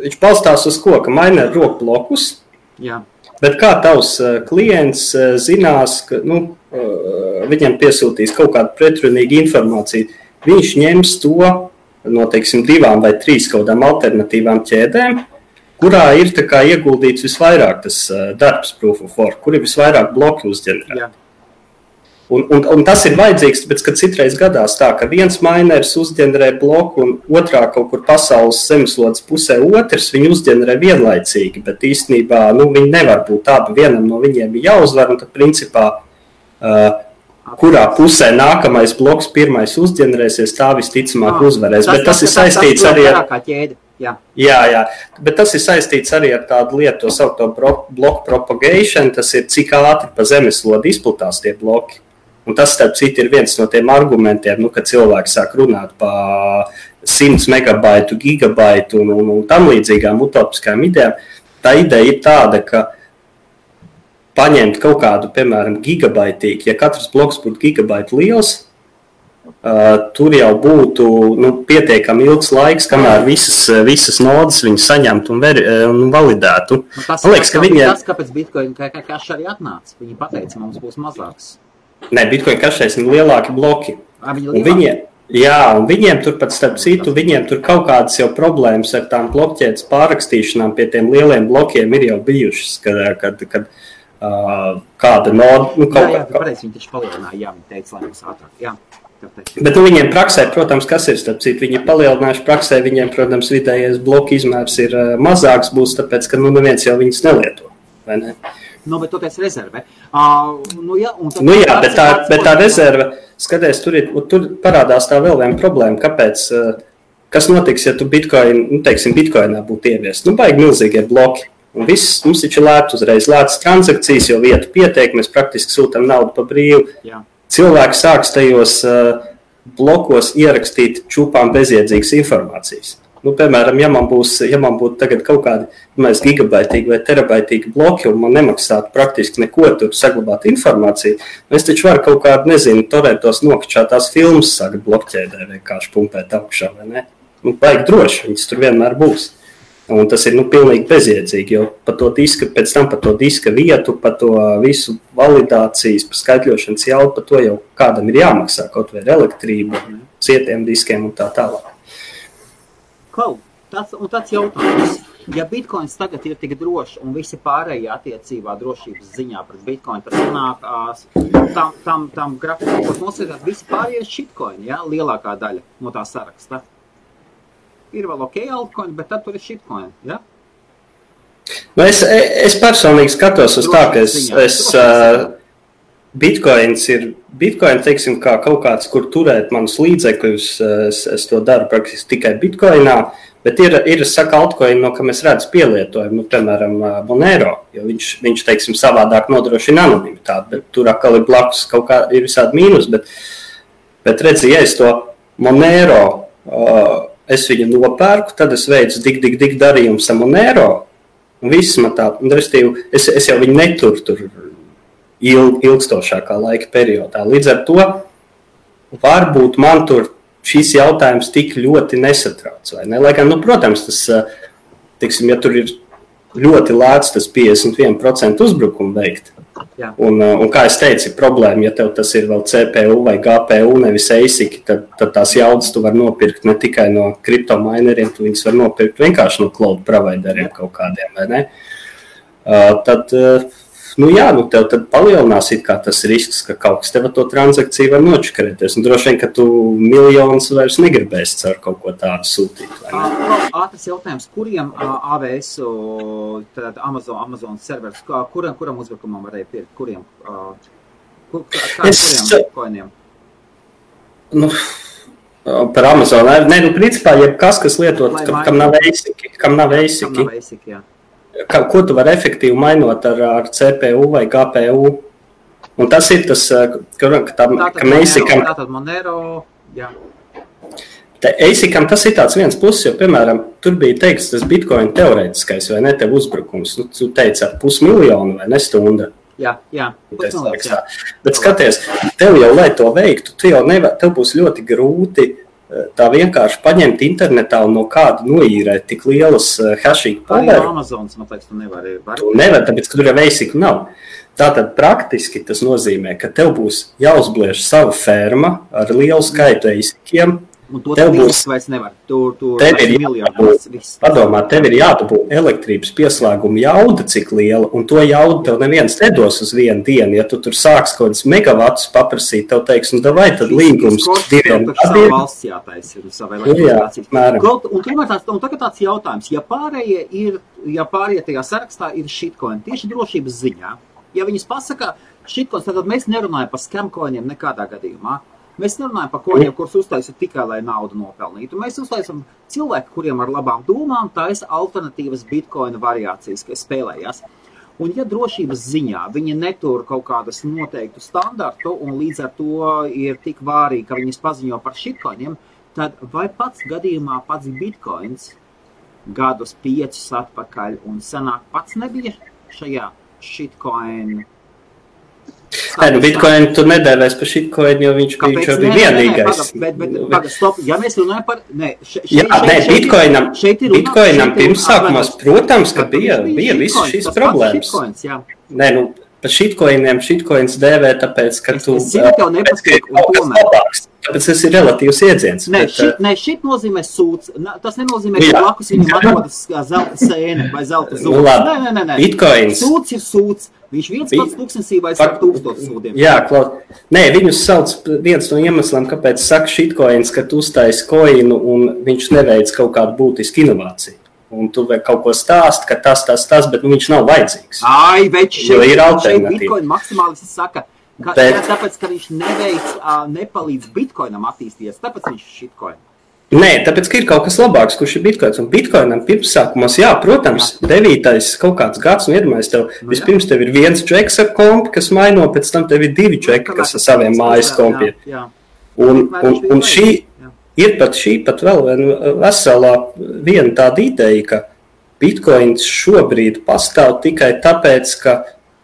viņš balstās uz ko, ka miner rok blokus, bet kā tavs klients zinās, ka viņam piesūtīs kaut kādu pretrunīgu informāciju, viņš ņems to no, teiksim, 2 vai 3 kaut kādām alternatīvām ķēdēm, kurā ir tā kā ieguldīts visvairāk tas darbs proof of work, kur ir visvairāk bloki uzģenerēt. Un tas ir vajadzīgs, tāpēc, ka citreiz gadās tā, ka viens miners uzģenerē bloku un otrā kaut kur pasaules zemeslodes pusē otrs, viņi uzģenerē vienlaicīgi, bet īstenībā viņi nevar būt abi, vienam no viņiem ir jāuzvar, un tad principā, kurā pusē nākamais bloks pirmais uzģenerēsies, tā visticamāk uzvarēs. Bet tas ir saistīts arī ar... Jā, bet tas ir saistīts arī ar tādu lietu, to saukto bloku propagation, tas ir cik ātri pa zemeslodi izplatās tie bloki. Un tas, starp citu, ir viens no tiem argumentiem, kad cilvēki sāk runāt pa 100 megabaitu, gigabaitu un tam līdzīgām utopiskām idejām. Tā ideja ir tāda, ka paņemt kaut kādu, piemēram, gigabaitīgu, ja katrs bloks būtu gigabaitu liels, tur jau būtu pietiekami ilgs laiks, kamēr visas nodas viņi saņemtu un validētu. Tas, liekas, ka tas, kāpēc Bitcoin cash arī atnāca. Viņi pateica, mums būs mazāks. Nē, Bitcoin cashēs ir lielāki bloki. Un viņiem tur pat starp citu, viņiem tur kaut kādas jau problēmas ar tām blokķēdes pārrakstīšanām pie tiem lieliem blokiem ir jau bijušas, kad kāda noda... Pareizi, viņi taču palielināja, viņi teica, lai mums ātrāk. Jā. Bet viņiem praksē, protams, kas ir starp citu, viņi palielinājuši praksē, viņiem, protams, vidējais bloku izmērs ir mazāks būs, tāpēc, ka neviens jau viņus nelieto, vai ne? Bet toties rezerve. Bet tā rezerve, skaties, tur parādās tā vēl viena problēma, kāpēc, kas notiks, ja tu Bitcoinā būtu ieviest? Baigi milzīgie bloki. Un viss, mums taču lēt uzreiz lētas transakcijas, jo vietu pietiek, mēs praktiski sūtam naudu pa brīvu. Jā. Cilvēki sāks tajos blokos ierakstīt čupām bezjēdzīgas informācijas. Piemēram, ja man būtu tagad kaut kādi gigabaitīgi vai terabaitīgi bloki un man nemaksātu praktiski neko tur saglabāt informāciju, es taču varu kaut kādu, torrentos nokačātās filmas sākt blokķēdē vienkārši pumpēt augšā, vai ne? Baigi droši, viņas tur vienmēr būs. Un tas ir pilnīgi bezjēdzīgi, jo pēc tam par to diska vietu, par to visu validācijas, par skaitļošanas jaudu, par to jau kādam ir jāmaksā, kaut vai ar elektrību, cietiem diskiem un tā tālāk. Tāds jautājums. Ja Bitcoins tagad ir tik drošs un visi pārējie attiecībā drošības ziņā pret Bitcoin, tas sanāk tam grafikam, ko nosētāt visi pārējie shitcoin, lielākā daļa no tā saraksta. Ir vēl altcoin, bet tad tur ir shitcoin, ja? Es personīgi skatos uz tā, ka Bitcoin, teiksim, kā kaut kāds, kur turēt manus līdzekļus, es to daru praktiski tikai Bitcoinā, bet ir saka altcoin, no kam es redzu pielietojumu, piemēram, Monero, jo viņš, teiksim, savādāk nodrošina anonimitāti, bet tur atkal ir blakus kaut kā, ir visādi mīnus, bet redzi, ja es to Monero, es viņu nopērku, tad es veicu dik darījumus ar Monero, un viss man tā, un restīvi, es jau viņu neturu tur ilgstošākā laika periodā. Līdz ar to varbūt man tur šīs jautājums tik ļoti nesatrauc, vai ne? Lai gan, protams, tas, teiksim, ja tur ir ļoti lēts tas 51% uzbrukumu veikt, un kā es teicu, problēma, ja tev tas ir vēl CPU vai GPU, nevis ASIC, tad tās jaudas tu var nopirkt ne tikai no kriptomaineriem, tu viņas var nopirkt vienkārši no cloud provideriem kaut kādiem, vai ne? Tad, tev tad palielinās it kā tas risks, ka kaut kas tev to transakciju var nočakarēties. Un droši vien, ka tu miljonus vairs negribēsi caur kaut ko tādu sūtīt. Ātrs jautājums, kuriem AWS, tad Amazon servers, kuram uzbrukumam varēja pirkt? Kuriem? Kādiem koiniem? Par Amazon. Principā, jebkas, kas lietot, kam nav ASIC. Jā. Ko tu vari efektīvi mainot ar CPU vai GPU. Un tas ir tas, ka ASIC-am... Tātad Monero, jā. ASIC-am tas ir tāds viens pluss, jo, piemēram, tur bija teikts tas Bitcoin teorētiskais vai ne tev uzbrukums. Tu teici ar 500 000 vai ne stunda. Jā. Bet skaties, tev jau, lai to veiktu, tev būs ļoti grūti tā vienkārši paņemt internetā un no kāda noīrēt tik lielas hashing power. Arī Amazonas, man liekas, tu nevari. Tu nevar, tāpēc, ka tur jau ASIC nav. Tātad praktiski tas nozīmē, ka tev būs jāuzbliež sava ferma ar lielu skaitu ASIC-iem. Un to tev vairs nevar. Tev ir jādabūt elektrības pieslēguma jauda, cik liela, un to jaudu tev neviens nedos uz vienu dienu. Ja tu tur sāks kaut kāds megavatus paprasīt, tev teiks, davai tad līgums 2 gadiem. Valsts jātaisa ir sava elektrības. Un tagad tāds jautājums, ja pārējie tajā sarakstā ir shitcoin, tieši drošības ziņā, ja viņas pasaka shitcoins, tad mēs nerunājam par scamcoiniem nekādā gadījumā. Mēs nerunājam par koņiem, kurus uztaisa tikai, lai naudu nopelnītu. Mēs uztaisam cilvēku, kuriem ar labām domām taisa alternatīvas bitcoina variācijas, kas spēlējās. Un ja drošības ziņā viņi netur kaut kādas noteiktu standartu un līdz ar to ir tik vārīgi, ka viņas paziņo par shitcoiniem, tad vai pats gadījumā pats bitcoins gadus 5 atpakaļ un senāk pats nebija šajā shitcoin? Bitcoin tu nedēvēs par shitcoin, jo viņš bija vienīgais. Stop, ja mēs runājam par... Bitcoinam pirmsākumās, protams, ka bija visas šīs problēmas. Par shitcoins dēvē, tāpēc, ka tu... Es zinu, tev nepatīk, un tomēr. Tāpēc tas ir relatīvs iedziens. Šit nozīmē sūds. Tas nenozīmē, ka blakus viņam atrodas zelta sēne vai zelta zūds. Nē. Bitcoins. Sūds ir sūds. Viņš viens pats tūkstnesī vai 1000 sūdiem. Jā, viņus sauc viens no iemesliem, kāpēc saka shitcoins, ka tu uztaisi koinu un viņš neveic kaut kādu būtisku inovāciju. Un tu vēl kaut ko stāst, ka tas, bet viņš nav vajadzīgs. Šeit Bitcoin maksimālisti saka, tāpēc, ka viņš nepalīdz Bitcoinam attīstīties, tāpēc viņš shitcoin. Nē, tāpēc, ka ir kaut kas labāks, kurš ir Bitcoins. Un Bitcoinam pirmsākumos, protams, 9. kaut kāds gads, un iedomājies tev, vispirms tev ir viens džeks ar kompi, kas maino, pēc tam tev ir 2 džeki, kas ar saviem mājas kompiem. Un šī ir pat vēl veselā viena tāda ideja, ka Bitcoins šobrīd pastāv tikai tāpēc, ka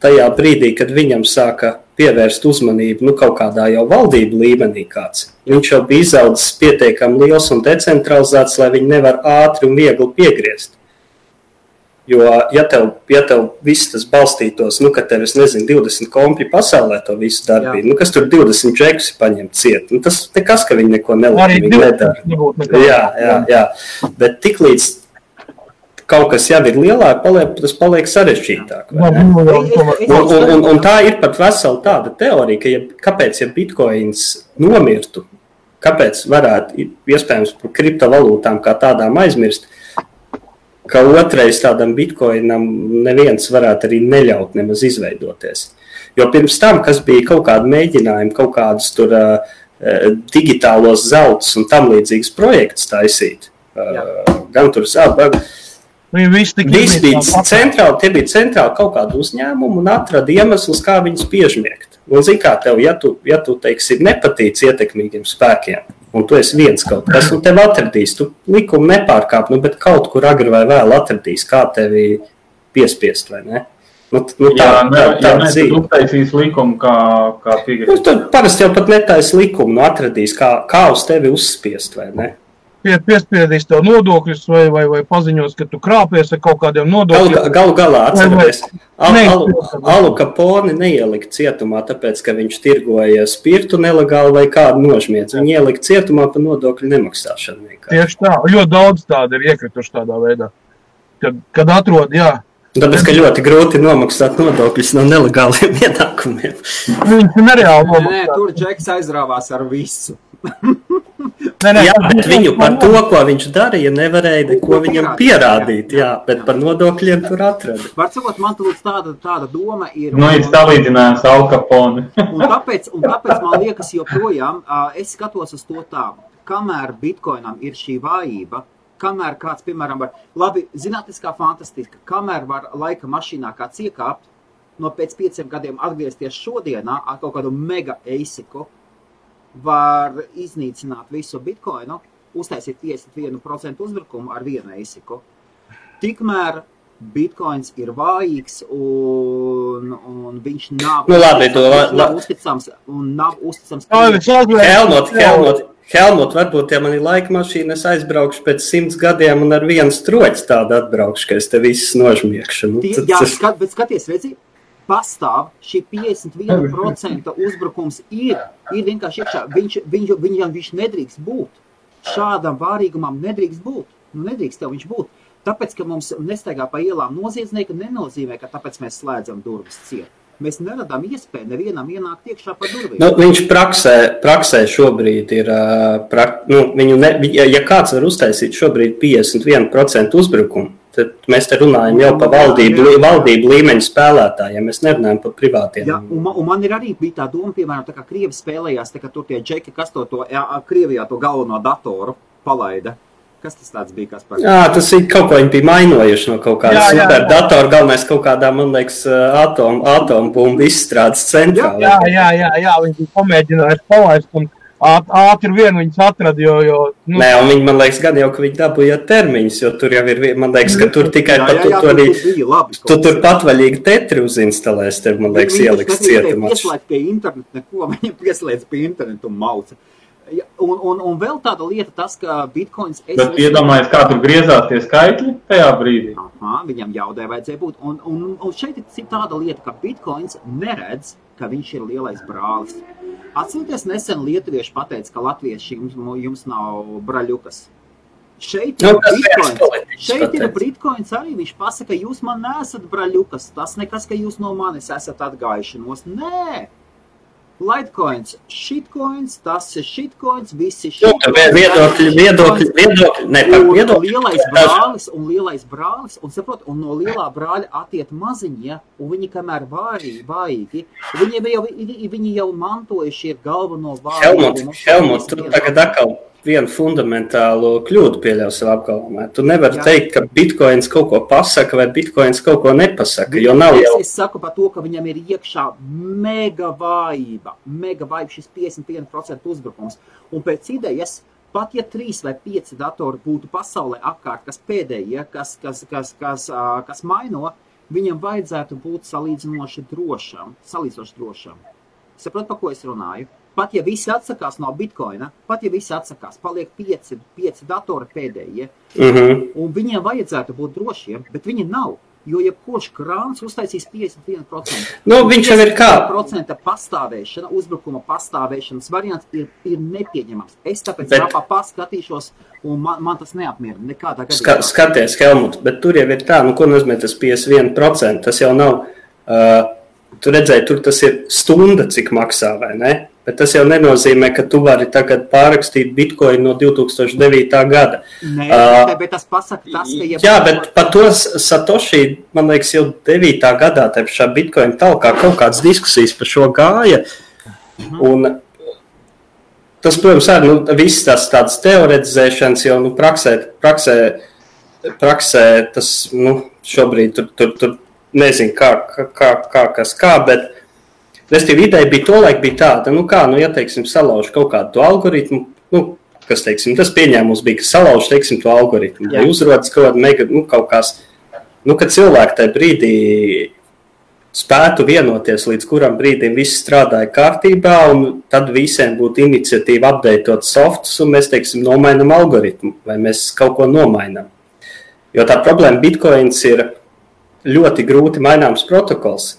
tajā brīdī, kad viņam sāka pievērst uzmanību kaut kādā jau valdību līmenī kāds. Viņš jau bija izaudzis pietiekami liels un decentralizēts, lai viņi nevar ātri un viegli piegriezt. Jo, ja tev viss tas balstītos, ka tev, 20 kompi pasaulē to visu darbību, kas tur 20 džekus ir paņemt ciet, tas nekas, ka viņi neko nelīdīgi nedara. Jā. Bet tiklīdz kaut kas jau ir lielāk, tas paliek sarežģītāk. Un tā ir pat vesela tāda teorija, ka kāpēc, ja bitcoins nomirtu, kāpēc varētu iespējams par kriptovalūtām kā tādām aizmirst, ka otrais tādam bitcoinam neviens varētu arī neļaut nemaz izveidoties. Jo pirms tam, kas bija kaut kādi mēģinājumi, kaut kādus tur digitālos zeltus un tam līdzīgas projekts taisīt, gan tur Visi bija centrāli, tie bija centrāli kaut kādu uzņēmumu un atrada iemeslus, kā viņus piežmiegt. Un zini kā tev, ja tu teiksim, nepatīc ietekmīgiem spēkiem, un tu esi viens kaut kas, un tev atradīs, tu likumu nepārkāp, bet kaut kur agri vai vēl atradīs, kā tevi piespiest, vai ne? Tad uztaisīs likumu, kā piegrib. Tad parasti jau pat netaisa likumu, atradīs, kā uz tevi uzspiest, vai ne? Piespiedīs tev nodokļus vai paziņos, ka tu krāpies ar kaut kādiem nodokļiem. Galu galā atceraties, Alu Capone neielika cietumā, tāpēc, ka viņš tirgoja spirtu nelegāli vai kādu nožmiedz. Viņi ielika cietumā par nodokļu nemaksāšanu. Tieši tā, ļoti daudz tāda ir iekrituši tādā veidā. Kad atrod, jā. Tāpēc, ka ļoti grūti nomaksāt nodokļus no nelegāliem ienākumiem. Viņš nereāli nomaksā. Tur Džeks aizrāvās ar visu. Jā, bet viņu par to, ko viņš darīja, nevarēja neko viņam pierādīt. Jā, bet par nodokļiem tur atrada. Var sakot, man tāda doma ir... Ir salīdzinājums Al Capone. un tāpēc man liekas joprojām, es skatos uz to tā, kamēr Bitcoinam ir šī vājība, kamēr kāds, piemēram, var, labi, zinātniskā fantastika, kamēr var laika mašīnā kāds iekāpt, no pēc 5 gadiem atgriezties šodienā ar kaut kādu mega eisiku, var iznīcināt visu Bitcoinu, uztaisīt 51% uzbrukumu ar vienu eisiku. Tikmēr Bitcoins ir vājīgs un viņš nav uzticams un nav uzticams. Helmut, varbūt, ja man ir laika mašīna, es aizbraukšu pēc 100 gadiem un ar vienu stroķi tādu atbraukšu, ka es te visus nožmiekšu. Bet skaties, redzi, pastāv šī 51% uzbrukums ir vienkārši iekšā. Viņš nedrīkst būt. Šādam vārīgumam nedrīkst būt. Nedrīkst tev viņš būt. Tāpēc, ka mums nestaigā pa ielām noziedznieki, nenozīmē, ka tāpēc mēs slēdzam durvis ciet. Mēs neradām iespēju nevienam ienākt iekšā pa durvīm. Viņš praksē šobrīd ir, ja kāds var uztaisīt šobrīd 51% uzbrukumu, tad mēs te runājam jau par valdību līmeņu spēlētājiem, mēs nerunājam par privātiem. Jā, un man ir arī bija tā doma, piemēram, tā kā Krievi spēlējās, tā kā tur tie džeki, kas to Krievijā to galveno datoru palaida. Kas tas tāds bija? Jā, tas ir kaut ko viņi bija mainojuši no kaut kāda superdatoru, galvenais kaut kādā, man liekas, atombumbu izstrādes centrā. Jā, viņi bija pamēģinājuši palaist un ātri vien viņus atrada, jo... Nē, un viņi, man liekas, gan jau, ka viņi dabūja termiņus, jo tur jau ir, man liekas, ka tur tikai tu tur patvaļīgi tetri uzinstalēs, tev, man liekas, ieliks cietumā. Pieslēgt pie internetu neko, viņi pieslēdz pie internetu un mauca. Un vēl tāda lieta tas, ka Bitcoins... Bet iedomājies, kā tur griezās tie skaitļi tajā brīdī? Viņam jaudē vajadzēja būt. Un šeit ir tāda lieta, ka Bitcoins neredz, ka viņš ir lielais brālis. Atcerieties, nesen lietuvieši pateica, ka latvieši jums nav braļukas. Šeit ir Bitcoins arī. Viņš pasaka, jūs man neesat braļukas. Tas nekas, ka jūs no manis esat atgājušanos. Nē! Litecoins, shitcoins, tas ir shitcoins, visi shitcoins. Lielais brālis, un saprot, un no lielā brāļa attiet maziņie, un viņi kamēr vājīgi, viņi jau mantojuši ir galveno vājīgumu. Helmut, tu tagad atkal vienu fundamentālu kļūdu pieļauj savā apgalvojumā. Tu nevari teikt, ka Bitcoins kaut ko pasaka vai Bitcoins kaut ko nepasaka, jo nav jau... Es saku par to, ka viņam ir iekšā mega vājība, šis 51% uzbrukums. Un pēc idejas, pat ja 3 vai 5 datori būtu pasaulē apkārt, kas pēdējie, kas maino, viņam vajadzētu būt salīdzinoši drošam. Saprot, pa ko es runāju? Pat ja visi atsakās no Bitcoina, paliek 5 datori pēdējie, un viņiem vajadzētu būt drošiem, bet viņi nav, jo jebkurš krāns uztaisīs 51%. Viņš jau ir kā? 51% pastāvēšana, uzbrukuma pastāvēšanas variants ir nepieņemams. Es tāpēc paskatīšos, un man tas neapmierina nekādā gadījumā. Skaties, Helmut, bet tur jau ir tā, ko nozīmē tas 51%, tas jau nav, tu redzēji, tur tas ir stunda, cik maksā, vai ne? Bet tas jau nenozīmē, ka tu vari tagad pārrakstīt Bitcoin no 2009. gada. Nē, bet tas pasaka tas, ka... Jā, bet par to Satoshi, man liekas, jau 9. gadā šā Bitcoin talkā kaut kādas diskusijas par šo gāja. Un tas, protams, arī viss tās tādas teoretizēšanas jau praksē tas šobrīd tur nezinu kā, bet restīvi ideja bija tolaik bija tāda, ja, teiksim, salauž kaut kādu to algoritmu, kas, teiksim, tas pieņēmums bija, ka salauž, teiksim, to algoritmu, vai uzrodas kaut kāda mega, kaut kās, ka cilvēki tajā brīdī spētu vienoties, līdz kuram brīdim viss strādāja kārtībā, un tad visiem būtu iniciatīva updateot softus, un mēs, teiksim, nomainam algoritmu, vai mēs kaut ko nomainam. Jo tā problēma Bitcoins ir ļoti grūti maināms protokols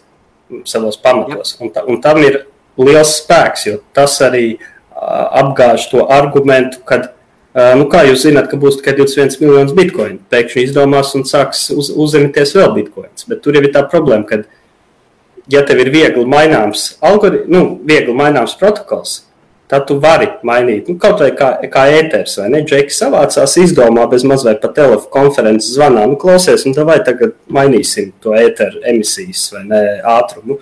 savos pamatos, un tam ir liels spēks, jo tas arī apgāž to argumentu, kad, kā jūs zināt, ka būs tikai 21 miljonus bitcoinu, pēkšņi izdomās un sāks uzņemties vēl bitcoins, bet tur jau ir tā problēma, kad ja tev ir viegli maināms viegli maināms protokols, tad tu vari mainīt, kaut vai kā ēters, vai ne? Džeki savācās, izdomā bez maz vai pa telefonu konferences zvanā, klausies, un vai tagad mainīsim to ēteru emisijas, vai ne, ātrumu.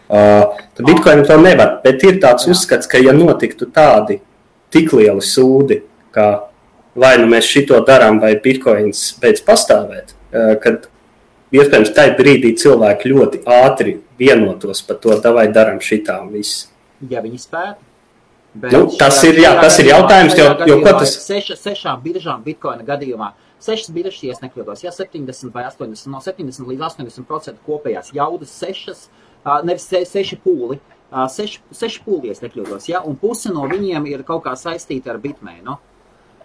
Tad Bitcoin to nevar, bet ir tāds uzskats, ka ja notiktu tādi tik lieli sūdi, ka vai nu mēs šito darām, vai Bitcoins beidz pastāvēt, kad iespējams tajā brīdī cilvēki ļoti ātri vienotos par to, vai darām šitā un viss. Ja viņi spētu. Tas ir jautājums, jo ko tas... Sešām biržām Bitcoina gadījumā, 6 biržas, ja es nekļūdos, 70 vai 80, no 70 līdz 80% kopējās jaudas 6, nevis 6 pūli, 6 pūli, es nekļūdos, ja, un puse no viņiem ir kaut kā saistīta ar Bitmainu.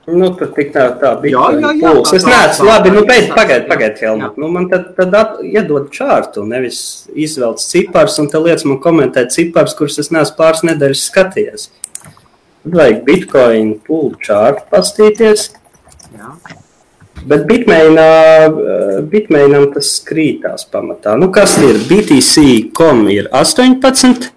Tad tik tā Bitcoin pūles. Es neesmu, labi, pagaid, Helmut. Man tad iedod čārtu, nevis izvelc cipars, un te liec man komentēt cipars, kurus es neesmu pāris nedēļas skatījies. Tad vajag Bitcoin pūlu čārtu pastīties. Jā. Bet Bitmainam tas krītās pamatā. Kas ir? BTC.com ir 18,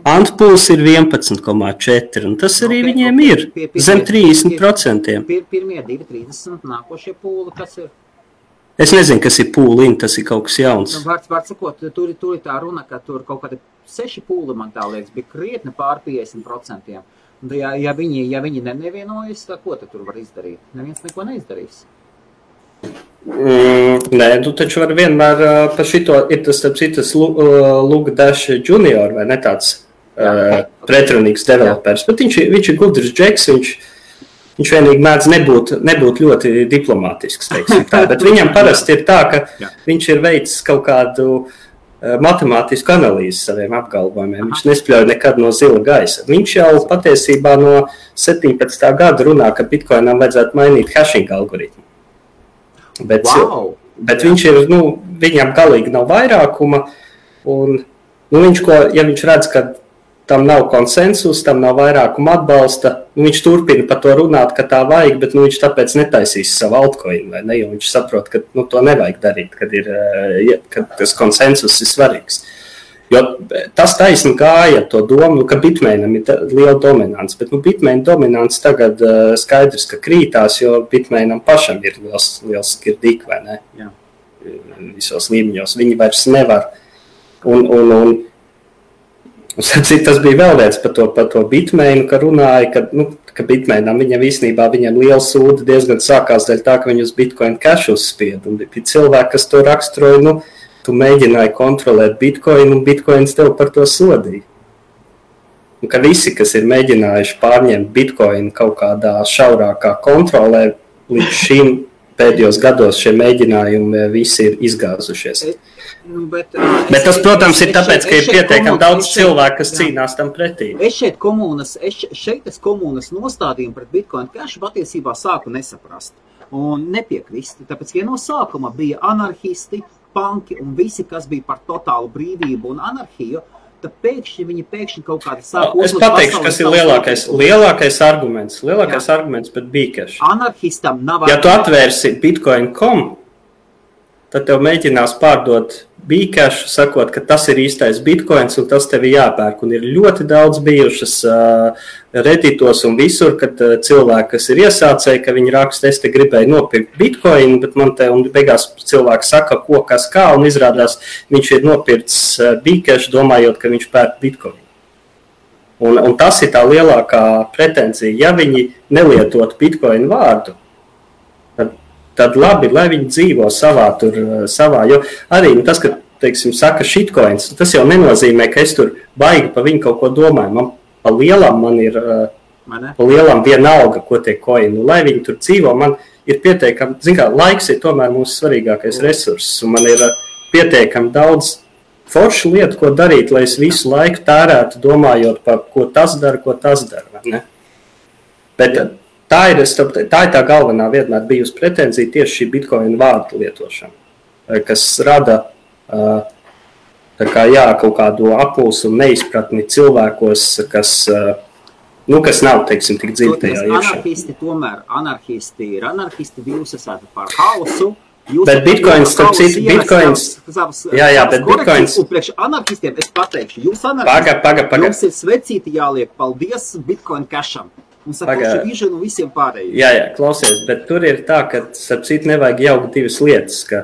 Antpools ir 11,4, un tas arī viņiem ir zem 30%. Pirmie 2,30, nākošie pūli, kas ir? Es nezinu, kas ir pūliņi, tas ir kaut kas jauns. Var sakot, tur ir tā runa, ka tur kaut kādi 6 pūli, man tā liekas, bija krietni pār 50%. Ja viņi nevienojas, tad ko tur var izdarīt? Neviens neko neizdarīs. Nē, tu taču var vienmēr par šito, ir tas Luke Dash Junior, vai ne tāds pretrunīgs developers, bet viņš ir gudrs džeks, viņš vienīgi mēdz nebūt ļoti diplomātisks, teiksim tā, bet viņam parasti ir tā, ka viņš ir veicis kaut kādu matemātisku analīzi saviem apgalvojumiem. Viņš nespļauj nekad no zila gaisa. Viņš jau patiesībā no 17. gada runā, ka Bitcoinam vajadzētu mainīt hashing algoritmu. Bet viņš ir, viņam galīgi nav vairākuma, un ja viņš redz, ka tam nav konsensus, tam nav vairākuma atbalsta, viņš turpina par to runāt, ka tā vajag, bet viņš tāpēc netaisīs savu altcoinu, vai ne, jo viņš saprot, ka to nevajag darīt, kad tas konsensus ir svarīgs. Jo tas taisni gāja to domu, ka Bitmainam ir liela dominants, bet Bitmain dominants tagad skaidrs, ka krītās, jo Bitmainam pašam ir liels skirdik, vai ne? Jā. Visos līmeņos. Viņi vairs nevar. Un tas bija vēl viens par to Bitmainu, ka runāja, ka Bitmainam viņam liela sūda diezgan sākās dēļ tā, ka viņi uz Bitcoin cash uzspied. Un bija cilvēki, kas to raksturoja, tu mēģināji kontrolēt Bitcoin, un Bitcoins tev par to sodīja. Un ka visi, kas ir mēģinājuši pārņemt Bitcoin kaut kādā šaurākā kontrolē, līdz šim pēdējos gados šie mēģinājumi visi ir izgāzušies. Bet tas, protams, ir tāpēc, ka ir pietiekami daudz cilvēku, kas cīnās tam pretī. Es komunas nostādījumu pret Bitcoin cash patiesībā sāku nesaprast un nepiekrist. Tāpēc, ja no sākuma bija anarhisti, panki un visi, kas bija par totālu brīvību un anarhiju, tad viņi kaut kādi sāku uzlūt. Es pateikšu, kas ir lielākais arguments. Lielākais arguments pret Bcash. Anarhistam nav... Ja tu atvērsi Bitcoin.com, tad tev mēģinās pārdot Bcash, sakot, ka tas ir īstais Bitcoins un tas tev ir jāpērk. Un ir ļoti daudz bijušas Redditos un visur, kad cilvēki, kas ir iesācēji, ka viņi raksta, es te gribēju nopirkt Bitcoin, bet man te un beigās cilvēki saka, ko, kas, kā, un izrādās, viņš ir nopirts Bcash, domājot, ka viņš pērk Bitcoin. Un tas ir tā lielākā pretenzija. Ja viņi nelietot Bitcoin vārdu, tad labi, lai viņi dzīvo savā, jo arī tas, ka, teiksim, saka shitcoins, tas jau nenozīmē, ka es tur baigi pa viņu kaut ko domāju. Man pa lielam vienalga, ko tie coini, lai viņi tur dzīvo, man ir pietiekami, laiks ir tomēr mūsu svarīgākais resurss, un man ir pietiekami daudz forša lieta, ko darīt, lai es visu laiku tērētu, domājot par ko tas dara, ne? Bet tā ir tā galvenā vienmēr bijusi pretenzija tieši šī Bitcoin vārdu lietošana, kas rada kaut kādu apulsu un neizpratni cilvēkos, kas nav, teiksim, tik dziļi tajā iekšā. Anarhisti ir anarhisti, jūs esat par hausu. Bet Bitcoins, starp citu, Bitcoins... bet Bitcoins... Un priekš anarchistiem es pateikšu, jūs anarchisti, jums ir svecīti jāliek, paldies Bitcoin casham. Un sakoši vižanu visiem pārējiem. Jā, klausies, bet tur ir tā, ka, starp citu, nevajag jaukt divas lietas, ka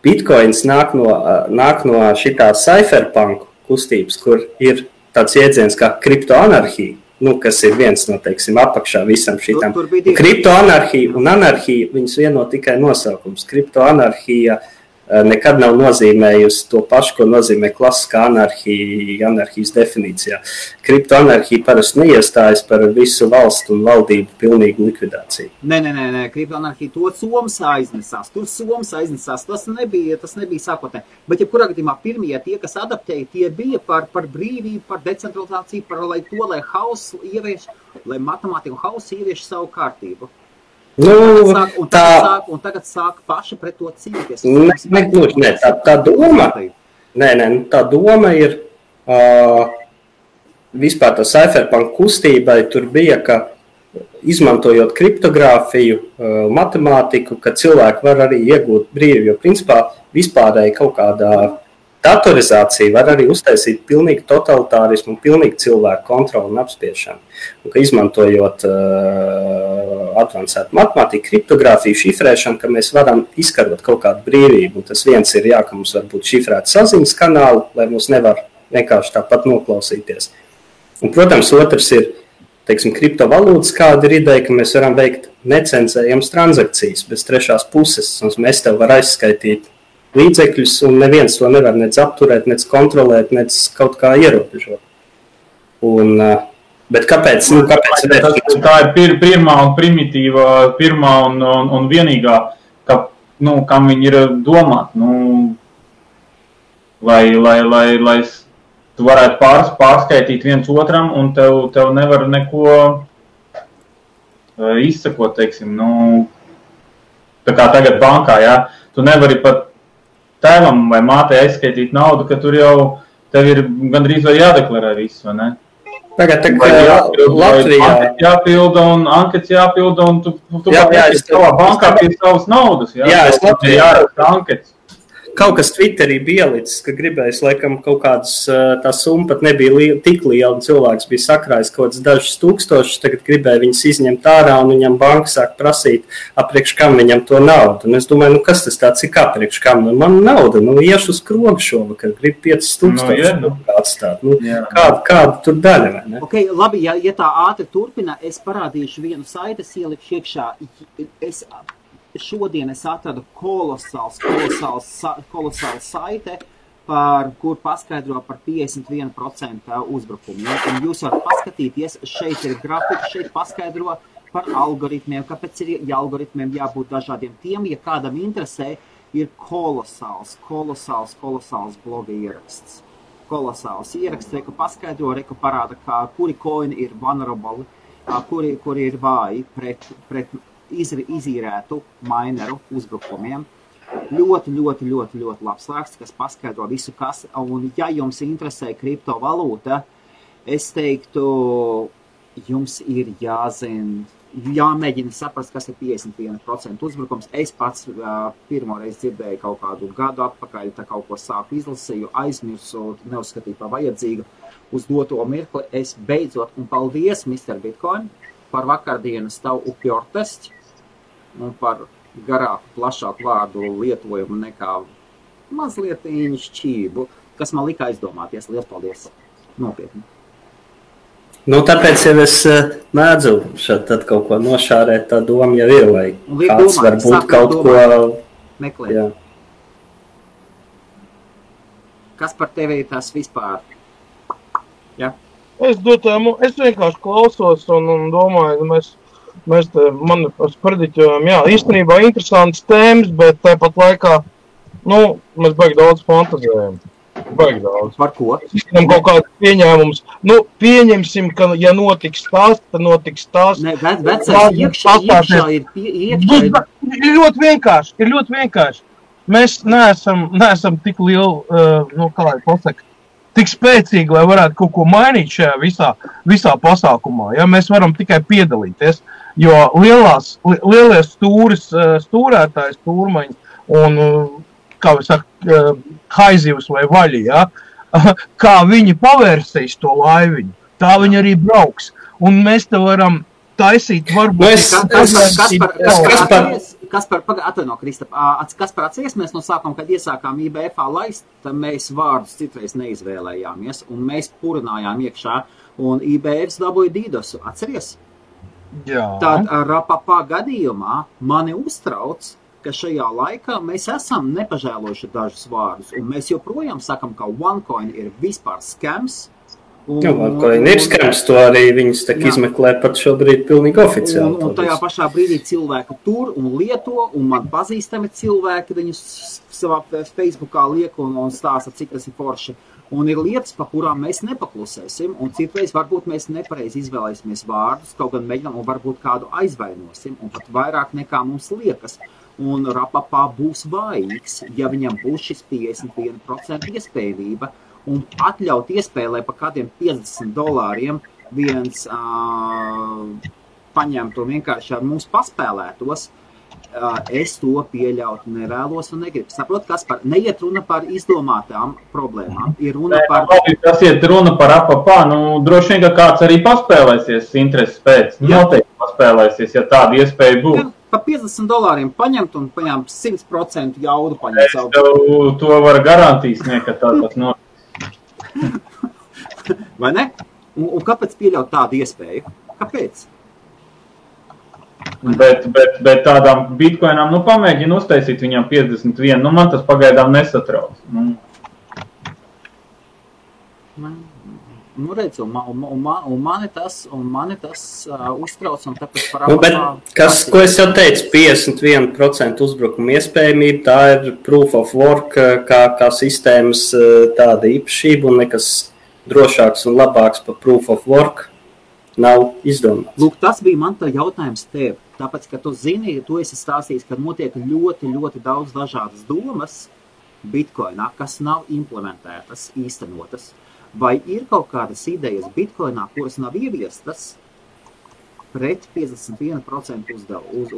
Bitcoins nāk no šitā cypherpunk kustības, kur ir tāds jēdziens kā kriptoanarhija. Kas ir viens no, teiksim, apakšā visam šitam. Kriptoanarhija un anarhija, viņas vieno tikai nosaukums. Kriptoanarhija nekad nav nozīmējusi to pašu, ko nozīmē klasiskā anarhija, anarhijas definīcijā. Kriptoanarhija parasti neiestājas par visu valstu un valdību pilnīgu likvidāciju. Nē, kriptoanarhija to Soms aiznesās. Tas nebija sākotnē. Bet, ja kurā gadījumā pirmie tie, kas adaptēja, tie bija par brīvību, par decentralizāciju, lai hauss ievieš, lai matemātika un hauss ievieš savu kārtību. Tagad sāk paši pret to cīnīties. Tā doma ir vispār tā cypherpunk kustībai tur bija, ka izmantojot kriptogrāfiju, matemātiku, ka cilvēki var arī iegūt brīvi, jo principā vispārēji kaut kādā datorizācija var arī uztaisīt pilnīgi totalitārismu un pilnīgi cilvēku kontroli un apspiešanu. Un ka izmantojot advancētu matemātiku, kriptogrāfiju, šifrēšanu, ka mēs varam izkarot kaut kādu brīvību. Un tas viens ir ka mums var būt šifrēti saziņas kanāli, lai mums nevar vienkārši tāpat noklausīties. Un, protams, otrs ir, teiksim, kriptovalūtas, kāda ir ideja, ka mēs varam veikt necenzējams transakcijas bez trešās puses, un mēs tev var aizskaitīt līdzekļus, un neviens to nevar nec apturēt, nec kontrolēt, nec kaut kā ierobežot. Bet kāpēc? Tā ir pirmā un primitīva, pirmā un vienīgā, kam viņi ir domāt. Lai tu varētu pārskaitīt viens otram, un tev nevar neko izsakot, teiksim. Tā kā tagad bankā, jā. Tu nevari pat tēvam vai mātei aizskaitīt naudu, ka tur jau tev ir gandrīz vai jādeklarē viss, vai ne? Tagad Latvijā jāpilda un ankets jāpilda, un tu savā bankā pie savas naudas, jā? Jā, es Latvijā jāraksta ankets. Kaut kas Twitterī bija ielicis, ka gribējis, laikam, kaut kādas, tā summa pat nebija tik liela, un cilvēks bija sakrājis kaut kāds dažus tūkstošus, tagad gribēja viņas izņemt ārā, un viņam banka sāk prasīt, apriekš kam viņam to naudu. Un es domāju, kas tas tāds ir, apriekš kam? Man nauda, iešu uz krogu šovakar, grib 5000 atstāt. Kāda tur daļa, vai ne? Ok, labi, ja tā ātri turpina, es parādīšu vienu saiti, es ielikšu iekšā. Šodien es atradu kolosāls saite, kur paskaidro par 51% uzbrukumu. Un jūs varat paskatīties, šeit ir grafika, šeit paskaidro par algoritmiem, kāpēc ir algoritmiem jābūt dažādiem. Tiem, ja kādam interesē, ir kolosāls bloga ieraksts. Kolosāls ieraksts, reku paskaidro, reku parāda, kuri coini ir vulnerable, kuri ir vāji pret izīrētu mineru uzbrukumiem. Ļoti labs raksts, kas paskaidro visu, kas. Un ja jums interesē kriptovalūta, es teiktu, jums ir jāmēģina saprast, kas ir 51% uzbrukums. Es pats pirmoreiz dzirdēju kaut kādu gadu atpakaļ, tā kaut ko sāku izlasīju, aizmirsu, neuzskatīju par vajadzīgu. Uz doto mirkli es beidzot, un paldies, Mr. Bitcoin, par vakardienas tavu upjortestu un par garāku, plašāku vārdu lietojumu nekā mazliet šķību, kas man lika aizdomāties. Liels paldies! Nopietni! Tāpēc jau es mēdzu tad kaut ko nošārēt, tā doma jau ir, vai kāds varbūt kaut ko meklēt. Jā. Kas par tevi ir tas vispār? Ja? Es vienkārši klausos un domāju, mēs te prediķojam, jā, īstenībā interesantas tēmas, bet tāpat laikā mēs baigi daudz fantazējam. Baigi daudz. Par ko? Zinām kaut kāds pieņēmums. Pieņemsim, ka ja notiks tas, tad notiks tas. Ne, vecais iekšā ir iekšā. Ir ļoti vienkārši. Mēs neesam tik lieli, kā lai pasaka, tik spēcīgi, lai varētu kaut ko mainīt šajā visā pasākumā. Ja? Mēs varam tikai piedalīties, jo lielie stūrētāji, stūrmaņi un, kā mēs saka, haizivs vai vaļi, ja? Kā viņi pavērsīs to laiviņu, tā viņi arī brauks. Un mēs te varam taisīt varbūt... Kaspar, atvaino, Kristap, Kaspar, atceries mēs no sākuma, kad iesākām IBF-ā laist, tad mēs vārdus citreiz neizvēlējāmies, un mēs purinājām iekšā, un IBF dabūja Dīdosu, atceries? Jā. Tad Rapapā gadījumā mani uztrauc, ka šajā laikā mēs esam nepažēlojuši dažus vārdus, un mēs joprojām sakam, ka OneCoin ir vispār skams. OneCoin ir skams, to arī viņas tak izmeklē pat šobrīd pilnīgi oficiāli. Un tajā pašā brīdī cilvēki tur un lieto, un man pazīstami cilvēki viņus savā Facebookā liek un stāsta, cik tas ir forši. Un ir lietas, pa kurām mēs nepaklusēsim, un citreiz varbūt mēs nepareizi izvēlēsimies vārdus, kaut gan mēģinām un varbūt kādu aizvainosim, un pat vairāk nekā mums liekas. Un Rapapā būs vājīgs, ja viņam būs šis 51% iespējamība, un atļaut iespēlē pa kādiem $50 viens paņemt un vienkārši ar mums paspēlētos, es to pieļaut nevēlos un negribu. Saprot, Kaspar, neiet runa par izdomātām problēmām, ir runa par... Tas iet runa par Rapapā, droši vien, ka kāds arī paspēlēsies intereses pēc. Noteikti paspēlēsies, ja tāda iespēja būs. Pa $50 paņemt un paņemt 100% jaudu paņemt savu. Es tev to var garantīs, ka tādas notiek. Vai ne? Un kāpēc pieļaut tādu iespēju? Kāpēc? Bet tādām bitcoinām, pamēģina uztaisīt viņām 51, man tas pagaidām nesatrauc. Redz, un mani tas uztrauc, un tāpēc par ko es jau teicu, 51% uzbrukuma iespējamība, tā ir proof of work, kā sistēmas tāda īpašība, un nekas drošāks un labāks par proof of work nav izdomāts. Lūk, tas bija man tā jautājums tev, tāpēc, ka tu zini, tu esi stāstījis, ka notiek ļoti, ļoti daudz dažādas domas bitcoinā, kas nav implementētas, īstenotas. Vai ir kaut kādas idejas bitcoinā, kuras nav ieviestas pret 51%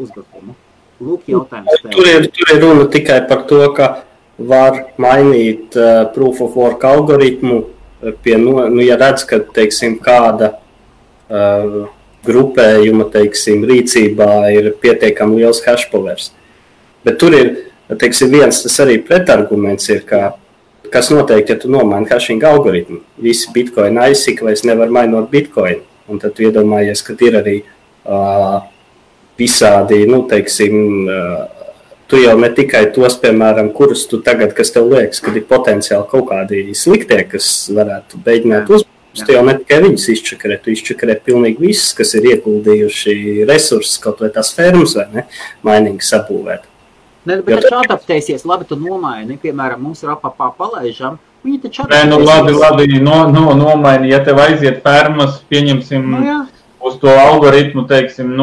uzbrukumu? Lūk, jautājums tev. Tur ir runa tikai par to, ka var mainīt proof of work algoritmu, ja redz, ka, teiksim, kāda grupējuma, teiksim, rīcībā ir pietiekami liels hash powers. Bet tur ir, teiksim, viens tas arī pretarguments ir, kas noteikti, ja tu nomaini hashing algoritmu. Visi bitcoin aizsikvēs nevar mainot bitcoin. Un tad tu iedomājies, ka ir arī visādi, teiksim, tu jau ne tikai tos, piemēram, kurus tu tagad, kas tev liekas, kad ir potenciāli kaut kādi sliktie, kas varētu beidināt uzbrukumus, tu jau ne tikai viņus izčakarē, tu izčakarē pilnīgi visus, kas ir ieguldījuši resursus, kaut vai tās fermas, vai ne, mainīgi sabūvēt. Ne, bet taču adaptēsies, labi, tu nomaini, piemēram, mums Rapapā palaižam, viņi taču adaptēsies. Labi, nomaini, ja tev aiziet fermas, pieņemsim uz to algoritmu, teiksim,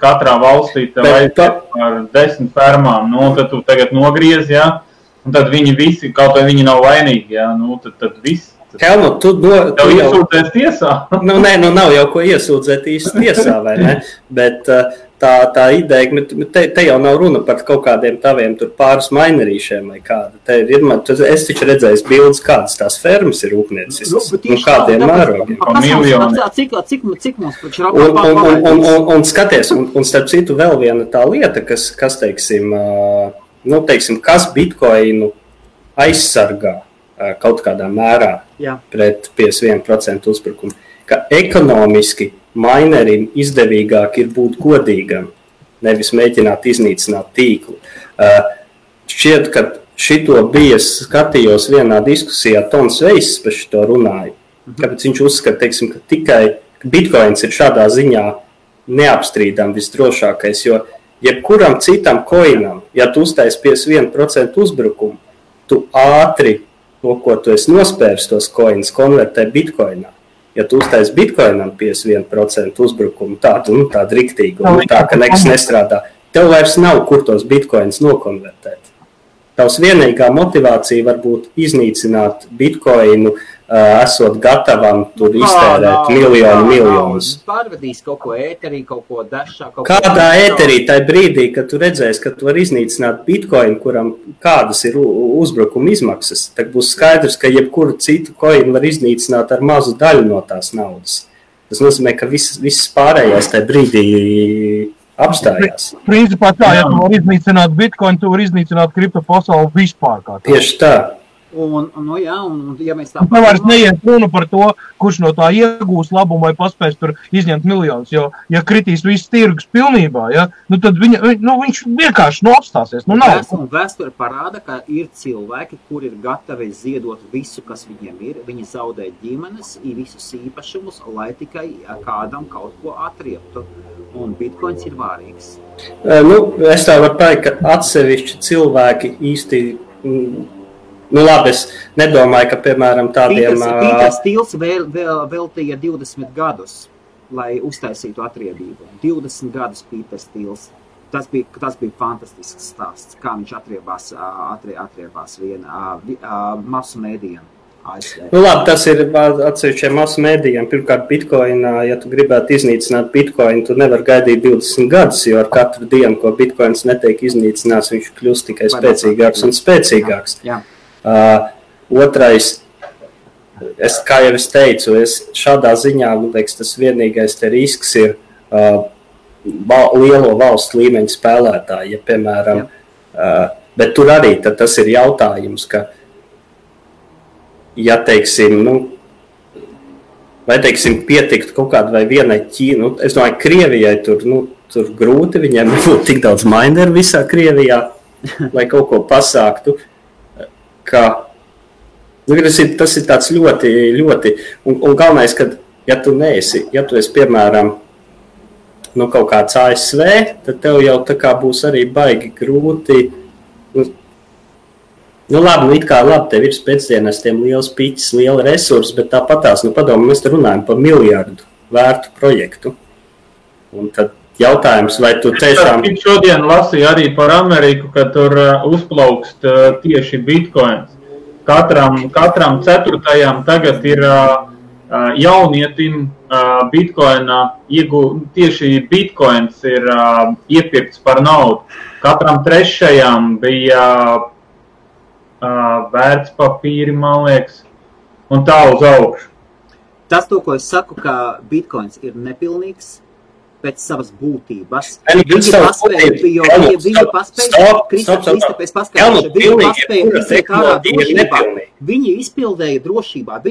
katrā valstī tev aiziet ar 10 fermām, tad tu tagad nogriez, un tad viņi visi, kaut vai viņi nav vainīgi, tad viss. Helmut, tu iesūdzēs tiesā? Nav jau ko iesūdzēt īsti tiesā, vai ne? Bet tā ideja, te jau nav runa par kaut kādiem taviem tur pāris mainerīšiem vai kāda. Es taču redzēju bildes, kādas tās fermas ir rūpnieciskas, kādiem mērogiem. Cik mums taču Rapapā un skaties, un starp citu vēl viena tā lieta, kas teiksim, kas bitcoinu aizsargā kaut kādā mērā pret 51% uzbrukumu, ka ekonomiski mainerim izdevīgāk ir būt godīgam, nevis mēģināt iznīcināt tīklu. Šķiet, ka šito skatījos vienā diskusijā, Tons Veiss par šito runāja, kāpēc viņš uzskata, teiksim, ka tikai bitcoins ir šādā ziņā neapstrīdam visdrošākais, jo jebkuram citam coinam, ja tu uztaisi 51% uzbrukumu, tu ātri to, ko tu esi nospērs tos coins, konvertē bitcoinā. Ja tu uztaisi bitcoinam 51% uzbrukumu, tādu riktīgu, tā, ka nekas nestrādā, tev vairs nav, kur tos bitcoins nokonvertēt. Tavs vienīgā motivācija var būt iznīcināt bitcoinu, esot gatavam tur iztērēt miljonus. Pārvedīs kaut ko ēterī, kaut ko dashā. Kādā ēterī tajā brīdī, kad tu redzēsi, ka tu vari iznīcināt bitcoinu, kuram kādas ir uzbrukuma izmaksas, tad būs skaidrs, ka jebkuru citu coinu var iznīcināt ar mazu daļu no tās naudas. Tas nozīmē, ka viss pārējais tajā brīdī apstājās. Principā tā, ja tu var iznīcināt bitcoin, tu var iznīcināt kripto pasauli vispār kā tā. Tieši tā. Un ja mēs tā... Tu vairs neiet runa par to, kurš no tā iegūs labumu vai paspēs tur izņemt miljonus, jo, ja kritīs viss tirgus pilnībā, ja, tad viņš vienkārši apstāsies. Vēsture parāda, ka ir cilvēki, kuri ir gatavi ziedot visu, kas viņiem ir. Viņi zaudē ģimenes, visus īpašumus, lai tikai kādam kaut ko atrieptu. Un bitcoins ir vārīgs. Es tā varu teikt, ka atsevišķi cilvēki īsti... labi, es nedomāju, ka, piemēram, tādiem... Pīters Stils veltīja 20 gadus, lai uztaisītu atriebību. 20 gadus Pīters Stils. Tas bija fantastisks stāsts, kā viņš atriebās masu mēdījiem. Labi, tas ir atsevišķiem masu mēdījiem. Pirmkārt, bitcoinā, ja tu gribētu iznīcināt bitcoinu, tu nevar gaidīt 20 gadus, jo ar katru dienu, ko bitcoins netiek iznīcināts, viņš kļūst tikai spēcīgāks un spēcīgāks. Jā. Otrais, kā jau es teicu, šādā ziņā, liekas, tas vienīgais te risks ir lielo valstu līmeņa spēlētāji, ja, piemēram, bet tur arī tas ir jautājums, ka, ja, teiksim, vai, teiksim, pietiktu kaut kādu vai vienai Ķīnu, es domāju, Krievijai tur grūti, viņiem nebūtu tik daudz mineru visā Krievijā, lai kaut ko pasāktu. Tas ir tāds ļoti, ļoti, un galvenais, ka, ja tu esi, piemēram, kaut kāds ASV, tad tev jau tā kā būs arī baigi grūti, labi, tev ir pēcdienestiem liels piķis, liela resursi, bet tāpatās, padomu, mēs te runājam par miljardu vērtu projektu, un tad jautājums, vai tu tiešām... Šodien lasīju arī par Ameriku, ka tur uzplaukst tieši bitcoins. Katram ceturtajam tagad ir jaunietim bitcoinā, tieši bitcoins ir iepirkts par naudu. Katram trešajam bija vērtspapīri, man liekas, un tā uz augšu. Tas, ko es saku, ka bitcoins ir nepilnīgs, pēc savas būtības. Viņi izpildēja drošībā,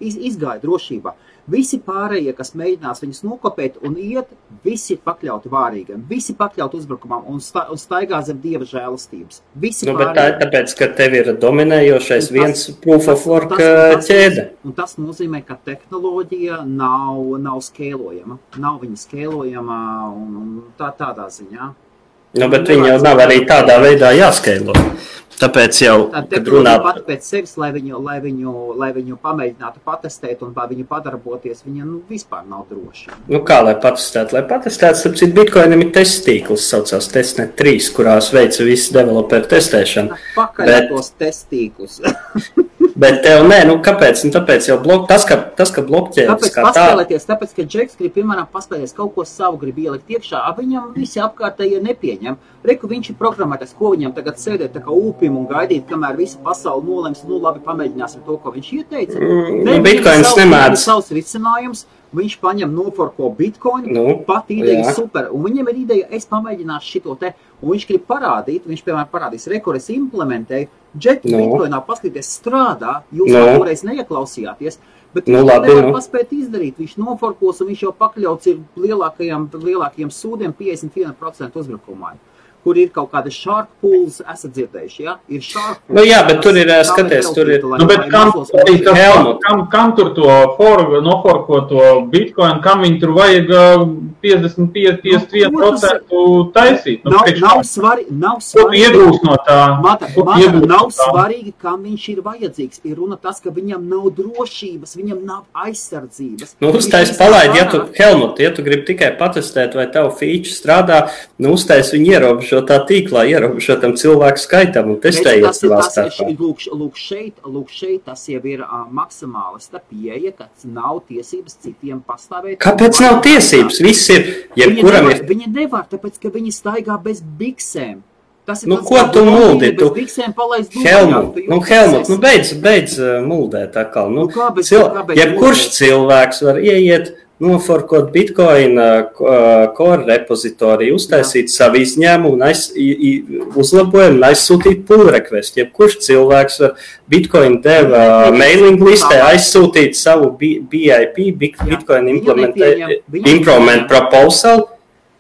izgāja drošībā. Visi pārējie, kas mēģinās viņus nokopēt un iet, visi pakļauti vārīgam, visi pakļauti uzbrukumam un staigā zem Dieva žēlastības. Bet tā ir tāpēc, ka tev ir dominējošais viens proof of work ķēde. Un tas nozīmē, ka tehnoloģija nav skēlojama. Nav viņa skēlojama un tādā ziņā. Bet viņa jau nav arī tādā veidā jāskēlo. Tāpēc jau, kad runā pati pēc sevis, lai viņu pamēģinātu patestēt un vai viņu padarboties, viņa vispār nav droša. Kā lai patestētu? Lai patestētu, starp citu, Bitcoinam ir testtīkls, saucās Testnet 3, kurās veica visu developeru testēšanu. Pakaļ tos testīklus. Bet tev nē, kāpēc? Tāpēc jau tas, ka blokķēdes kā tā... Tāpēc, ka Džeks grib, piemēram, paspēlēties kaut ko savu grib ielikt iekšā, viņam visi apkārtēji nepieņem. Reku viņš ir programmētais, ko viņam tagad sēdēt tā kā ūpim un gaidīt, kamēr visa pasauli nolems, labi, pamēģināsim to, ko viņš ieteica. Bitcoins nemēdz. Savs risinājums, viņš paņem noforko Bitcoinu, pat ideja super, un viņam ir ideja, es pamēģināšu šito te, un viņš grib parādīt, viņš, piemēram, parādīs, reku, es implementēju, Džeki Bitcoinā paskatīties strādā, jūs toreiz neieklausījāties, bet viņš nevar paspēt izdarīt, viņš noforkos, un viņš jau pakļauts ir lielākajiem sūdiem 51% uzbrukumā. kur ir kaut kāda shark pools, esat dzirdējuši, ja? Ir shark pools. Nu jā, bet tur ir, skaties, tur ir... Nu, bet kam tur to noforkoto Bitcoin, kam viņi tur vajag 55-51% taisīt? Nav svarīgi. Iegūst no tā. Nav svarīgi, kam viņš ir vajadzīgs. Ir runa tas, ka viņam nav drošības, viņam nav aizsardzības. Nu, uztais palaid, Helmut, ja tu gribi tikai patestēt, vai tavu feature strādā, nu, uztais viņu ierobežotā tīklā, ierobežotam cilvēku skaitam un testējiet savā starpā. Lūk šeit, tas jau ir maksimālista pieeja, ka nav tiesības citiem pastāvēt. Kāpēc nav tiesības? Viss ir, jebkuram ir... Viņi nevar, tāpēc, ka viņi staigā bez biksēm. Nu, ko tu muldi? Helmut, beidz muldēt atkal. Jebkurš cilvēks var ieiet, noforkot Bitcoin core repozitoriju, uztaisīt savu izņēmumu un uzlabojumu un aizsūtīt pull request. Jebkurš cilvēks var Bitcoin dev mailing listē aizsūtīt savu BIP, Bitcoin implement proposal.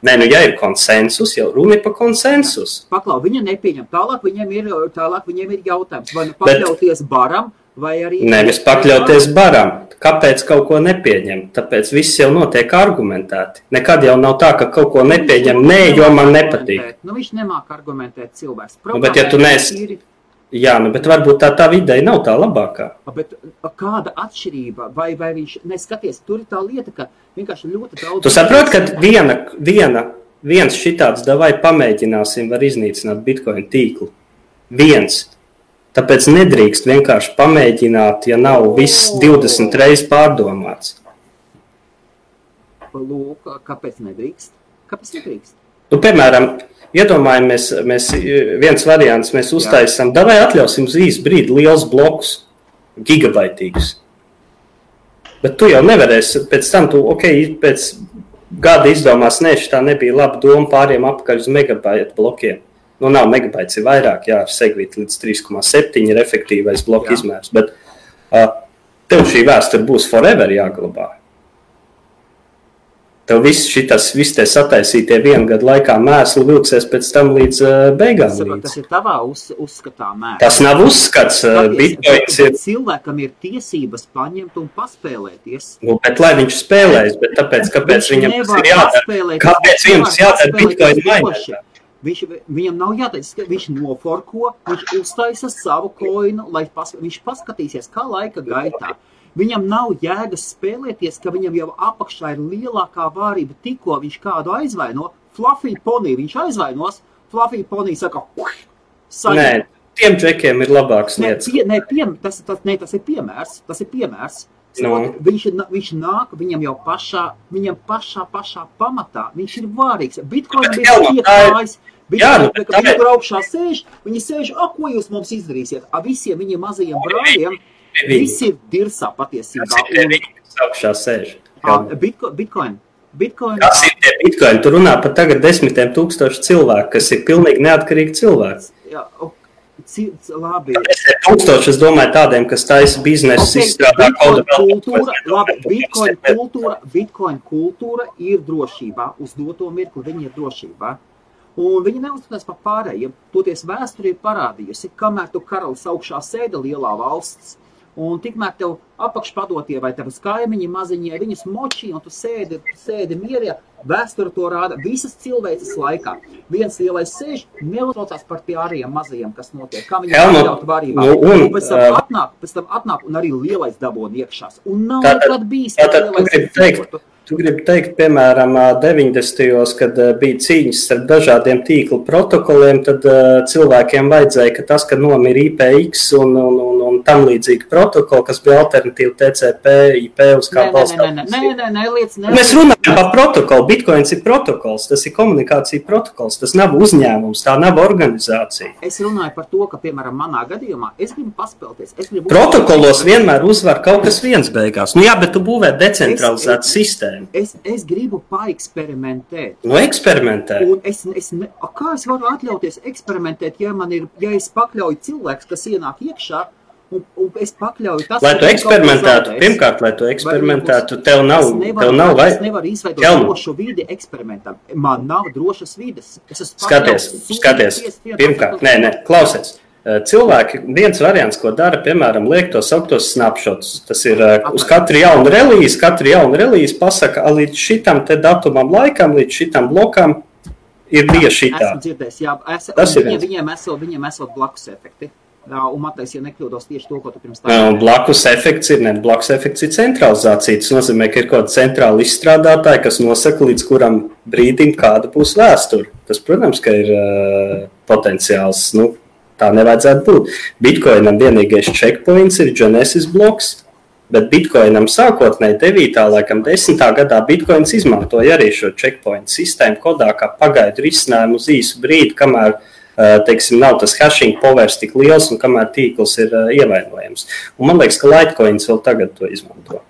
Nē, nu, ja ir konsensus, jau runa ir par konsensus. Paklau, viņa nepieņem. Tālāk viņiem ir jautājums, vai nu pakļauties baram, vai arī... Nevis pakļauties baram. Kāpēc kaut ko nepieņem? Tāpēc viss jau notiek argumentēti. Nekad jau nav tā, ka kaut ko nepieņem, jo man nepatīk. Nu, viņš nemāk argumentēt cilvēks. Bet ja tu Jā, bet varbūt tā ideja nav tā labākā. Bet kāda atšķirība? Vai viņš neskaties? Tur ir tā lieta, ka vienkārši ļoti daudz... Tu saproti, ka viens šitāds davai pamēģināsim var iznīcināt Bitcoin tīklu. Viens. Tāpēc nedrīkst vienkārši pamēģināt, ja nav viss 20 reizes pārdomāts. Lūk, kāpēc nedrīkst? Nu, piemēram, iedomājamies, viens variants, mēs uztaisam, davai atļausim uz īsu brīdi liels blokus, gigabaitīgus. Bet tu jau nevarēsi, pēc tam pēc gada izdomās, šitā nebija laba doma pāriem apakaļ uz megabaitu blokiem. Nu, nav megabaits, ir vairāk, ar segvīt līdz 3,7 ir efektīvais bloku izmērs, bet tev šī vēsture būs forever jāglabā. Tev viss tie sataisītie vienu gadu laikā mēsli vilksies pēc tam līdz beigām. Tas ir tavā uzskatā mēsli. Tas nav uzskats. Cilvēkam ir tiesības paņemt un paspēlēties. Nu, bet lai viņš spēlēs, bet kāpēc viņam tas ir jādara? Kāpēc viņam tas jādara Bitcoin mainētā? Viņam nav jāteic, viņš noforko, viņš uztaisa savu koinu, lai viņš paskatīsies, kā laika gaitā. Viņam nav jēgas spēlēties, ka viņam jau apakšā ir lielākā vārība, tikko viņš kādu aizvaino. Fluffy Pony viņš aizvainos, Fluffy Pony saka, saņem. Nē, tiem džekiem ir labāks lietas. Tas ir piemērs. No. Viņš nāk, viņam jau pašā pamatā, viņš ir vārīgs. Bitcoin bija iekājis, viņi tur augšā sēž, viņi sēž, ko jūs mums izdarīsiet? Visiem viņiem mazajiem brāļiem, visi ir dirsā patiesībā. Kas ir viņi, kas augšā sēž? Bitcoin. Kas ir tie Bitcoin? Tu runā par tagad 10 000 cilvēku, kas ir pilnīgi neatkarīgi cilvēki. Jā, labi. 1000, es domāju, tādiem, kas taisa biznesu, izstrādā kodu vēl. Bitcoin kultūra ir drošībā. Uz doto mirkli viņi ir drošībā. Un viņi neuzskatās par pārējiem. Toties vēsture ir parādījusi, kamēr tu karalis augšā sēda lielā valsts, un tikmēr tev apakšpadotie vai tavas kaimiņi maziņie, viņus močī, un tu sēdi mierā, vēsture to rāda visas cilvēces laikā. Viens lielais sēž, neuztraucās par tie ārējiem mazajiem, kas notiek, kā viņi atļaut varībā. Pēc tam atnāk un arī lielais dabona iekšās. Un nav nekad bijis, ka lielais Tu gribi teikt, piemēram, 90. kad bija cīņas starp dažādiem tīklu protokoliem, tad cilvēkiem vajadzēja, ka tas, ka nomira IPX un tam līdzīgi protokoli, kas bija alternatīva TCP, IP uz kā balstās. Nē, Mēs runājam par protokolu. Bitcoins ir protokols, tas ir komunikācija protokols, tas nav uzņēmums, tā nav organizācija. Es runāju par to, ka, piemēram, manā gadījumā es gribu paspēlties. Protokolos vienmēr uzvar kaut kas viens beigās. Nu jā, bet tu būvē decentralizētu sistēmu. Es gribu paeksperimentēt. Nu, eksperimentēt. Un kā es varu atļauties eksperimentēt, ja es pakļauju cilvēks, kas ienāk iekšā, un es pakļauju tas, lai tu eksperimentētu, pirmkārt, tev nav vai... Es nevaru izveidot drošu vidi eksperimentam. Man nav drošas vides. Skaties, pirmkārt, klausies. Cilvēki, viens variants, ko dara, piemēram, liek tos sauktos snapshots. Tas ir uz katru jaunu relīzi pasaka, līdz šitam te datumam laikam, līdz šitam blokam ir bija šitā. Esmu dzirdējis, jā, viņiem esot blakus efekti. Un Matejs, ja nekļūdos tieši to, ko tu pirms tā... Blakus efekts ir centralizācija. Tas nozīmē, ka ir kaut kāda centrāla izstrādātāja, kas nosaka, līdz kuram brīdim kāda būs vēsture. Tas, protams, ka ir potenciāls, tā nevajadzētu būt. Bitcoinam vienīgais checkpoints ir Genesis bloks, bet Bitcoinam sākotnēji 9. laikam 10. gadā Bitcoins izmantoja arī šo checkpoint sistēmu kodā kā pagaidu risinājumu uz īsu brīdi, kamēr, teiksim, nav tas hashing powers tik liels un kamēr tīkls ir ievainojams. Un man liekas, ka Litecoins vēl tagad to izmanto.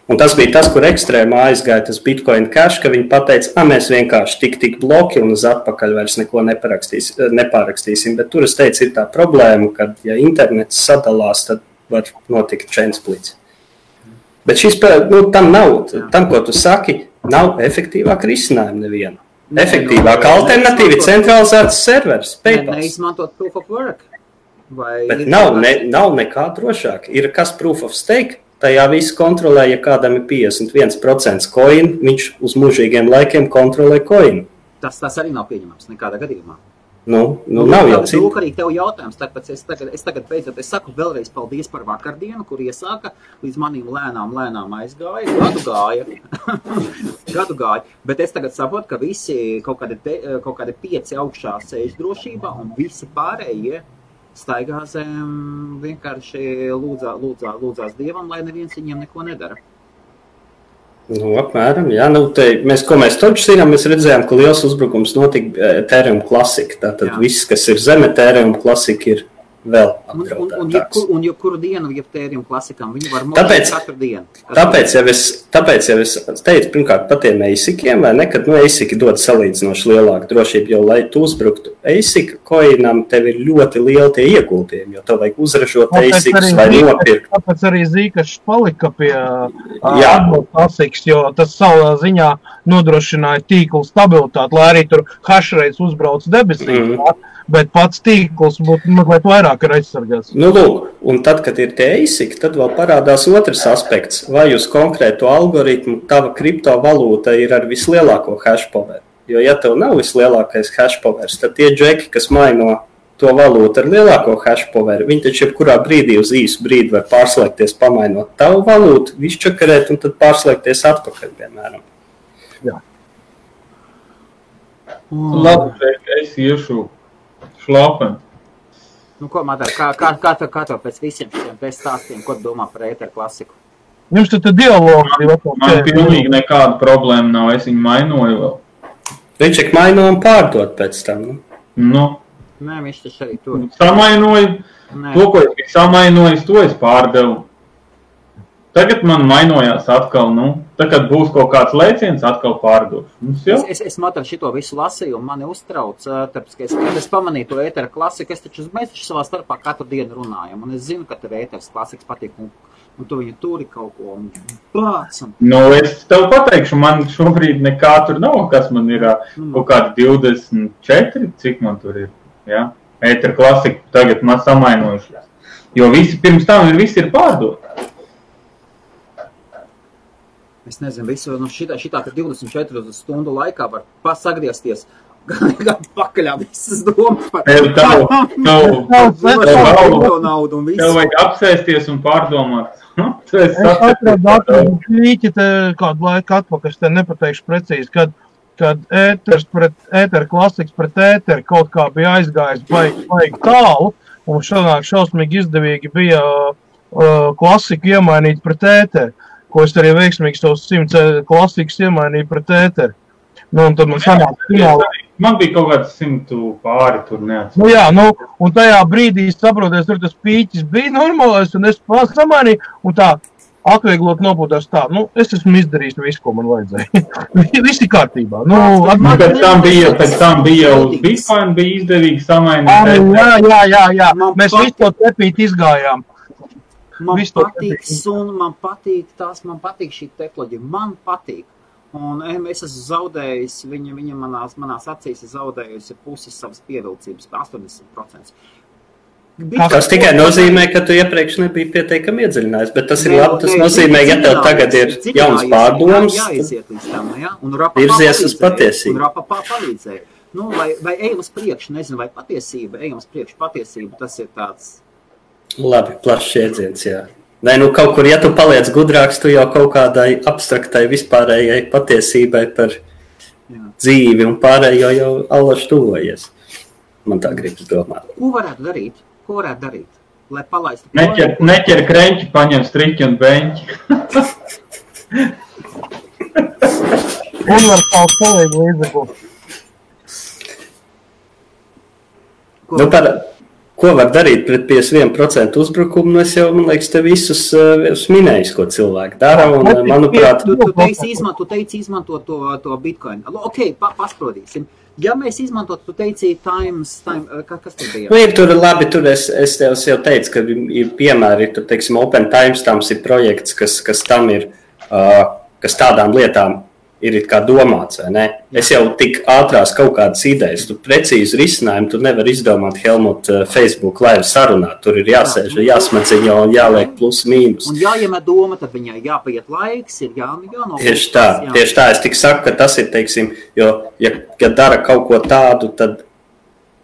Un tas bija tas, kur ekstrēmā aizgāja tas Bitcoin cash, ka viņi pateica, mēs vienkārši tik bloki un uz atpakaļ vairs neko nepārakstīsim. Bet tur es teicu, ir tā problēma, ka ja internets sadalās, tad var notikt chain splits. Bet šis, tam, ko tu saki, nav efektīvāka risinājuma neviena. Efektīvāka alternatīva centralizēts servers, PayPal. Neizmantot proof of work. Bet nav nekā drošāk. Ir kas proof of stake? Tajā visu kontrolē, ja kādam ir 51% coin, viņš uz mūžīgiem laikiem kontrolē coin. Tas arī nav pieņemams nekādā gadījumā. Nav jau cita. Lūk, arī tev jautājums, tāpēc es tagad beidzot, es saku vēlreiz paldies par vakardienu, kur iesāka, līdz manīm lēnām aizgāja, gadu gāja, bet es tagad saprotu, ka visi kaut kādi 5 augšā sēž drošībā un visi pārējie staigā zem vienkārši lūdzās Dievam, lai neviens viņiem neko nedara. Apmēram, jā. Ko mēs taču zinām, mēs redzējām, ka liels uzbrukums notika Ethereum Classic. Tātad viss, kas ir zem Ethereum Classic, ir vēl apdraudētāks. Un jebkuru dienu, ja Ethereum Classicam, viņi var modēt katru dienu. Tāpēc jau es teicu, pirmkārt, par tiem ASIC-iem, vai ne, kad ASIC dod salīdzinoši lielāku drošību, jo, lai tu uzbruktu ASIC coinam, tev ir ļoti lieli tie ieguldījumi, jo tev vajag uzražot ASICs vai nopirkt. Tāpēc arī Zcash palika pie ASICs, jo tas savā ziņā nodrošināja tīklu stabilitāti, lai arī tur hashrates uzbrauc debesīs. Bet pats tīkls būtu mazliet vairāk ir aizsargāts. Lūk, un tad, kad ir tie ASIC, tad vēl parādās otrs aspekts. Vai uz konkrēto algoritmu tava kriptovalūta ir ar vislielāko hash power? Jo, ja tev nav vislielākais hash powers, tad tie džeki, kas maino to valūtu ar lielāko hash power, viņi taču jebkurā brīdī uz īsu brīdi var pārslēgties, pamainot tavu valūtu, izčakarēt un tad pārslēgties atpakaļ, piemēram. Jā. Labi, es iešu šlāpeni. Ko, Madara, kā tev pēc visiem šiem stāstiem, ko domā par Ether klasiku? Jums tad dialogi. Man pilnīgi nekāda problēma nav, es viņu mainoju vēl. Viņš ir maino un pārdot pēc tam, Nē, viņš taču arī tur. Samainoju, to, ko es samainojis, to es pārdevu. Tagad man mainojās atkal, tagad būs kaut kāds lēciens, atkal pārdošu. Es Madara šito visu lasīju un mani uztrauc, tāpēc, ka es pamanīju to Ether klasiku, mēs taču savā starpā katru dienu runājam, un es zinu, ka tev Ether klasiks patīk, un tu viņu turi kaut ko, un plācam. Es tev pateikšu, man šobrīd nekā tur nav, kas man ir kaut kādi 24, cik man tur ir, jā? Ether klasiku tagad man samainojušies, jo visi pirms tam visi ir pārdot. Es nezinu, visu šitā 24 stundu laikā var pasagriezties, gan pakaļā visas domas par naudu un visu. Tev vajag apsēsties un pārdomāt. Es atradu klīķi kādu laiku atpakaļ, es te nepateikšu precīzi, kad Ether klasiks pret Ether kaut kā bija aizgājis baigi tālu, un šausmīgi izdevīgi bija klasiku iemainīt pret Ether. Ko es arī veiksmīgi tos 100 klasikas iemainīju pret Ether. Un tad man sanāk fināli. Man bija kaut kāds 100 pāri tur neatceros. Jā, un tajā brīdī saproties, tur tas pīķis bija normālais, un es samainīju, un tā atvieglot nopūtās tā, es esmu izdarījis visu, ko man vajadzēja. Visi kārtībā. Pēc tam bija jau Bitcoin, bija izdevīgi samainīt. Jā. Mēs visu to tepīt izgājām. Man patīk suna, man patīk šī tehnoloģija, man patīk. Un es esmu zaudējis, viņa manās acīs ir zaudējusi pusi savas pievilcības, 80%. Tas tikai nozīmē, ka tu iepriekš nebija pietiekami iedziļinājis, bet tas ir labi, tas nozīmē, ja tev tagad ir jauns pārdoms, virzies uz patiesību. Un Rapa palīdzēja. Vai ejam uz priekšu, nezinu, vai patiesība, tas ir tāds... Labi, plašs iedziens, jā. Nē, kaut kur, ja tu paliec gudrāks, tu jau kaut kādai abstraktai vispārējai patiesībai par dzīvi un pārējo jau allaši tuvojies. Man tā gribas domāt. Ko varētu darīt? Lai palaistu... Neķer kreņķi, paņem striķi un beņķi. Universāls kolēģi līdzeklu. Ko var darīt pret 51% uzbrukumu? Es jau, man liekas, te visus minējis, ko cilvēki dara, un, manuprāt... Tu teici izmantot to Bitcoin. Ok, pasprodīsim. Ja mēs izmantot, tu teici kas tur bija? Tur es tev jau teicu, ka ir piemēri, tur, teiksim, Open Timestamps ir projekts, kas tam ir, kas tādām lietām ir kā domāts, vai ne? Es jau tik ātrās kaut kādas idejas, tu precīzi risinājumu, tu nevar izdomāt Helmut Facebook live sarunāt, tur ir jāsēž, jāsmaciņo un jāliek plus mīnus. Un jāiemet doma, tad viņai jāpaiet laiks, ir jānofokās. Tieši tā, es tik saku, ka tas ir, teiksim, jo, ja dara kaut ko tādu, tad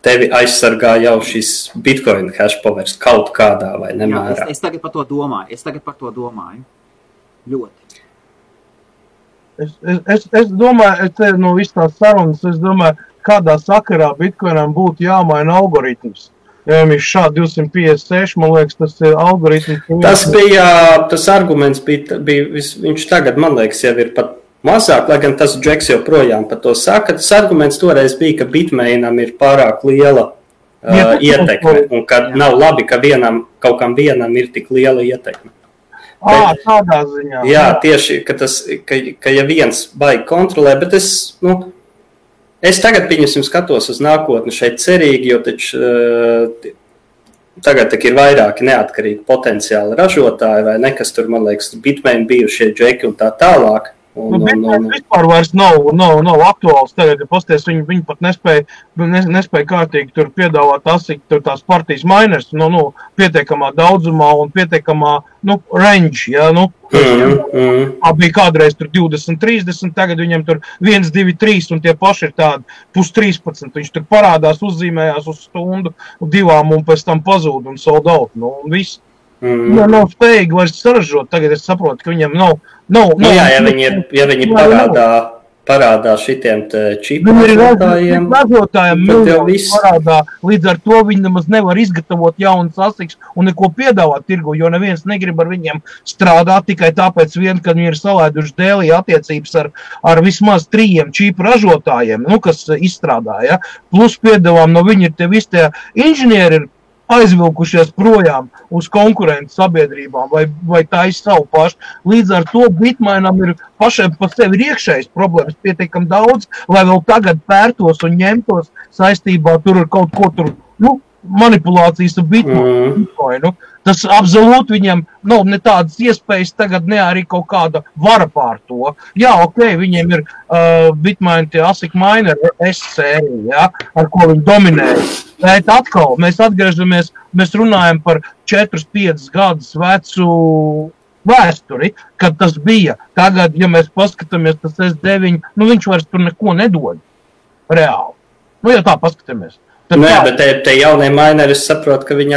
tevi aizsargā jau šis Bitcoin hashpovers kaut kādā vai nemērā. Es tagad par to domāju. Ļoti. Es domāju, no visas tās sarunas, kādā sakarā Bitcoinam būtu jāmaina algoritms. Ja viņš šādi 256, man liekas, tas ir algoritms. Tas arguments bija viņš tagad, man liekas, jau ir pat mazāk, lai gan tas Džeks joprojām par to saka. Tas arguments toreiz bija, ka Bitmainam ir pārāk liela ietekme, un ka nav labi, ka kaut kam vienam ir tik liela ietekme. Tādā ziņā. Jā, tieši, ka ja viens baigi kontrolē, bet es tagad, pieņemsim, skatos uz nākotni šeit cerīgi, jo taču tagad ir vairāki neatkarīgi potenciāli ražotāji, vai ne, kas tur, man liekas, Bitmain bijušie džeki un tā tālāk. Bitcoin vispār vairs nav aktuāls tagad, ja pasties, viņi pat nespēja kārtīgi tur piedāvāt tās partijas miners, pietiekamā daudzumā un pietiekamā, range, ja, bija kādreiz tur 20, 30, tagad viņam tur 1, 2, 3 un tie paši ir tādi pus 13, viņš tur parādās, uzzīmējās uz stundu, 2 un pēc tam pazūd un sold out, un viss. Nav spējīgi vairs saražot, tagad es saprotu, ka viņam nav. Ja viņi parādā šitiem čipu ražotājiem, tad jau viss parādā, līdz ar to viņi nemaz nevar izgatavot jaunas asiks un neko piedāvāt tirgu, jo neviens negrib ar viņiem strādāt tikai tāpēc ka viņi ir salaiduši dēlī attiecības ar vismaz 3 čipu ražotājiem, kas izstrādāja, plus piedāvām no viņi ir te visi tie inženieri aizvilkušies projām uz konkurentu sabiedrībām vai taisa savu pašu. Līdz ar to Bitmainam ir pašiem pa sevi iekšējas problēmas pietiekam daudz, lai vēl tagad pērtos un ņemtos saistībā tur ar kaut ko tur, manipulācijas ar Bitcoinu. Tas absolūti viņam nav ne tādas iespējas tagad, ne arī kaut kāda vara pār to. Jā, viņiem ir Bitmain tie ASIC miner S-sērija, ja, ar ko viņi dominēja. Bet atkal, mēs atgriežamies, mēs runājam par 4-5 gadus vecu vēsturi, kad tas bija. Tagad, ja mēs paskatāmies, tas S9, viņš vairs tur neko nedod. Reāli. Ja tā paskatāmies. Nē, bet te jaunie mineri, es saprotu, ka viņi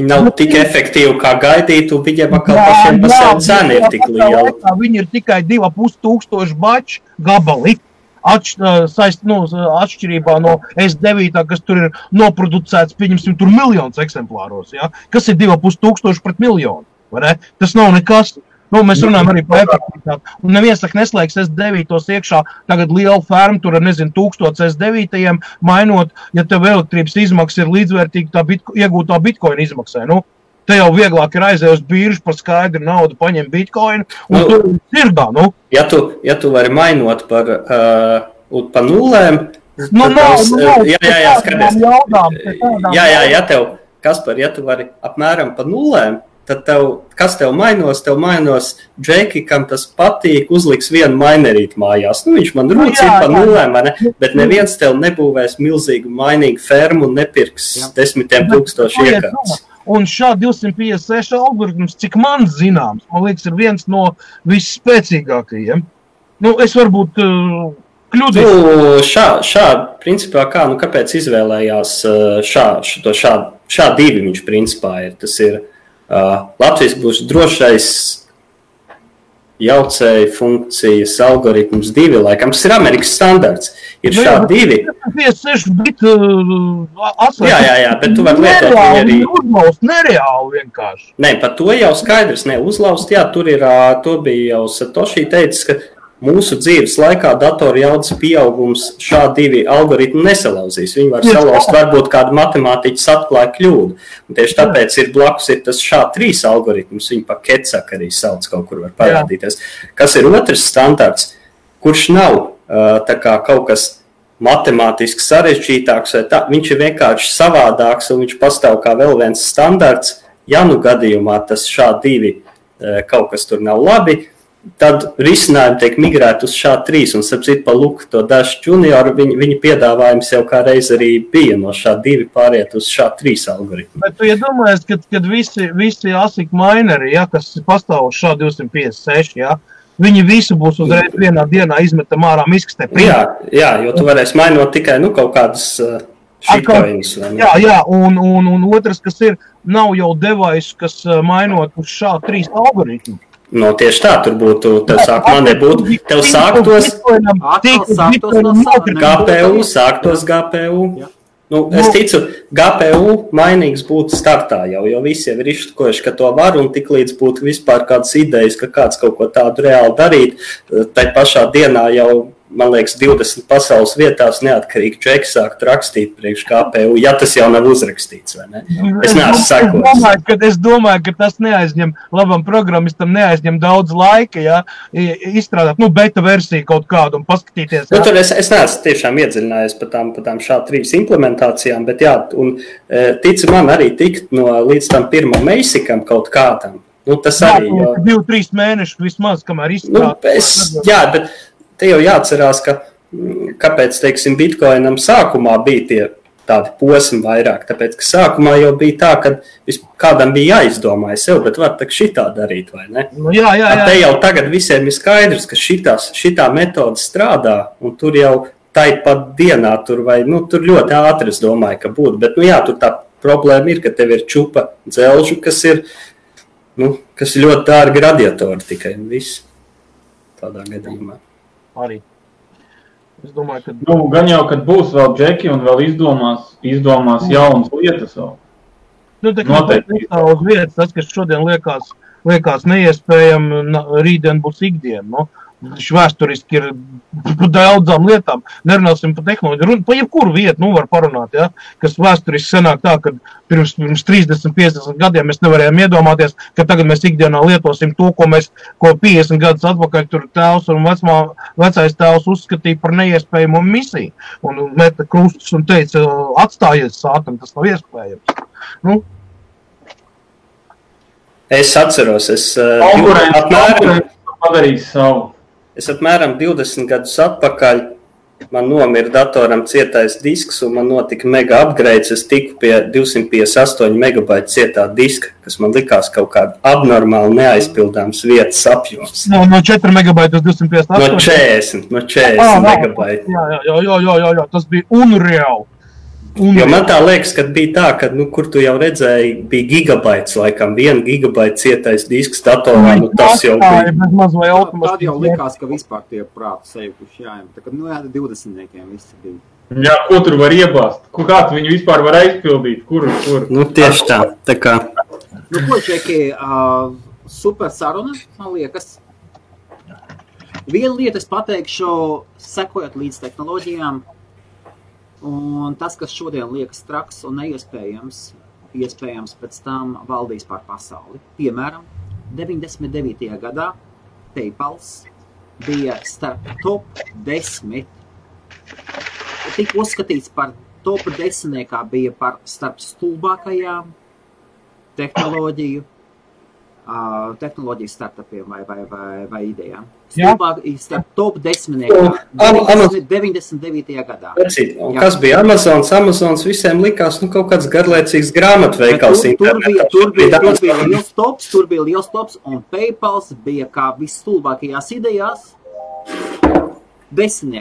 nav tik efektīvi, kā gaidīt, un viņiem atkal pašiem pa sevi cena ir tik liela. Viņi ir tikai 2,5 baču gabali. Atšķirībā no S9, kas tur ir noproducēts, pieņemsim, tur miljonus eksemplāros, ja? Kas ir 2,5 pret miljonu, vai ne? Tas nav nekas. Mēs runājam arī par efektivitāti. Un neviens neslēgs S9 iekšā, tagad liela ferma, tur 1000 S9 mainot, ja tev elektrības izmaksas ir līdzvērtīgi tā iegūtā Bitcoin izmaksai. te jau vieglāk ir aiziet uz biržu par skaidru naudu, paņem bitcoin, un tu sirdā, nu. Ja tu vari mainot par nulēm, jā, skaties. Jā, Kaspar, ja tu vari apmēram pa nulēm, tad kas tev mainos? Tev mainos Džeki, kam tas patīk, uzliks vienu mainerīti mājās. Nu, viņš man rūcīja pa nulēm, ne? Bet neviens tev nebūvēs milzīgu mainīgu fermu un nepirks 10,000 iekārtas. Un šā 256 algoritms, cik man zināms, man liekas, ir viens no visspēcīgākajiem. Nu, es varbūt kļūdīju. Šā principā kā, kāpēc izvēlējās šā divi viņš principā ir. Tas ir Latvijas būs drošais jaucēju funkcijas algoritms 2, laikam. Tas ir Amerikas standarts. Ir šā 2. 56 bit Jā, bet tu vari lietot viņu arī. Uzlaust nereāli vienkārši. Nē, par to jau skaidrs. Nē, uzlaust, jā, tur ir, to bija jau Satoshi teicis, ka mūsu dzīves laikā datoru jaudas pieaugums šā 2 algoritmu nesalauzīs. Viņi var salauzt, varbūt kādu matemātiķis atklāja kļūdu. Un tieši tāpēc ir blakus ir tas šā 3 algoritms, viņi pa Ketsak arī sauc, kaut kur var parādīties. Kas ir otrs standarts, kurš nav tā kā kaut kas matemātiski sarežģītāks, vai tā, viņš ir vienkārši savādāks un viņš pastāv kā vēl viens standarts. Ja nu gadījumā tas šā 2 kaut kas tur nav labi, tad risinājumi tiek migrēti uz šā 3, un sapcīt pa Luku to Dash Junior, viņa piedāvājums jau kā reiz arī bija no šā 2 pāriet uz šā 3 algoritmu. Bet tu iedomājies, kad visi ASIC mineri, ja, kas pastāv uz šā 256, ja, viņi visi būs uzreiz vienā dienā izmetam ārā miskastē. Jā, jo tu varēsi mainot tikai kaut kādas shitcoins. Jā, un otrs, kas ir, nav jau device, kas mainot uz šā 3 algoritmu. No tieši tā, tur būtu, tev sākumā nebūtu, tev sāktos GPU. Nu, es ticu, GPU mainīgs būtu startā jau, jo visi jau ir izštukojuši, ka to var, un tik līdz būtu vispār kādas idejas, ka kāds kaut ko tādu reāli darīt, tai pašā dienā jau, man liekas, 20 pasaules vietās neatkarīgi Džeki sākt rakstīt priekš GPU, ja tas jau nav uzrakstīts, vai ne? Es neesmu sakojis. Es domāju, ka tas neaizņem, labam programmistam neaizņem daudz laika, ja, izstrādāt, beta versiju kaut kādu un paskatīties. Tur es neesmu tiešām iedziļinājies par tām šā 3 implementācijām, bet jā, un tici man arī tikt līdz tam pirmam Meisикam kaut kādam. Tas arī jau... 2-3 mēneši vismaz, kamēr izstrādāt. Jā, bet te jau jāatcerās, kāpēc, teiksim, Bitcoinam sākumā bija tie tādi posmi vairāk, tāpēc, ka sākumā jau bija tā, ka kādam bija jāizdomāja sev, bet var tak šitā darīt, vai ne? Jā. Te jau tagad visiem ir skaidrs, ka šitā metode strādā, un tur jau tāpat dienā, tur ļoti ātri, es domāju, ka būtu, bet, tur tā problēma ir, ka tev ir čupa dzelžu, kas ir ļoti dārgi radiatori tikai, un viss tādā gadījumā. Arī. Es domāju, ka... gan jau, kad būs vēl Džeki un vēl izdomās jaunas lietas vēl. Tā kā uz vietas, tas, kas šodien liekas neiespējami, rītdien būs ikdiena, Vēsturiski ir daudzām lietām. Nerunāsim par tehnoloģiju. Pa jebkuru vietu var parunāt, ja? Kas vēsturiski senāk tā, ka pirms 30-50 gadiem mēs nevarējām iedomāties, ka tagad mēs ikdienā lietosim to, ko 50 gadus atpakaļ tur tēvs un vecais tēvs uzskatīja par neiespējamu misiju. Un meta krustus un teica, atstājies sātam, tas nav iespējams. Es atceros, padarījis savu. Es apmēram 20 gadus atpakaļ man nomira datoram cietais disks un man notika mega upgrades. Es tiku pie 258 megabaitu cietā diska, kas man likās kaut kāda abnormāli neaizpildāms vietas apjoms. No 4 megabaitu uz 258? No 40 megabaitu. Jā, tas bija unreāli. Jo man tā liekas, ka bija tā, ka, kur tu jau redzēji, bija gigabaits, laikam, 1 gigabaita cietais disks datorā, tas jau bija. Tad jau likās, ka vispār tie prātu sejukuši jāiem. Tā kā, 20-niekiem visi bija. Jā, ko tur var iebāzt? Kāds viņu vispār var aizpildīt? Kur? Tieši tā kā. Ko, Čeki, super saruna, man liekas. Vienu lietu es pateikšu, sekojot līdz tehnoloģijām. Un tas, kas šodien liekas traks un neiespējams, iespējams pēc tam valdīs pār pasauli. Piemēram, 99. gadā PayPals bija starp top 10, tika uzskatīts par top 10, bija par starp stulbākajām tehnoloģiju startupiem vai idejām. Starp top 10. 99. gadā. Un kas bija Amazons? Amazons visiem likās, kaut kāds garlaicīgs grāmatveikals internetā. Tur bija liels tops, un PayPals bija kā visstulbākajās idejās 10.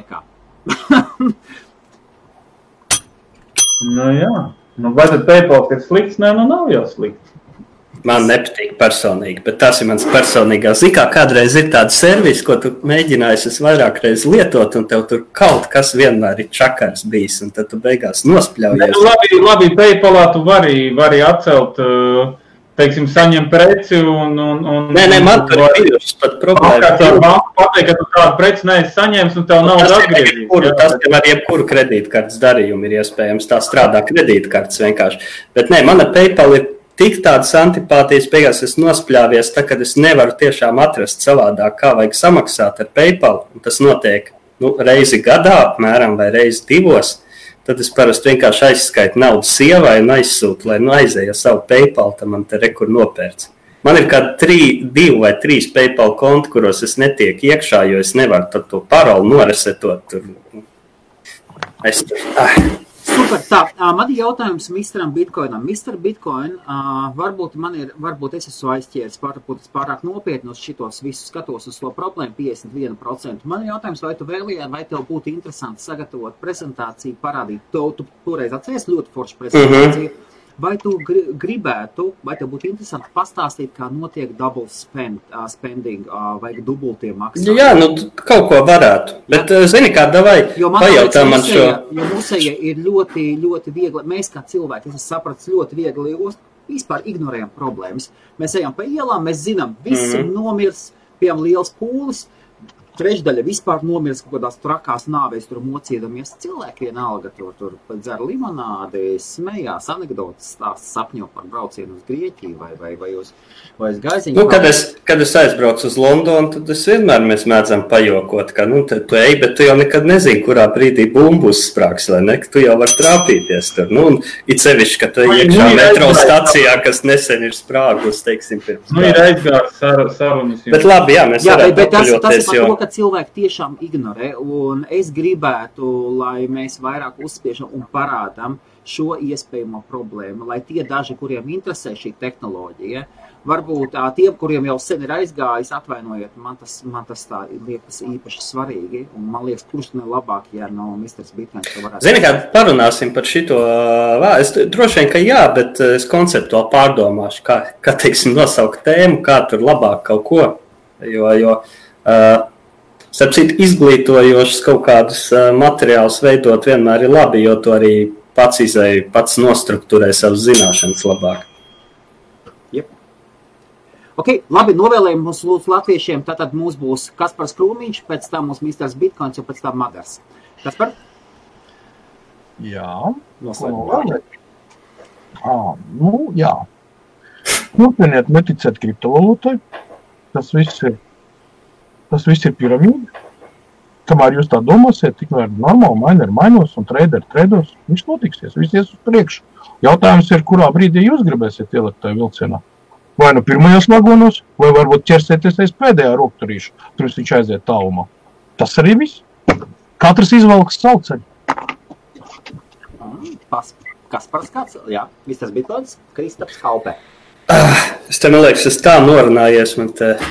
Jā. Vai tad PayPal ir slikts? Nē, nav jau slikts. Man nepatīk personīgi, bet tas ir mans personīgās. Zikā, kādreiz ir tāda servis, ko tu mēģinājies vairāk reiz lietot, un tev tur kaut kas vienmēr ir čakars bijis, un tad tu beigās nospļaujies. Labi, PayPalā tu vari atcelt, teiksim, saņem preci un... Nē, man tur ir bijušas pat problēma. Pateikt, ka tu tādu preci neesi saņēmis, un tev nav atgriezīs. Tas ar jebkuru kredītkartes darījumu ir iespējams. Tā strādā kredītkartes vienkārši. Bet nē, mana PayPal ir tik tādas antipātijas, beigās es nospļāvies, tā, kad es nevaru tiešām atrast savādāk, kā vajag samaksāt ar PayPal, un tas notiek reizi gadā, apmēram, vai reizi 2, tad es parasti vienkārši aizskaitu naudu sievai un aizsūtu, lai aizēja savu PayPal, tad man te rekur nopērts. Man ir kādi 2 vai 3 PayPal konti, kuros es netieku iekšā, jo es nevaru to paroli noresetot. Super, tā, man ir jautājums Mr. Bitcoinam. Mr. Bitcoin, varbūt es esmu aizķēris pārāk nopietni uz šitos visus skatos uz to problēmu 51%. Man ir jautājums, vai tu vēlējāt, vai tev būtu interesanti sagatavot prezentāciju, parādīt to, tu toreiz atceries ļoti foršu prezentāciju, vai tu gribētu, vai tev būtu interesanti pastāstīt, kā notiek double spending, vai dubultie maksājumi? Jā, kaut ko varētu, bet zini kā, davai pajautā man šo. Jo mūsēja ir ļoti, ļoti viegli, mēs kā cilvēki, es sapratu, ļoti viegli vispār ignorējam problēmas. Mēs ejam pa ielām, mēs zinām, visi nomirs, piemēram, liels pūlis, trešdaļa vispār nomirs kaut kādās trakās nāvēs, tur mocīdamies. Cilvēki vienalga tur dzer limonādi, smējās, anekdotas stāsta, sapņo par braucienu uz Grieķiju vai uz Gaiziņu. Kad es aizbraucu uz Londonu, tad mēs mēdzam pajokot, ka tu ej, bet tu jau nekad nezini, kurā brīdī bumbus sprāks, vai ne, ka tu jau var trāpīties tur. Un it sevišķi, ka tu ej iekšā metro stacijā, kas nesen ir sprāgus, teiksim, pirms. Ir aizgārs sarunas. Bet labi, jā, mēs varētu paļoties, jo... cilvēki tiešām ignorē, un es gribētu, lai mēs vairāk uzspiežam un parādam šo iespējamo problēmu, lai tie daži, kuriem interesē šī tehnoloģija, varbūt tiem, kuriem jau sen ir aizgājis, atvainojiet, man tas tā liekas īpaši svarīgi, un man liekas, kurš ne labāk, ja no Mr. Bitcoins to varētu. Zini, kā parunāsim par šito, es droši vien, ka jā, bet es konceptuāli pārdomāšu, kā teiksim, nosaukt tēmu, kā tur labāk kaut ko, jo starp citu, izglītojošas kaut kādus materiālus veidot vienmēr ir labi, jo to arī pats nostrukturē savas zināšanas labāk. Jep. Ok, labi, novēlējumi mums lūdzu latviešiem, tātad mums būs Kaspars Krūmiņš, pēc tam mums Mr. Bitcoins, un pēc tam Madars. Kaspar? Jā. Noslēgumā. Jā. Turpiniet neticēt kriptovalūtai. Tas viss ir piramīda. Kamēr jūs tā domāsiet, tikmēr normāli miner mainos un trader trados, viņš notiksies, viss ies uz priekšu. Jautājums ir, kurā brīdī jūs gribēsiet ielikt tajā vilcienā. Vai nu pirmajos vagonos, vai varbūt ķersieties aiz pēdējā rokturīša, pirms viņš aiziet tālumā. Tas arī viss. Katrs izvelks savu ceļu. Kaspars kāds? Jā, Mr. Bitcoins, Kristaps Halpē. Es te, man liekas, es tā norunājies,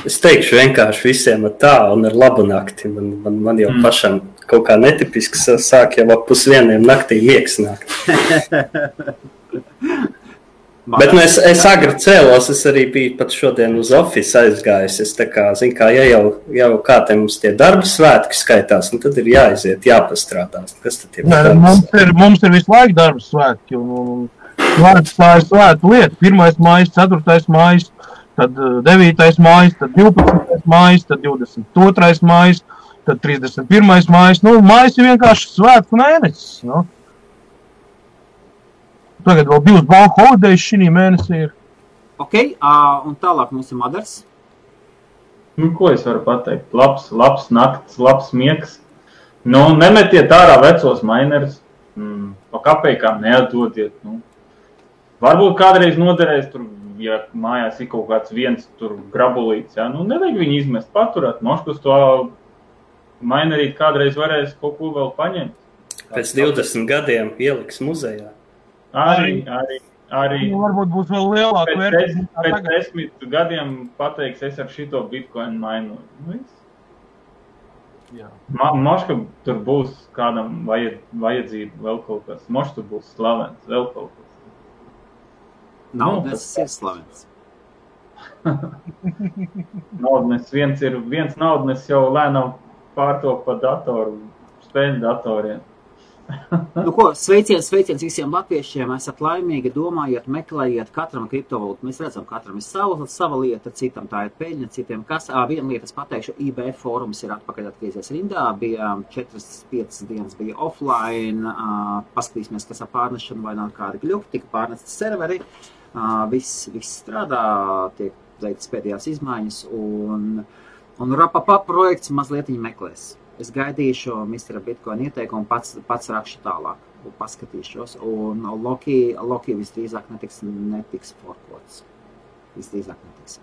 es teikšu vienkārši visiem ar tā un ar labu nakti. Man jau pašam kaut kā netipiski sāk jau ap 1:30 naktī miegs nākt. Bet es agri cēlos, es arī biju pat šodien uz office aizgājis. Es tā kā, zinu kā, ja jau kā te mums tie darba svētki skaitās, tad ir jāiziet, jāpastrādās. Kas tad ir? Mums ir visu laiku darba svētki un tā ir svēta lieta. 1. mājas, 4. mājas, tad 9. mājas, tad 12. mājas, tad 22. mājas, tad 31. mājas. Mājas ir vienkārši svētku mēnesis. tagad vēl 2 bank holidays šī mēnesī ir. Ok, un tālāk mums ir Madars. Nu, ko es varu pateikt? Labs nakts, labs miegs. Nu, nemetiet ārā vecos mainerus. Pa kapeikām neatdodiet. Nu. Varbūt kādreiz noderēs tur, ja mājās ir kaut kāds viens tur grabulīts, ja? Nu, nevajag viņu izmest, paturēt. Moškus to mainerīt kādreiz varēs kaut ko vēl paņemt. Pēc 20 gadiem ieliks muzejā. Arī Varbūt būs vēl lielāka vērtība. Pēc 10 gadiem pateiks, es ar šito bitcoin mainu. Moška tur būs kādam vajadzība vēl kaut kas. Moška tur būs slavens, vēl kaut kas. Naudnes ir slavens. Naudnes viens naudnes jau lēnām pārtok pa datoru, spēļu datoriem. Nu ko, sveiciens visiem latviešiem, esat laimīgi, domājiet, meklējiet katram kriptovalūtu. Mēs redzam, katram ir sava lieta, citam tā ir peļņa, citiem kas. Viena lieta es pateikšu, IBF fórums ir atpakaļ atgriezies rindā, bija 4-5 dienas bija offline, paskatīsimies, kas ar pārnešanu vai nav kādi gļuki, tika pārnesti serveri, viss strādā, tiek veikts pēdējās izmaiņas un Rapapa projekts mazliet viņi meklēs. Es gaidīšu Mr. Bitcoin ieteikumu, pats rakšu tālāk, paskatīšos, un Loki visdrīzāk netiks forkots. Visdrīzāk netiks.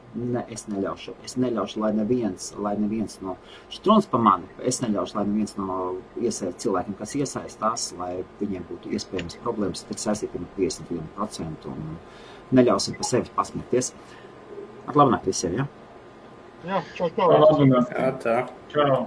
Es neļaušu, lai neviens no štruns pa mani, es neļaušu, lai neviens no cilvēkiem, kas iesaistās, lai viņiem būtu iespējams problēmas, tik saistīti ar 51% un neļausim pa sevi pasmieties. Ar labu nakti visiem, ja? Jā, čau. Labu nakti. Jā, tā. Čau.